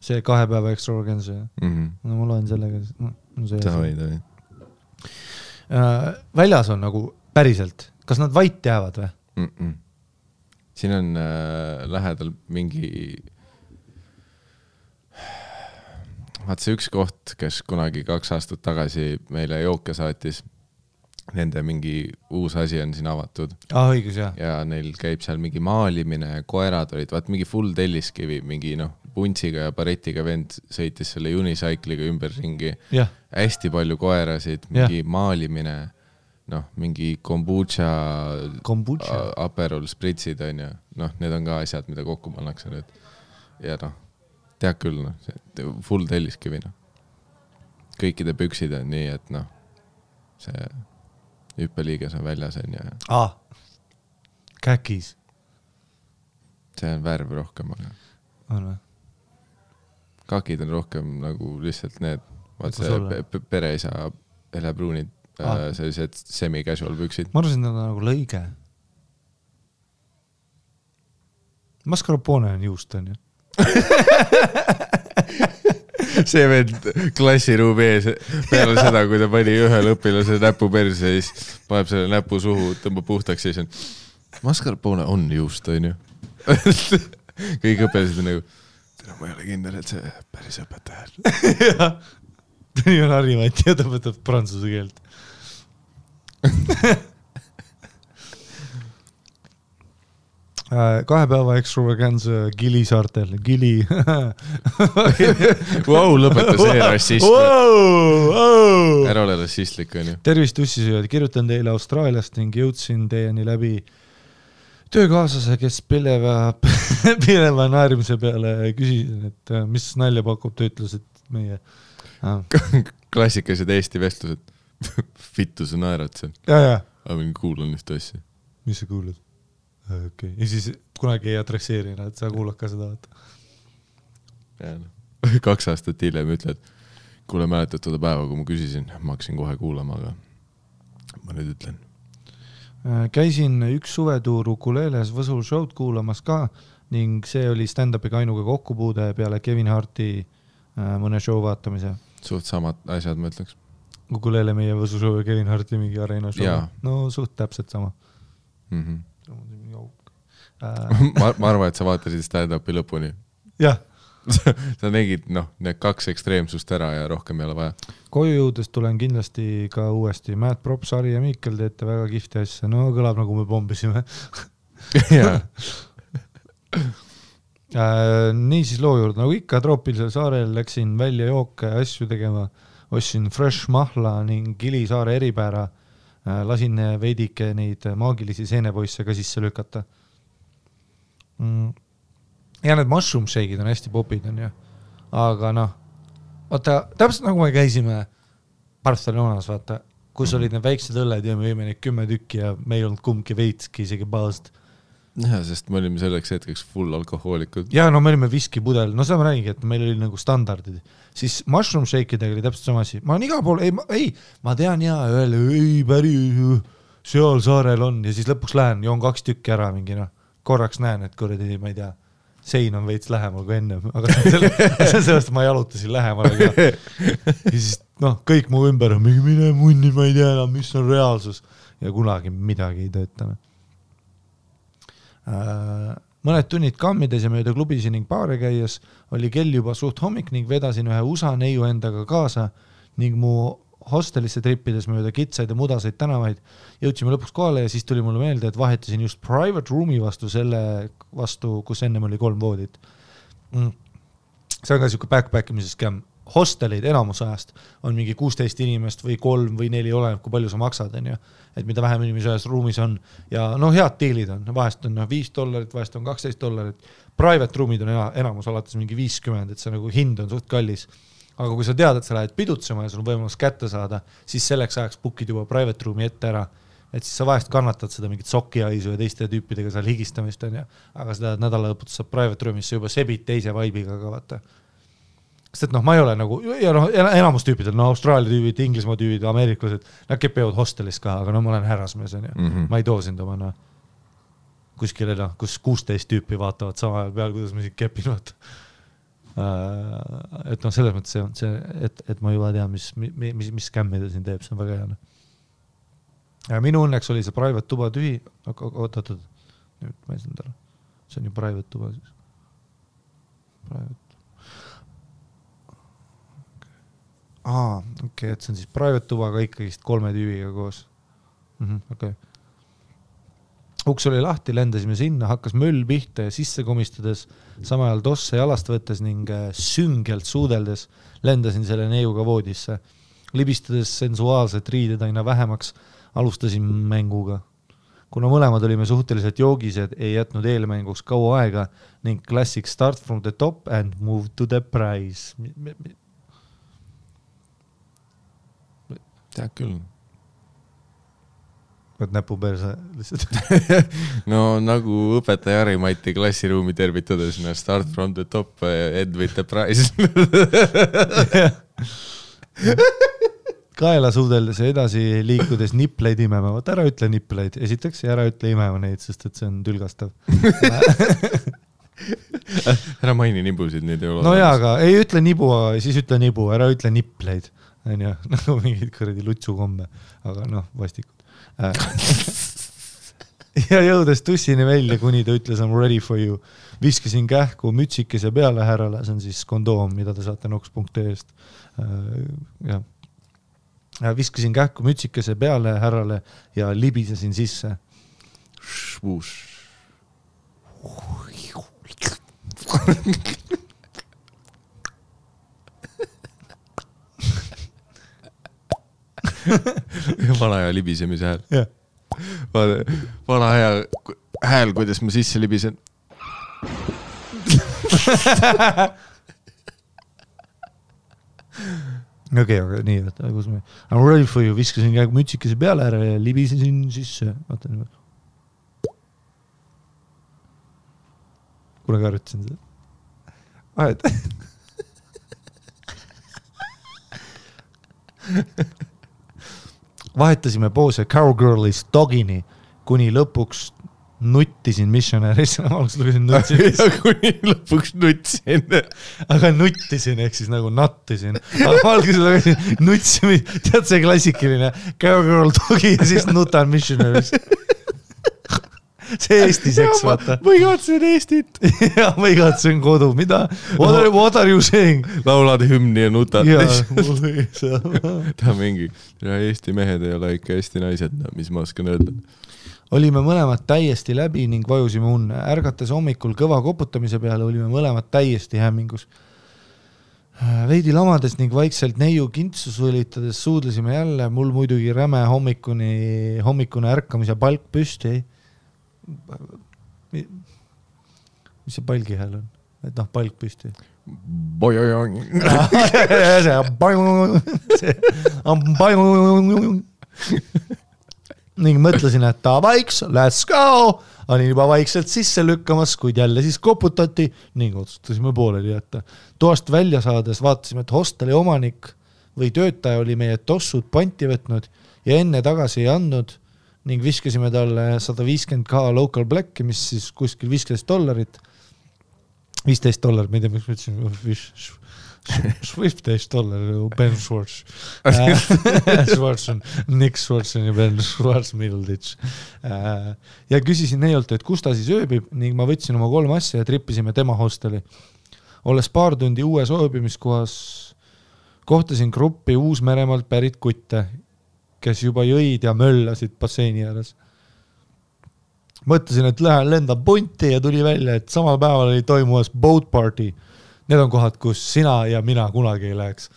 See 2 päeva extravaganza. No ma loen sellega. Tavi. Väljas on nagu päriselt. Kas nad vait jäävad või? Siin on lähedal mingi... Vaat see üks koht, kes kunagi 2 aastat tagasi meile jooke saatis, nende mingi uus asi on siin avatud. Õigus, jah. Ja neil käib seal mingi maalimine, koerad olid, vaat mingi full telliskivi, mingi puntsiga ja baretiga vend sõitis selle unicycliga ümber ringi. Hästi palju koerasid, mingi maalimine, mingi kombucha. Aperol spritsid on ja need on ka asjad, mida kokku pannakse nüüd. Ja tead küll, full telliskivi. Kõikide püksid on nii, et see hüppeliiges on väljas on ja... Käkis. See on värv rohkem. On või? Kakid on rohkem nagu lihtsalt need, vaat see pereisa helebruunid, sellised semi-casual püksid. Ma arvasin, et nagu lõige. Mascarpone on juust, on ju? See vend klassiruumi ees peale seda, kui ta pani ühel õpilase näpu perse ja siis paneb selle näpu suhu, tõmbab puhtaks ja siis on mascarpone on juust, on ju. Kõik õpilased on nagu ma ei ole kindel, et see päris õpetaja. Ta nii on Harimati ja ta võtab prantsuse keelt. 2 päeva extravaganza Gili saartel. Gili. Wow, lõpeta see rassist. Ära ole rassistlik, on ju. Tervist ussisööjad. Kirjutan teile Austraaliast ning jõudsin teieni läbi töökaaslase, kes pileva naerimise peale küsisin, et mis nalja pakub, ta ütles, et meie klassikalised Eesti vestlused. Vittu sa naerad seal. Ja. Aga mingi kuulan ühte asja. Mis sa kuulad? Okay. Ja siis kunagi ei adresseerina, et sa kuulad ka seda. Ja, 2 aastat hiljem ütled, kuule mäletad seda päeva, kui ma küsisin, ma hakkasin kohe kuulama, aga ma nüüd ütlen. Käisin üks suvetuur Ukuleles Võsul show'd kuulamas ka ning see oli stand-upiga ainuga kokkupuude peale Kevin Harti mõne show vaatamise. Suht samad asjad, ma ütleks. Ukulele meie Võsu show ja Kevin Harti mingi areena show. Jaa. No suht täpselt sama. Ma arvan, et sa vaatasid stand-upi lõpuni. Jah. Sa nägid, need 2 ekstreemsust ära ja rohkem ei ole vaja. Koju jõudes tulen kindlasti ka uuesti. Matt Props, Ari ja Mikkel teete väga kihvti asja. No kõlab nagu me pombisime. Jaa. Nii siis loo juurde. Nagu ikka troopilisel saarel läksin välja jooke asju tegema. Ostsin fresh mahla ning Gilisaare eripäära. Lasin veidike neid maagilisi seenepoisse ka sisse lükata. Ja need mushroom shake'id on hästi popid, on ju. Aga vaata, täpselt nagu me käisime Barcelonas, vaata, kus olid need väiksed õlled ja me võime neid 10 tükki ja me ei olnud kumbki veitski isegi baast. Ja, sest me olime selleks hetkeks full alkohoolikud. Ja me olime viskipudel. No seda ma räägin, et meil oli nagu standardid. Siis mushroom shake'idega oli täpselt sama asi. Ma olen igal pool, ma tean päri seal saarel on ja siis lõpuks lähen, joon 2 tükki ära mingi, korraks näen, et kuradi, ma ei tea, sein on veits lähemal kui enne, aga sellest ma jalutasin lähemal. Ja siis kõik mu ümber on mingi mine munni, ma ei tea enam, mis on reaalsus ja kunagi midagi ei töötane. Mõned tunnid kammides ja mööda klubisi ning baare käies oli kell juba suht hommik ning vedasin ühe USA neiu endaga kaasa ning mu hostelisse trippides mööda kitsaid ja mudaseid tänavaid jõudsime lõpuks kohale ja siis tuli mulle meelde, et vahetasin just private room'i vastu, kus ennem oli 3 voodit. See on ka siuke backpackimise skäm. Hostelid enamus ajast on mingi 16 inimest või 3 või 4 oleneb, kui palju sa maksad, on ju. Et mida vähem inimesi ühes ruumis on ja head diilid on, vahest on $5, vahest on $12. Private room'id on enamus alates mingi 50, et see nagu hind on suht kallis. Aga kui sa tead, et sa lähed pidutsema ja sul on võimalus kätte saada, siis selleks ajaks bookid juba private room'i ette ära. Et siis sa vahest kannatad seda mingit sokiaisu ja teiste tüüpidega seal higistamist, on ju. Aga seda nädala lõputus saab private room'is sa juba sebid teise vibe'iga ka vaata. Sest ma ei ole nagu, ja enamus tüüpidel, Austraalia tüübid, Inglismaa tüübid, ameeriklased, nad kepevad hostelis ka, aga ma olen härrasmees, on ju. Ma ei too sind oma kuskile, kus 16 tüüpi vaatavad sama ajal peal, kuidas ma siin kepin, vaata. Et selles mõttes see, et ma juba tean, mis skämmida siin teeb, see on väga hea. Ja minu õnneks oli see private tuba tühi, oot, nüüd ma ei saanud ära. See on ju private tuba siis. Private. Okei, et see on siis private tuba, aga ikkagist 3 tüübiga koos. Okay. Uks oli lahti, lendasime sinna, hakkas möll pihta ja sisse komistades, sama ajal tosse jalast võttes ning süngelt suudeldes lendasin selle neiuga voodisse. Libistades sensuaalset riided aina vähemaks, alustasin mänguga. Kuna mõlemad olime suhteliselt joogised, ei jätnud eelmänguks kaua aega ning classic start from the top and move to the prize. Tead küll. Võt näpu perse lihtsalt. No nagu õpetaja Harimati klassiruumi tervitades, start from the top, end with the prize. Kaela suudeldes ja edasi liikudes nipleid imema. Võt ära ütle nipleid, esiteks, ja ära ütle imema neid, sest et see on tülgastav. Ära maini nibusid, neid ei ole. No jaa, aga ei ütle nibu, siis ütle nibu, ära ütle nipleid. Nagu mingid kõredi lutsukomme, aga vastikud. Ja jõudes tussini välja, kuni ta ütles I'm ready for you. Viskasin kähku mütsikese peale härrale, see on siis kondoom, mida te saate noks.ee-st. Viskasin kähku mütsikese peale härrale ja libisesin sisse. Vana aja libisemise hääl. Vana aja hääl, kuidas ma sisse libisen. Okei, nii, võtta, kus me... I'm ready for you, viskasin käega mütsikese peale ära ja libisesin sisse. Vaata nii. Kunagi arvutasin seda. Ahed. Vahetasime poose Cowgirlist Dogini, kuni lõpuks nuttisin Missionaries. Alguses lugesin nuttisin. Ja kuni lõpuks nuttisin. Aga nuttisin, ehk siis nagu nattisin. Aga alguses lugesin nutsimi, tead see klassikaline Cowgirl Dogi ja siis nutan Missionaries. See Eesti seks, vaata. Ma igatsen Eestit. Ja ma igatsen kodu. Mida? What are you saying? Laulad hümni ja nutad. Ta mingi, Eesti mehed ei ole ikka Eesti naised, mis ma oskan öelda. Olime mõlemad täiesti läbi ning vajusime unne. Ärgates hommikul kõva koputamise peale olime mõlemad täiesti hämmingus. Veidi lamades ning vaikselt neiu kintsus võlitades suudlesime jälle. Mul muidugi räme hommikune ärkamise palk püsti. Mis see palgi hääl on? Et noh, palk püsti. Ning mõtlesin, et vaiks, let's go! Olin juba vaikselt sisse lükkamas, kuid jälle siis koputati ning otsustasime pooleli jätta. Toast välja saades vaatasime, et hosteli omanik või töötaja oli meie tossud panti võtnud ja enne tagasi ei andnud ning viskasime talle 150k local black'i, mis siis kuskil $15. $15, ma ei tea, miks ma ütlesin, $15, Ben Schwartz. Nick Schwartz ja Ben Schwartz Middleditch. Ja küsisin neilt, et kus ta siis ööbib ning ma võtsin oma 3 asja ja trippisime tema hosteli. Olles paar tundi uues ööbimiskohas, kohtasin gruppi Uus-Meremaalt pärit kutte, kes juba jõid ja möllasid basseini ääres. Mõtlesin, et lähen lenda punti ja tuli välja, et samal päeval oli toimumas boat party. Need on kohad, kus sina ja mina kunagi ei läheks.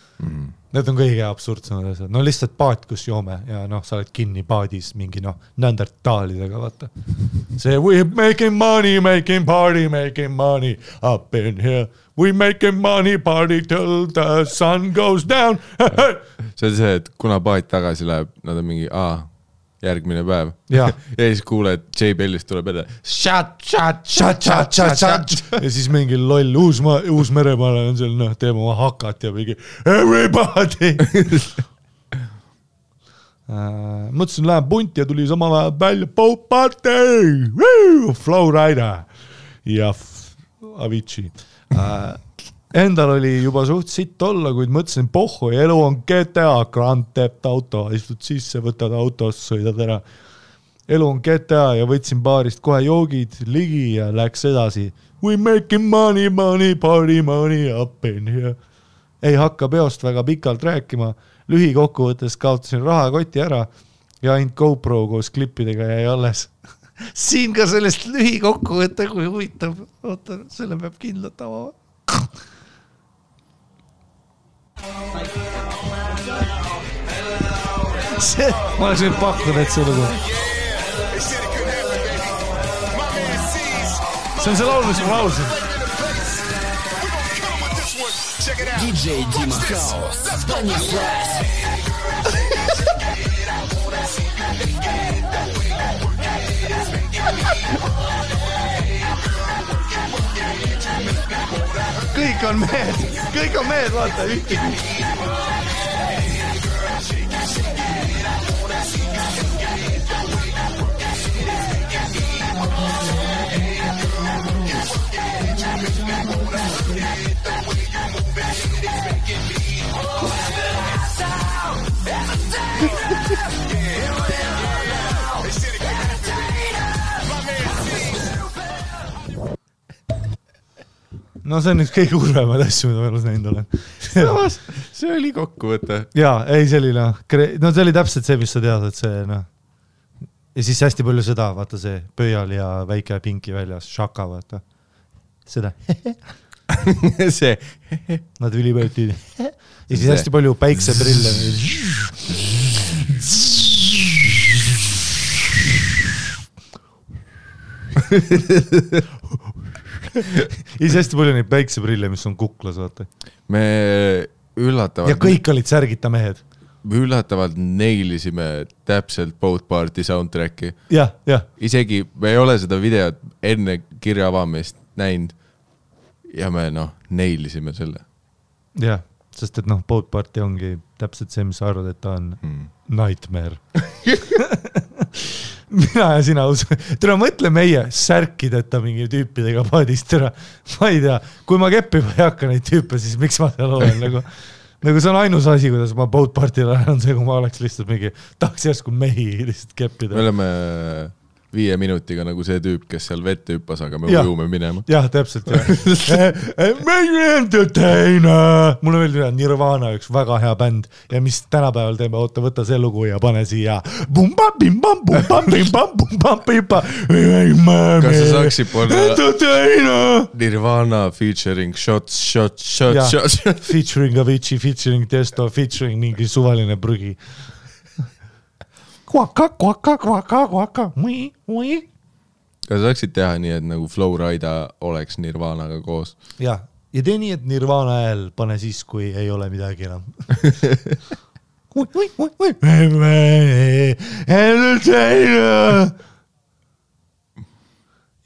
Need on kõige absurdsemad asjad. No lihtsalt paat, kus joome ja sa oled kinni paadis mingi neandertaalidega, vaata. See we're making party, making money up in here. We making money party till the sun goes down. See on see, et kuna paat tagasi läheb, nad on mingi järgmine päev. Ja siis kuuled, J. Bellist tuleb edasi. Shut. Ja siis mingi loll Uus-Meremaale on seal, teeme oma hakat ja mingi everybody. Mõtlesin, lähen punti ja tuli sama välja boat party. Flowrider ja Avicii. Endal oli juba suht sitt olla, kuid mõtlesin, pohhu, elu on GTA, Grand Theft Auto, istud sisse, võtad autost, sõidad ära. Elu on GTA ja võtsin baarist kohe joogid ligi ja läks edasi. We making money, party money up in here. Ei hakka peost väga pikalt rääkima. Lühikokkuvõttes kaotasin rahakoti ära ja ainult GoPro koos klippidega jäi alles. Siin ka sellest lühikokkuvõtte, kui huvitav. Oota, selle peab kindlalt avama. Ma oleks nüüd pakkunud, et see lugu. See on see laul, mis ma laulsin. DJ Dima House, Stanislas. Kõik on mehed, vaata, ühtegi. No see on üks kõige urvemad asju, mida ma elus näinud olen. See oli kokkuvõte. Jaa, ei, see oli see oli täpselt see, mis sa tead, et see ja siis hästi palju seda, vaata see pöial ja väike pinki väljas, šaka, vaata. Seda. See. Nad ülipöötid. Ja siis hästi palju päikseprille. Ise hästi palju neid päikseprille, mis on kuklas, vaata. Me üllatavalt... Ja kõik olid särgita mehed. Me üllatavalt neilisime täpselt Boat Party soundtracki. Jah. Isegi me ei ole seda videot enne kirja avamist näinud ja me neilisime selle. Jah, sest et Boat Party ongi täpselt see, mis sa arvad, et ta on nightmare. Mina ja sina tere mõtle meie särkideta mingi tüüpidega paadist tere. Ma ei tea, kui ma keppima ei hakka neid tüüpe, siis miks ma seal olen nagu see on ainus asi, kuidas ma Boat Party'l on see, kui ma oleks lihtsalt mingi tahaks järsku mehi lihtsalt keppida. Me oleme 5 minutiga nagu see tüüp, kes seal vette hüppas, aga me ujume minema. Jah, täpselt. Meie entertainer! Mul on veel Nirvana üks väga hea bänd ja mis tänapäeval teeme, võta see lugu ja pane siia. Kas sa saaksid panna Nirvana featuring shots. Featuring Avicii, featuring Testo, featuring mingi suvaline prügi. Kvaka. Kas saaksid teha nii, et nagu Flowrida oleks Nirvanaga koos? Ja tee nii, et Nirvana hääl pane siis, kui ei ole midagi enam.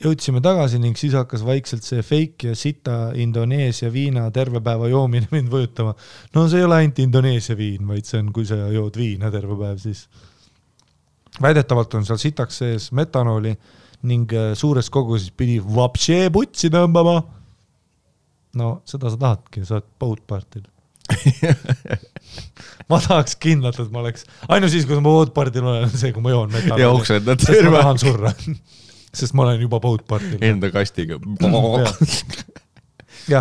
Jõudsime tagasi ning siis hakkas vaikselt see fake ja sita Indoneesia viina terve päeva joomine mind võjutama. No see ei ole ainult Indoneesia viin, vaid see on, kui sa jood viina terve päev, siis väidetavalt on seal sitaks sees metanooli ning suures koguses pidi vapšee putsi tõmbama. No seda sa tahadki, sa oled Boat Party'l. Ma tahaks kindlalt, et ma oleks ainult siis, kui ma Boat Party'l olen see, kui ma joon metanooli. Ja oksendad sest ma tahan surra. Sest ma olen juba Boat Party'l. Enda kastiga. Ja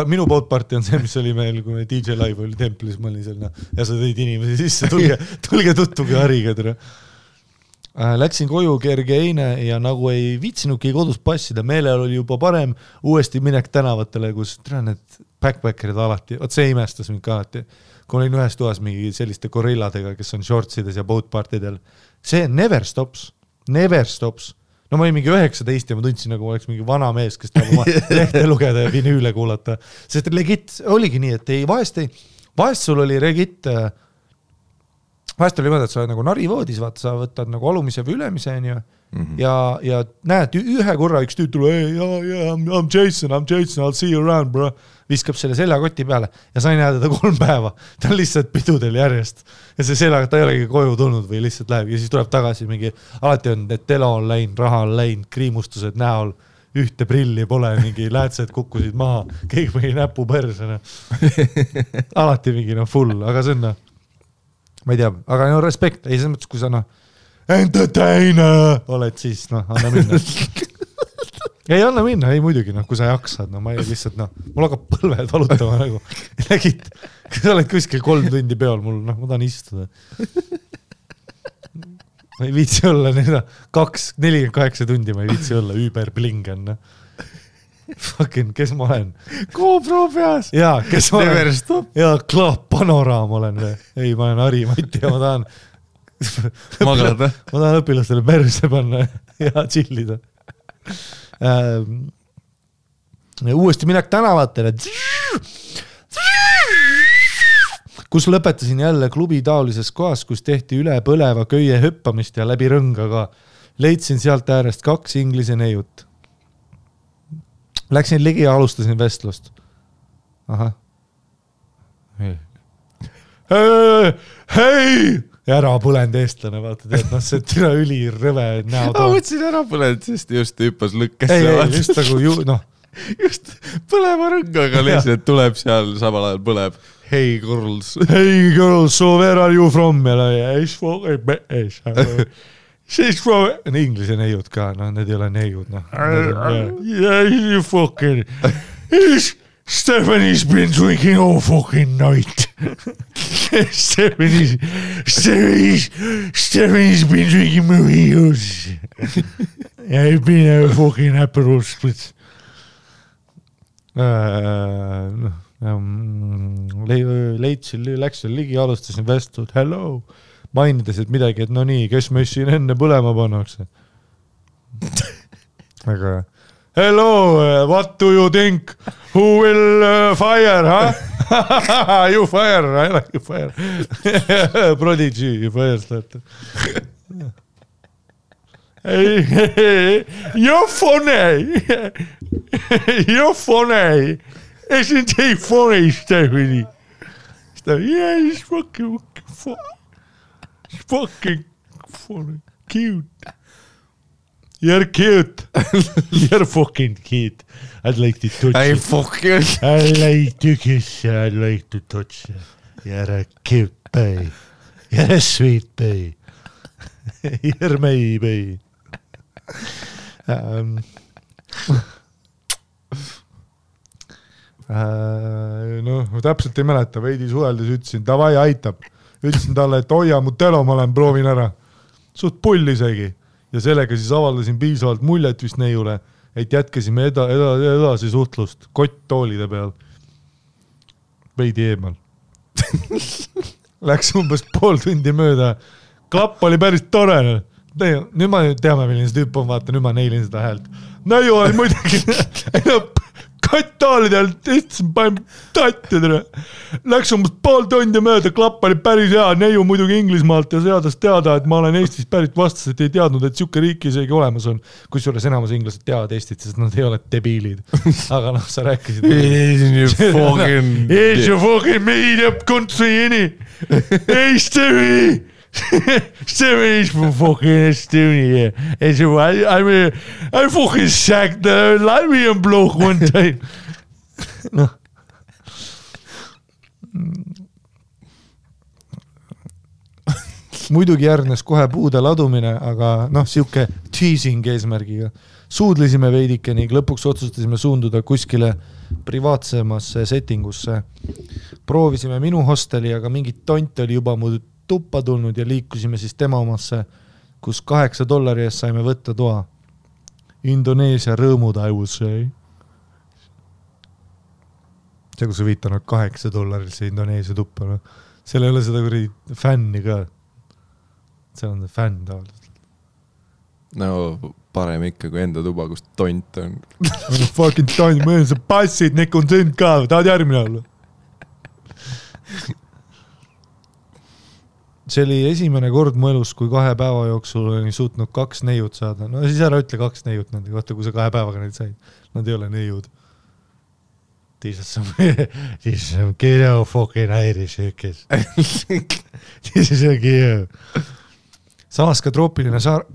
minu Boat Party on see, mis oli meil, kui me DJ Live oli templis, ma olin seal ja sa tõid inimesi sisse, tulge tuttuge hariga tere. Läksin koju kerge eine ja nagu ei viitsinudki kodus passida, meelel oli juba parem uuesti minek tänavatele, kus need backpackerid alati, see imestas mind ka alati, kui olin ühes toas mingi selliste gorilladega, kes on shortsides ja Boat Partydel. See never stops. No ma olin mingi 19 ja ma tundsin, nagu oleks mingi vana mees, kes tahab oma lehte lugeda ja vinüüle kuulata. Sest legit oligi nii, et vahest sul oli regit vahest oli mõnda, et sa oled nagu narivoodis, vaata, sa võtad nagu alumise või ülemise ja näed, ühe korra üks tüüt tuleb, I'm Jason, I'll see you around, bro. Viskab selle seljakoti peale ja sa ei näe teda 3 päeva. Ta on lihtsalt pidudel järjest. Ja see seljaga, ta ei olegi koju tulnud või lihtsalt läheb ja siis tuleb tagasi mingi, alati on, et telo on läinud, raha on läinud, kriimustused näol, ühte prilli pole, mingi läätsed kukkusid maha, keegi mingi näpu persena. Alati mingi full, aga see on ma ei tea, aga respekt, ei selles mõttes, kui sa entertainer oled, siis anna minna. Ei anna minna, ei muidugi, kui sa jaksad, ma ei lihtsalt, mul hakkab põlved valutama nagu. Lägid, kui sa oled kuskil 3 tundi peol, ma tahan istuda. Ma ei viitsi olla 48 tundi, ma ei viitsi olla überblingen. Fucking, kes ma olen? GoPro peas. Jaa, kes ma olen? Jaa, Klaap Panoraam olen. Ei, ma olen Ari Mati ja ma tahan magada. Ma tahan õpilastele perse panna ja chillida. Uuesti minek tänavatele. Kus lõpetasin jälle klubi taolises kohas, kus tehti üle põleva köie hüppamist ja läbi rõngaga. Leidsin sealt äärest 2 inglise neiut. Läksin ligi ja alustasin vestlust. Ahah. Hei! Ja ära põlend eestlane, vaata teed, see türa üli rõve näo toon. Ma võtsin ära põlend, sest just hüppas lõkkesse. Ei, just nagu just põleva rõngaga lihtsalt tuleb seal, samal ajal põleb. Hey girls, so where are you from? She's from... Inglise neiud ka, need ei ole neiud. Yeah, you fucking... Stephanie's been drinking all fucking night. Stephanie's been drinking mojitos. I've been a fucking Aperol Spritz. Leidsin, läksin ligi, alustasin vestlud. Hello. Mainides, et midagi, et no nii, kes me siin enne põlema pannakse? Aga hello, what do you think? Who will fire, huh? You fire, I like you fire. Prodigy, you fire starter. You're funny. You're funny. Isn't he funny, Stephanie? Yeah, he's fucking funny. He's fucking funny. Cute. You're cute. You're fucking cute. I'd like to touch Ei you. fucking. I like to kiss you. I'd like to touch you. You're a cute baby. You're a sweet baby. You're my baby. No täpselt ei mäleta, veidi suheldes ütlesin, davai aitab. Ütlesin talle, et hoia mu telo, ma olen proovin ära. Suht pull isegi. Ja sellega siis avaldasin piisavalt muljet vist neiule, et jätkasime edasi suhtlust kott toolide peal. Veidi eemal. Läks umbes pool tundi mööda. Klapp oli päris tore. Nüüd ma teame, milline see tüüp on, vaata, nüüd ma neilin seda häält. Neiu oli muidugi kott toolidel, istsin, panin tattidele. Läks umbes pool tundi mööda, klapp oli päris hea, neiu muidugi Inglismaalt ja seadas teada, et ma olen Eestist pärit vastas, et ei teadnud, et siuke riik isegi olemas on. Kusjuures enamus inglased teavad Eestit, sest nad ei ole debiilid. Aga noh, sa rääkisid. It's your fucking made up country, inni. Hey, Stevie! Stevie's from fucking Estonia. I fucking sacked the Latvian bloke one time. No. Muidugi järgnes kohe puude ladumine, aga noh, siuke teasing eesmärgiga. Suudlisime veidike ning lõpuks otsustasime suunduda kuskile privaatsemasse settingusse. Proovisime minu hosteli, aga mingit tont oli juba mu tuppa tulnud ja liikusime siis tema omasse, kus $8 eest saime võtta toa. Indoneesia rõõmud, I will say. See, kus sa viitanud $8 see Indoneesia tuppa. No. Seal ei ole seda kuradi fänni ka. See on fänn tavaliselt. No parem ikka kui enda tuba, kus tont on. Fucking tont, mõelda sa passid, nekk on sind ka, tahad järgmine olla? See oli esimene kord mu elus, kui 2 päeva jooksul olin suutnud 2 neiut saada. No siis ära ütle 2 neiut nende kohta, kui sa 2 päevaga neid said. Nad ei ole neiud. These are some kiddo fucking Irish hükes. These are some kiddo. Samas ka troopiline saar.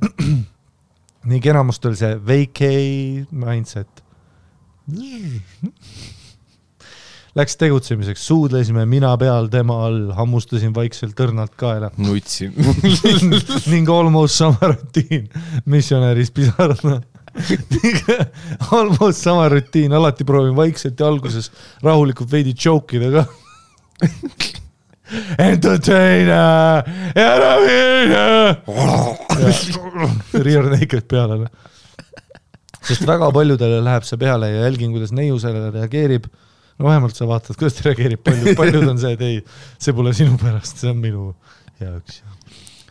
Nii enamust oli see vacay mindset. Läks tegutsemiseks, suudlesime mina peal, tema all, hammustasin vaikselt tõrnalt kaela. Nutsin. Ning almost sama rutiin, missionäris pisarana. Almost sama rutiin, alati proovin vaikselt ja alguses rahulikult veidi joke'ida ka. Entertainer! Rear naked peale. Sest väga paljudele läheb see peale ja jälgin, kuidas neiu sellele reageerib. No vähemalt sa vaatad, kuidas ta reageerib. Paljud on see, et ei, see pole sinu pärast, see on minu jaoks.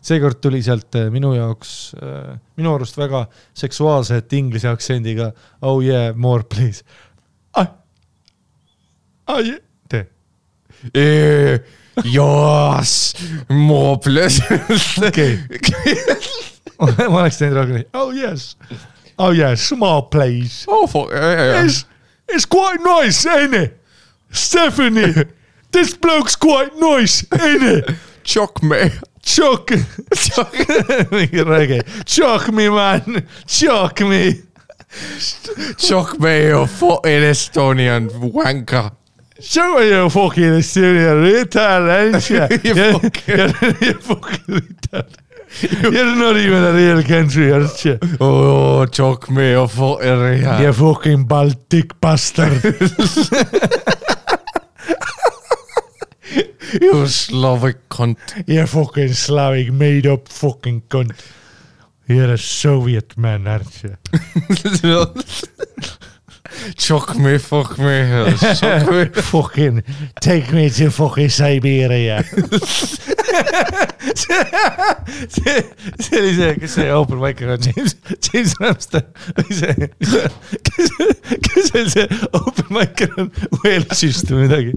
Seekord tuli sealt minu jaoks, minu arust väga seksuaalset inglise aktsendiga. Oh yeah, more please. Yeah. Tee. Yes, more please. Okay. Ma oleks teinud rohkem. Oh yes. Oh yes, more please. Oh, fuck. It's quite nice, ain't it? Stephanie, this bloke's quite nice, ain't it? Chock me. Chock. Mingi räägi. Chock me, man. Chock me. Chock me, you fucking Estonian wanker. Show me your fucking Estonian retard, ain't you? You fucking retard. You're not even a real country, aren't you? Oh, chock me, you fucking retard. You fucking Baltic bastard. You Slavic cunt. You fucking Slavic made up fucking cunt. You're a Soviet man, aren't you? Shock me, fuck me, shock me. Fucking take me to fucking Siberia. see oli see, kes see open micer on, James Ramsden või see, kes oli see open micer on Walesist või midagi.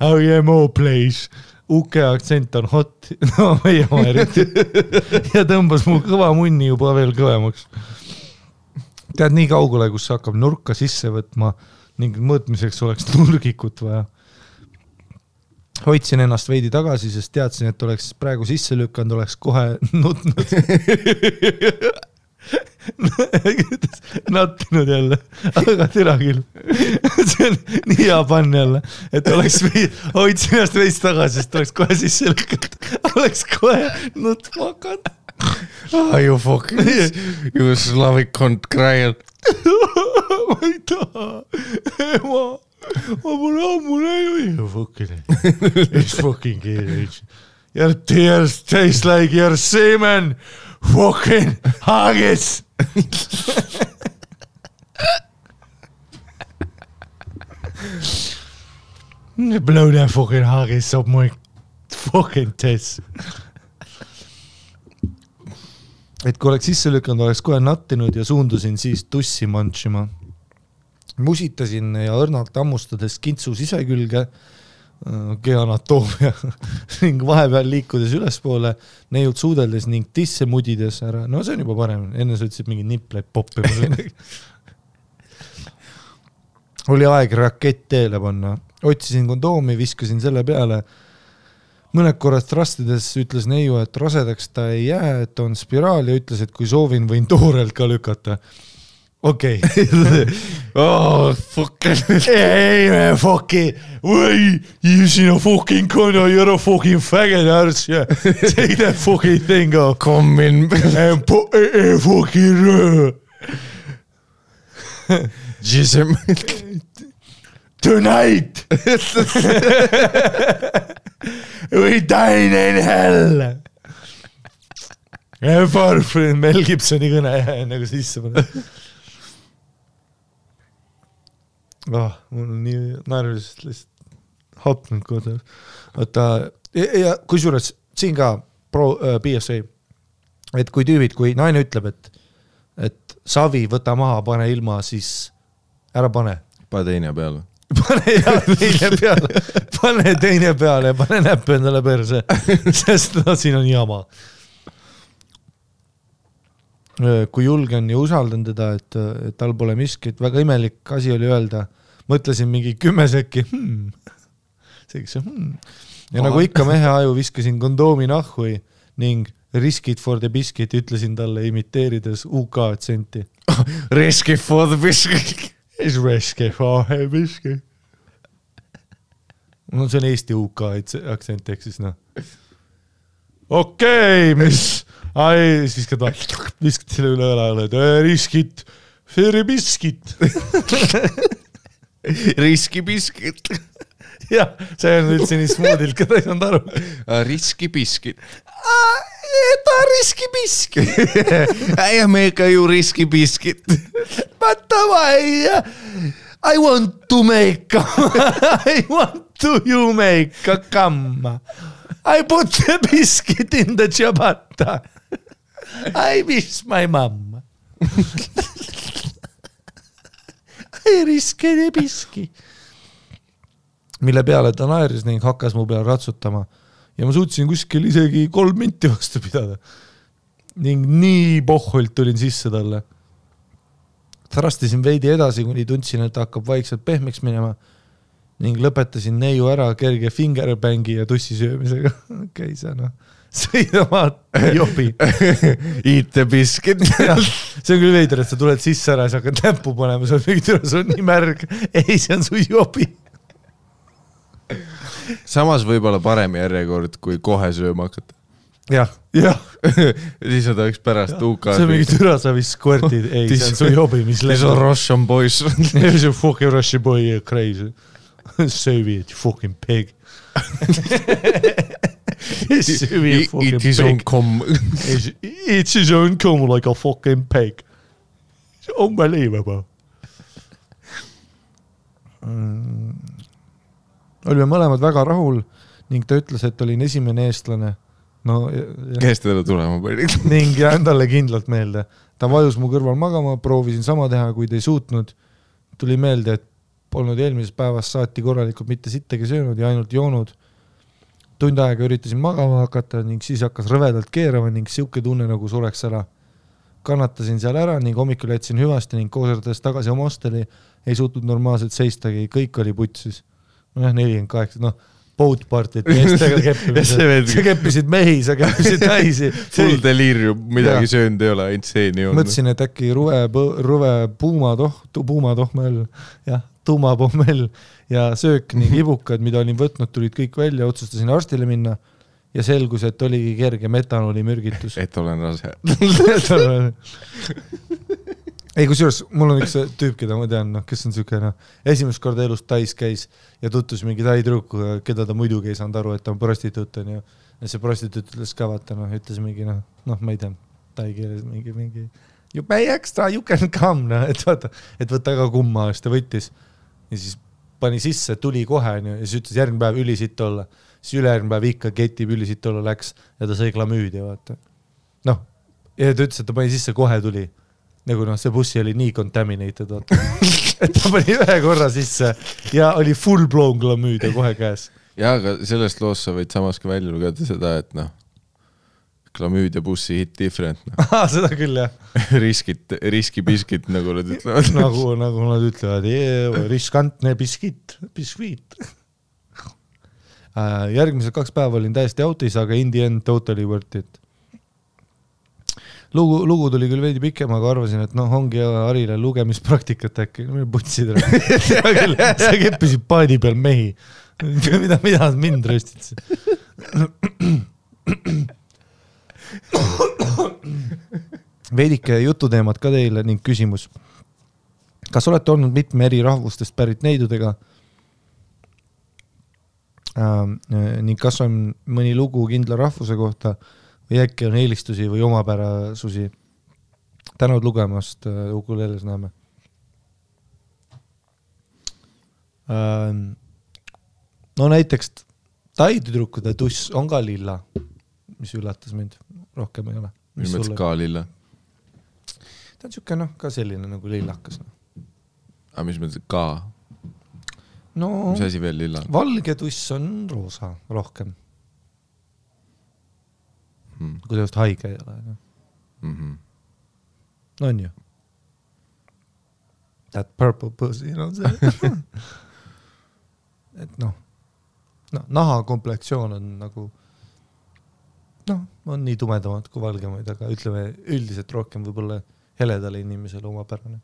Oh yeah, more please. UK aktsent on hot, no meie oma eriti. Ja tõmbas mu kõva munni juba veel kõvemaks. Tead nii kaugele, kus hakkab nurka sisse võtma ning mõõtmiseks oleks nurgikut vaja. Hoidsin ennast veidi tagasi, sest teadsin, et oleks praegu sisse lükkanud, oleks kohe nutnud. Nattinud jälle, aga türa küll. See on nii hea pann jälle, et oleks hoidsin ennast veits tagasi, sest oleks kohe sisse lükkanud. Oleks kohe nutma hakanud. You fucking, you Slavic cunt crying. Ma ei taha. Ma pole ammu näinud. You fucking, it's fucking good. Your tears taste like your semen. Fucking haggis. Blow that fucking haggis up my fucking tits. Et kui oleks sisse lükanud, oleks kohe nattinud ja suundusin siis tussi mantsima. Musitasin ja õrnalt ammustades kintsu sisekülge, kehanatoomia ning vahepeal liikudes ülespoole, neiult suudeldes ning tisse mudides ära. No see on juba parem, enne sa ütlesid mingi nipleid poppi. Oli aeg rakett teele panna. Otsisin kondoomi, viskasin selle peale. Mõned korrad trastides ütles neiu, et rasedaks ta ei jää, et on spiraal ja ütles, et kui soovin, võin toorelt ka lükata. Okei. Oh, fucking. Hey man, fucking, way, you seen a fucking condo, you're a fucking faggot arse, yeah. Take that fucking thing off. Come in. And put a fucking Jism. Tonight. We dine in hell. Mel Gibsoni kõne nagu sisse panna. Mul on nii naerviliselt lihtsalt hapnud kodus. Ja kusjuures siin ka PSA, et kui tüübid, kui naine ütleb, et savi võta maha, pane ilma, siis ära pane. Pane teine peale. Pane teine peale ja pane näppe endale perse, sest siin on jama. Kui julgen ja usaldan teda, et tal pole miskit, väga imelik asi oli öelda, mõtlesin mingi 10 sekki, ja nagu ikka mehe aju viskasin kondoomi nahhui ning risk it for the biscuit ütlesin talle imiteerides UK aktsenti. Risk it for the biscuit. Is risk it for the biscuit. No see on Eesti UK aktsent, ehk siis noh. Okei, mis... Ai, siis viskad selle üle õla, riskit, feri biskit. Riski biskit. Jah, see on üldse nii smoodilt, ka ta ei saanud aru. Riski biskit. Ta riski biskit. I make you riski biskit. But I want to make I want to you make a come. I put the biscuit in the ciabatta. I miss my mom. I risk the biscuit. Mille peale ta naeris ning hakkas mu peale ratsutama. Ja ma suutsin kuskil isegi 3 minti vastu pidada. Ning nii pohholt tulin sisse talle. Thrastisin veidi edasi, kuni tundsin, et hakkab vaikselt pehmeks minema. Ning lõpetasin neiu ära kerge fingerbangi ja tussi söömisega. Okei, see on sõida maad jobi. Eat the biscuit. See on küll veider, et sa tuled sisse ära ja sa hakkad näppu panema, sa on nii märg. Ei, see on su jobi. Samas võib-olla parem järjekord, kui kohe sööma hakata. Jah. Siis on ta üks pärast UK. See on mingi türa, sa vist squirtid. Ei, see on su jobi, mis lendab. See on Russian boys. See on fucking Russian boy, crazy. Soviet, you fucking pig. It is on com. It is on com like a fucking pig. It's unbelievable. Olime mõlemad väga rahul ning ta ütles, et olin esimene eestlane. No, kes teda tulema pani? Ning jään talle kindlalt meelde. Ta vajus mu kõrval magama, proovisin sama teha, kuid ei suutnud. Tuli meelde, et polnud eelmisest päevast saati korralikult mitte sittegi söönud ja ainult joonud. Tund aega üritasin magama hakata ning siis hakkas rõvedalt keerama ning siuke tunne nagu sureks ära. Kannatasin seal ära ning hommikul jätsin hüvasti ning kooserdades tagasi oma hosteli ei suutnud normaalselt seistagi, kõik oli putsis. No 48, boat partit meestega keppimised. Sa keppisid mehi, sa keppisid naisi. Full delirium, midagi söönud ei ole, ainult seeni on. Mõtlesin, et äkki ruve puumatohmel, tuumapommel ja söök ning ibukad, mida olin võtnud, tulid kõik välja, otsustasin arstile minna ja selgus, et oligi kerge metanoli mürgitus. Et olen rase. Ei, kusjuures, mul on üks tüüp, keda ma tean, kes on süke, esimest korda elus Tais käis ja tutvus mingi taitruuku, keda ta muidugi ei saanud aru, et ta on prostituut. Ja see prostituut ütles ka vaata, ütles mingi, ma ei tea, tai keeles mingi you pay extra, you can come, et vaata, et võtta ka kumma eest ja võttis. Ja siis pani sisse, tuli kohe ja siis ütles järgmine päev ülisitt olla. Siis ülejärgmine päev ikka ketib ülisitt olla läks ja ta sai klamüüdi, vaata. Ja ta ütles, et ta pani sisse, kohe tuli. Nagu see bussi oli nii contaminated, vaata. Et ta pani ühe korra sisse ja oli full blown klamüüd ja kohe käes. Ja, aga sellest loos sa võid samas ka välja lugeda seda, et klamüüd ja bussi hit different. Seda küll, jah. Riskibiskit, nagu nad ütlevad. Nagu nad ütlevad, riskantne biskit. Järgmised 2 päeva olin täiesti autis, aga in the end totally worth it. Lugu tuli küll veidi pikem, aga arvasin, et ongi Harile lugemispraktikat äkki. Putsid sa keppisid paadi peal mehi. Mida mind röstitsid? Veidike jututeemad ka teile ning küsimus. Kas olete olnud mitme eri rahvustest pärit neidudega? Ning kas on mõni lugu kindla rahvuse kohta või äkki on eelistusi või omapärasusi? Tänud lugemast, ukuleles näeme. No näiteks taidüdrukude tuss on ka lilla, mis üllatas mind. Rohkem ei ole. Mis mõttes ka lilla? Ta on siuke, ka selline nagu lillakas. Aga mis mõttes ka? Mis asi veel lilla? Valge tuss on roosa rohkem. Kui teost haige ei ole. No on ju. That purple pussy, see. Et naha komplektsioon on nagu on nii tumedamad kui valgemaid, aga ütleme üldiselt rohkem võib-olla heledale inimesele omapärane.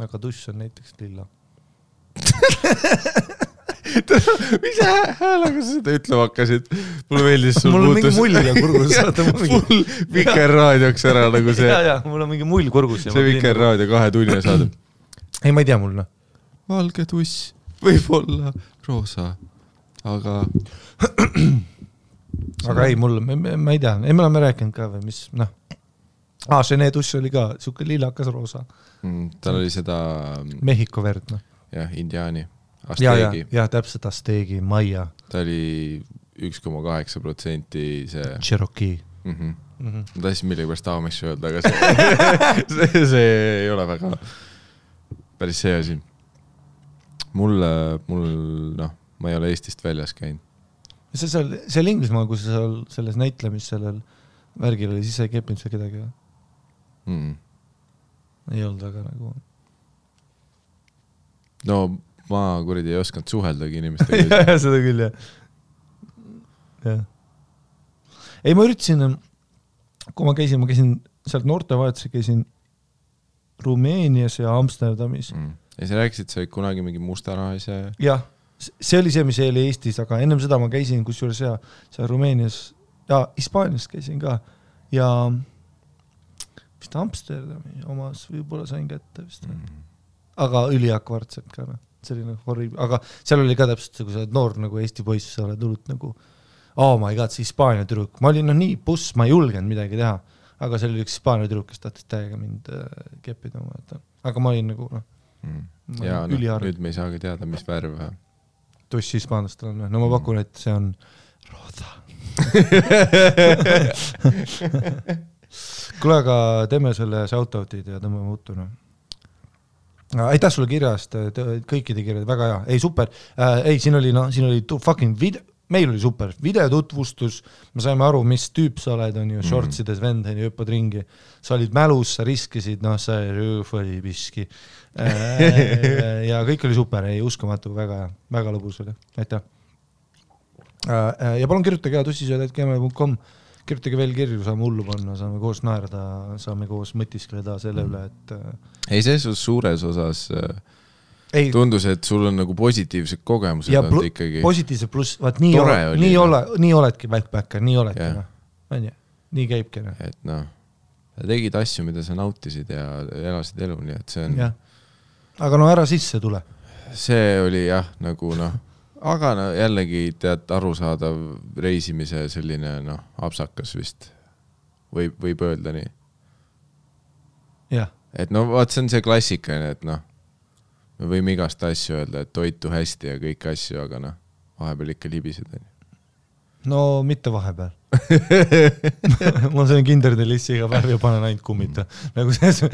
Aga tuss on näiteks lilla. Mis häälega sa seda ütlema hakkasid? Mulle meeldis sul mul on mingi mull kurgus. Full Vikerraadioks ära nagu see. Ja, mul on mingi mull kurgus. See Vikerraadio 2 tunni saade. Ei, ma ei tea mul. Valge tuss võib olla roosa, aga ei, mul, ma ei tea. Ei, me oleme rääkinud ka või mis, see tuss oli ka siuke lillakas roosa. Tal oli seda Mehhiko verd, Jah, indiaani. Asteegi. Ja, täpselt Asteegi, Maia. Ta oli 1,8% see Cherokee. Ma tahtsin millegipärast Amish öelda, aga see ei ole väga päris see asi. Mul ma ei ole Eestist väljas käinud. See Inglismaa, kui sa selles näitlemis sellel värgil oli, siis sa ei keppinud seal kedagi? Ei olnud väga nagu... No ma kuridi ei osanud suheldagi inimestega. Ja, seda küll, jah. Ei, ma üritasin, kui ma käisin sealt noortevahetuse, käisin Rumeenias ja Amsterdamis. Ja sa rääkisid, sa olid kunagi mingi mustarahise? Jah, see oli see, mis oli Eestis, aga ennem seda ma käisin kusjuures seal Rumeenias ja Hispaanias käisin ka ja vist Amsterdami omas võib-olla sain kätte vist. Aga üliakvartselt ka, selline horrible, aga seal oli ka täpselt, kui sa oled noor nagu Eesti poiss, sa oled hullult nagu oh my god, see Hispaania tüdruk, ma olin nii puss, ma ei julgenud midagi teha, aga see oli üks Hispaania tüdruk, kes tahtis täiega mind keppida, aga ma olin nagu ja nüüd me ei saagi teada, mis värv tussi hispaanlastel on, no ma pakun, et see on rosa. Kuule, aga teeme selle shoutoutid ja tõmbame uttu, aitäh sulle kirjast, kõikide kirjad, väga hea, ei super, siin oli fucking video, meil oli super, videotutvustus, me saime aru, mis tüüp sa oled, on ju, shortsides vend, on ju, hüppad ringi, sa olid mälus, sa riskisid, sa oli piski ja kõik oli super, ei uskumatu, väga lõbus oli, aitäh. Ja palun kirjutage tussisööd@gmail.com, kirjutage veel kirju, saame hullu panna, saame koos naerda, saame koos mõtiskleda selle üle, et ei, see suures osas tundus, et sul on nagu positiivsed kogemused ja ikkagi. Positiivsed pluss, vaat nii oledki backpacker, nii oledki, nii käibki. Et tegid asju, mida sa nautisid ja elasid elu, nii et see on... Aga ära sisse tule. See oli nagu aga jällegi tead arusaadav reisimise selline apsakas vist võib öelda nii. Et vaat see on see klassikaline, et me võime igast asju öelda, et toitu hästi ja kõik asju, aga vahepeal ikka libised. No mitte vahepeal. Ma söön kinderdelissi iga päev ja panen ainult kummita. Nagu see...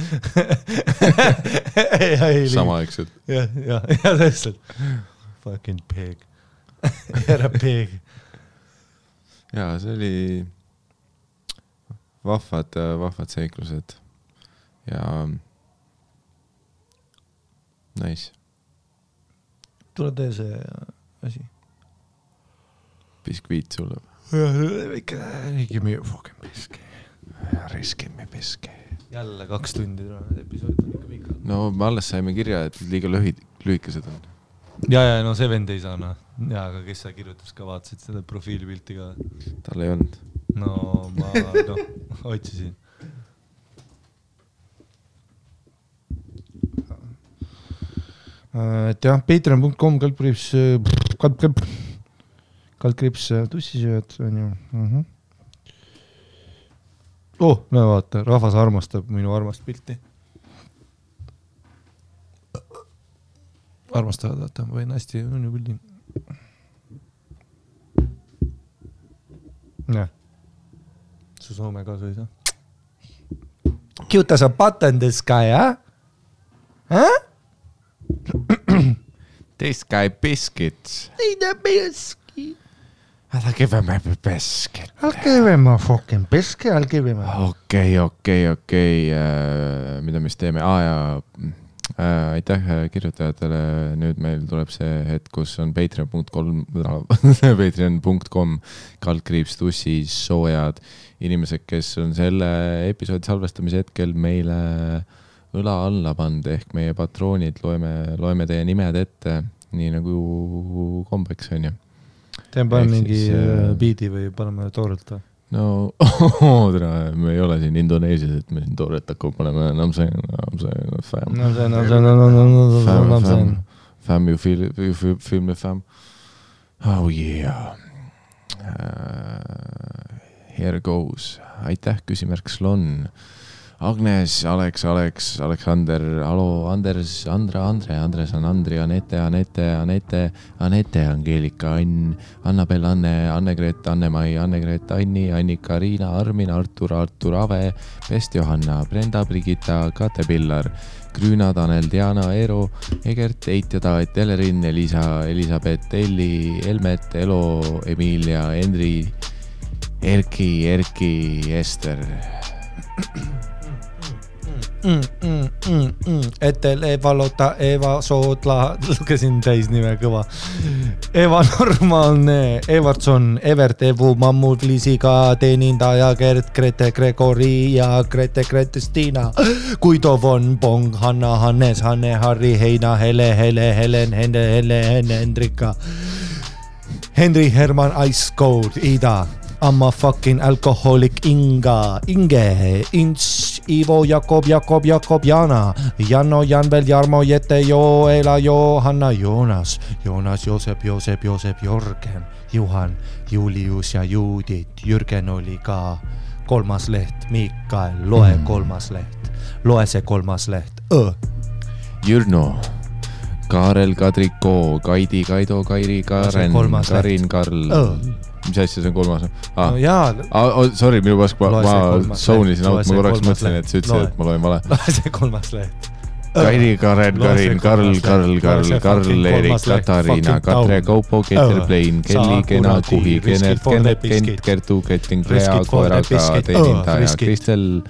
Samaaegselt. Ja tõesti. Fucking pig. Ära pig. Ja, see oli vahvad seiklused. Ja nice. Tule tee see asi. Biskviit sulle. Give me a fucking biski. Give me biski. Jälle 2 tundi episood on ikka pikad. No me alles saime kirja, et liiga lühikesed on. Ja, no see vend ei saa, Ja, aga kes sa kirjutas ka, vaatasid seda profiilipilti ka? Tal ei olnud. No ma otsisin. Et jah, patreon.com kaldkrips tussisööd on ju. No vaata, rahvas armastab minu armast pilti. Armastavad, vaata, ma võin hästi on ju pildi. Su Soome ka sõi, Cute as a button this guy, This guy biscuits. Ei the biscuit. I'll give him a biscuit. I'll give him a fucking biscuit. I'll give him a... Okei. Mida me siis teeme? Aitäh kirjutajatele. Nüüd meil tuleb see hetk, kus on patreon.com /tussi soojad inimesed, kes on selle episoodi salvestamise hetkel meile õla alla pand ehk meie patroonid, loeme teie nimed ette, nii nagu kombeks on ju. Teen paneme mingi biidi või paneme toorelt või? No, me ei ole siin Indoneesias, et me siin tooret hakkab paneme fam, you feel me fam. Oh yeah. Here goes. Aitäh, küsimärk Slon. Agnes, Aleksander, Alo, Anders, Andres on Andri, Anette, Angeelika, Ann, Annabel, Anne-Gret, Anne-Mai, Anne-Gret, Anni, Annika, Riina, Armin, Artur, Ave, Pest, Johanna, Brenda, Brigitta, Kate Pillar, Grüüna, Tanel, Diana, Eero, Egert, Eit ja Taet, Elerin, Elisa, Elisabeth, Elli, Elmet, Elo, Emilia, Henri, Erki, Ester. Etel, Eva Lota, Eva Soodla, lugesin täis nime kõva. Eva Normaalne, Evertson, Evert, Evu, Mammut, Liisiga, Teenindaja, Gert, Grete, Gregori ja Grete, Stiina, Guido von Bong, Hanna, Hannes, Hanne, Harri, Heina, Helen, Hendrika, Henri, Herman, Ice Cold, Ida, I'm a fucking alcoholic Inge, Ints, Ivo, Jakob, Jana, Janno, Janvel, Jarmo, Jette, Joela, Johanna, Joonas, Joosep, Jörgen, Juhan, Julius ja Judit, Jürgen oli ka kolmas leht, Mikael, loe kolmas leht, loe see kolmas leht, Jürno, Kaarel, Kadriko, Kaidi, Kaido, Kairi, Karen, Karin, Karl. Mis asja see on kolmas? No jaa. Sorry, minu pask, ma zoonisin out, ma korraks mõtlesin, et sa ütlesid, et ma loen vale. Loe see kolmas leht. Kairi, Karen, Karin, Karl, Erik, Katariina, Katre, Kaupo, Keter, Plein, Kelly, Kena, Kuhi, Kenert, Kent, Kertu, Ketting, Krea, Koeraga, Teenindaja, Kristel,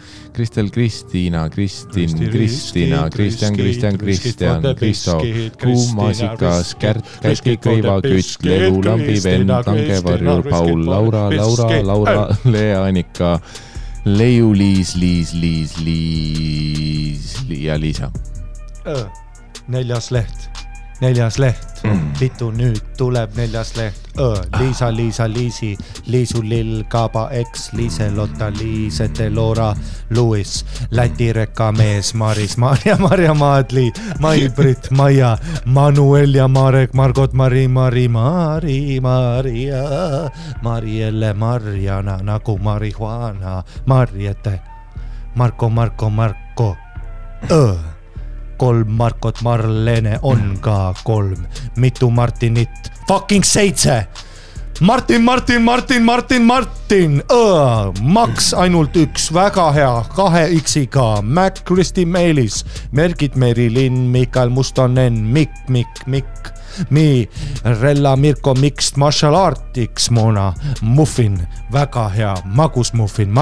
Kristiina, Kristina, Kristjan, Kristo, Kuumasikas, Kärt, Kätki, Kõiva, Kütt, Lelu, Lambi, Venn, Tangevarjur, Paul, Laura, Lea, Annika, Leiu, Liis ja Liisa. Neljas leht. Pitu nüüd tuleb neljas leht. Liisa, Liisi, Liisu, Lill, Kaba, X, Liise, Lotta, Liisete, Loora, Luis, Läti rekamees, Maris, Marja, Maadli, Mai-Brit, Maia, Manuel ja Marek, Margot, Maria, Marielle, Marjana, nagu marihuana, Marjete, Marko, kolm Markot, Marlene on ka kolm, mitu Martinit, fucking 7, Martin, Max ainult 1, väga hea, 2 X-iga, Mac, Kristi Meelis, Mergit, Merilin, Mikael Mustonen, Mikk, Mi, Rella, Mirko, Mixed Martial Artiks, Mona, Muffin, väga hea, magus muffin,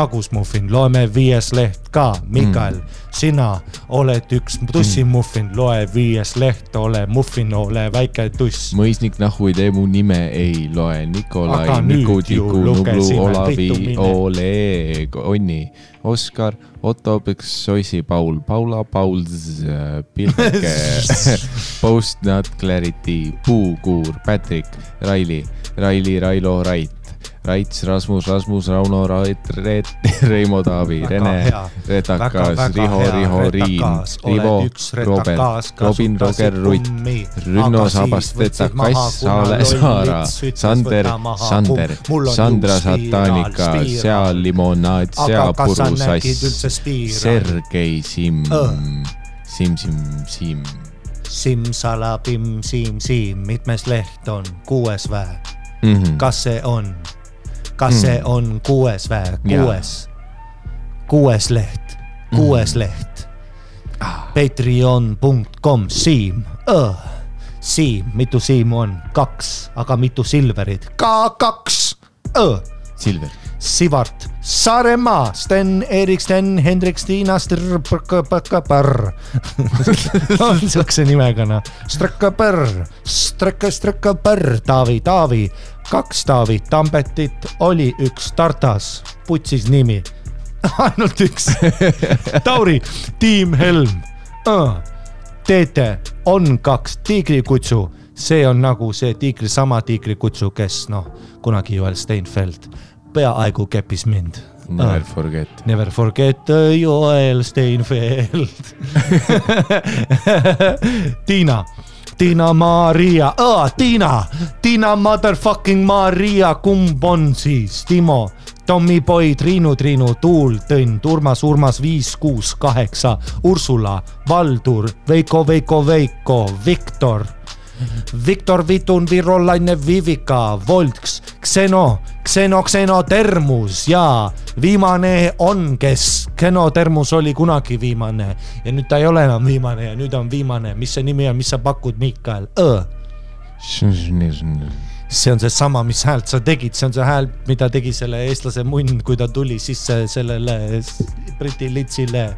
loeme 5 leht ka, Mikael, sina oled 1 tussimuffin, loe 5 leht, ole muffin, ole väike tuss. Mõisnik nahu ei tee mu nime, ei loe, Nikolai, Niku, Tiku, Nublu, Olavi, Oleg, Onni, Oskar, Otto, Soisi, Paul, Paula, Pauls, Pilke, Post Not Clarity, Puukuur, Patrick, Raili, Railo, Raits, Rasmus, Rauno, Reimo, Taavi, Rene, Retakas, Riho, Riin, Rivo, Robert, Robin, Roger, Rutt, Rünno, Sabast, Kass, Saara, Sander, Sandra, Satanika, Sea, Limonaad, Sea, Puru, Sass, Sergei, Sim. Simsala, Sim, mitmes leht on? 6 vä? Kas see on 6 vä? 6 leht. 6 leht. Patreon.com, Siim. Siim, mitu Siim on? 2, aga mitu Silverit? Ka 2. Silver. Sivart, Saaremaa, Sten, Erik, Sten, Hendrik, Stiina, on siukse nimega, Strekkaper, Taavi, 2 Taavi, Tambetit oli 1 Tartas, putsis nimi, ainult 1, Tauri, Tiim Helm, Teete, on 2 Tiigrikutsu, see on nagu see sama Tiigrikutsu, kes kunagi Joel Steinfeld peaaegu keppis mind. Never forget Joel Steinfeld. Tiina Maria. Tiina motherfucking Maria. Kumb on siis? Timo, Tommy Boy, Triinu, Tuul, Tõnn, Urmas, 5, 6, 8, Ursula, Valdur, Veiko, Viktor, Vitun, Virolaine, Vivika, Volks, Xeno, Termus ja viimane on, kes Termus oli kunagi viimane ja nüüd ta ei ole enam viimane ja nüüd on viimane. Mis see nimi on, mis sa pakud, Mikael? See on see sama, mis häält sa tegid, see on see hääl, mida tegi selle eestlase munn, kui ta tuli sisse sellele Briti litsile.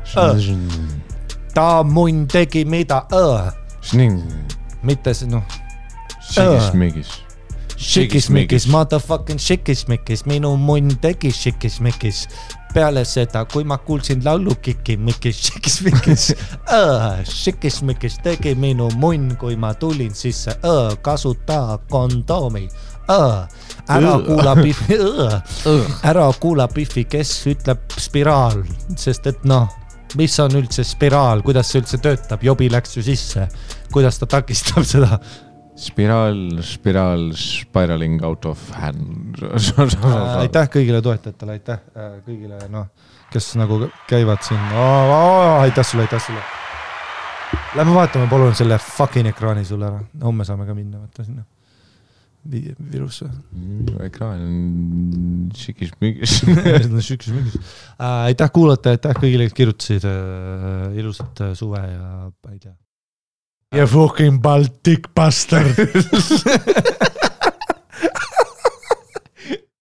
Ta munn tegi mida? Mitte see, Šikismikis, motherfucking šikismikis, minu munn tegi šikismikis. Peale seda, kui ma kuulsin laulu kikimikis, šikismikis tegi minu munn, kui ma tulin sisse, kasuta kondoomi. ära kuula Biffi, kes ütleb spiraal, sest et mis on üldse spiraal, kuidas see üldse töötab, jobi läks ju sisse, kuidas ta takistab seda? Spiraling out of hand. Aitäh kõigile toetajatele, aitäh kõigile, kes nagu käivad siin. Aitäh sulle. Lähme vaatame palun selle fucking ekraani sulle ära. Homme saame ka minna, võtta sinna virusse. Ekraan on šikis-migis. Aitäh kuulata, aitäh kõigile, kes kirjutasid ilusat suve ja ma ei tea. You fucking Baltic bastard.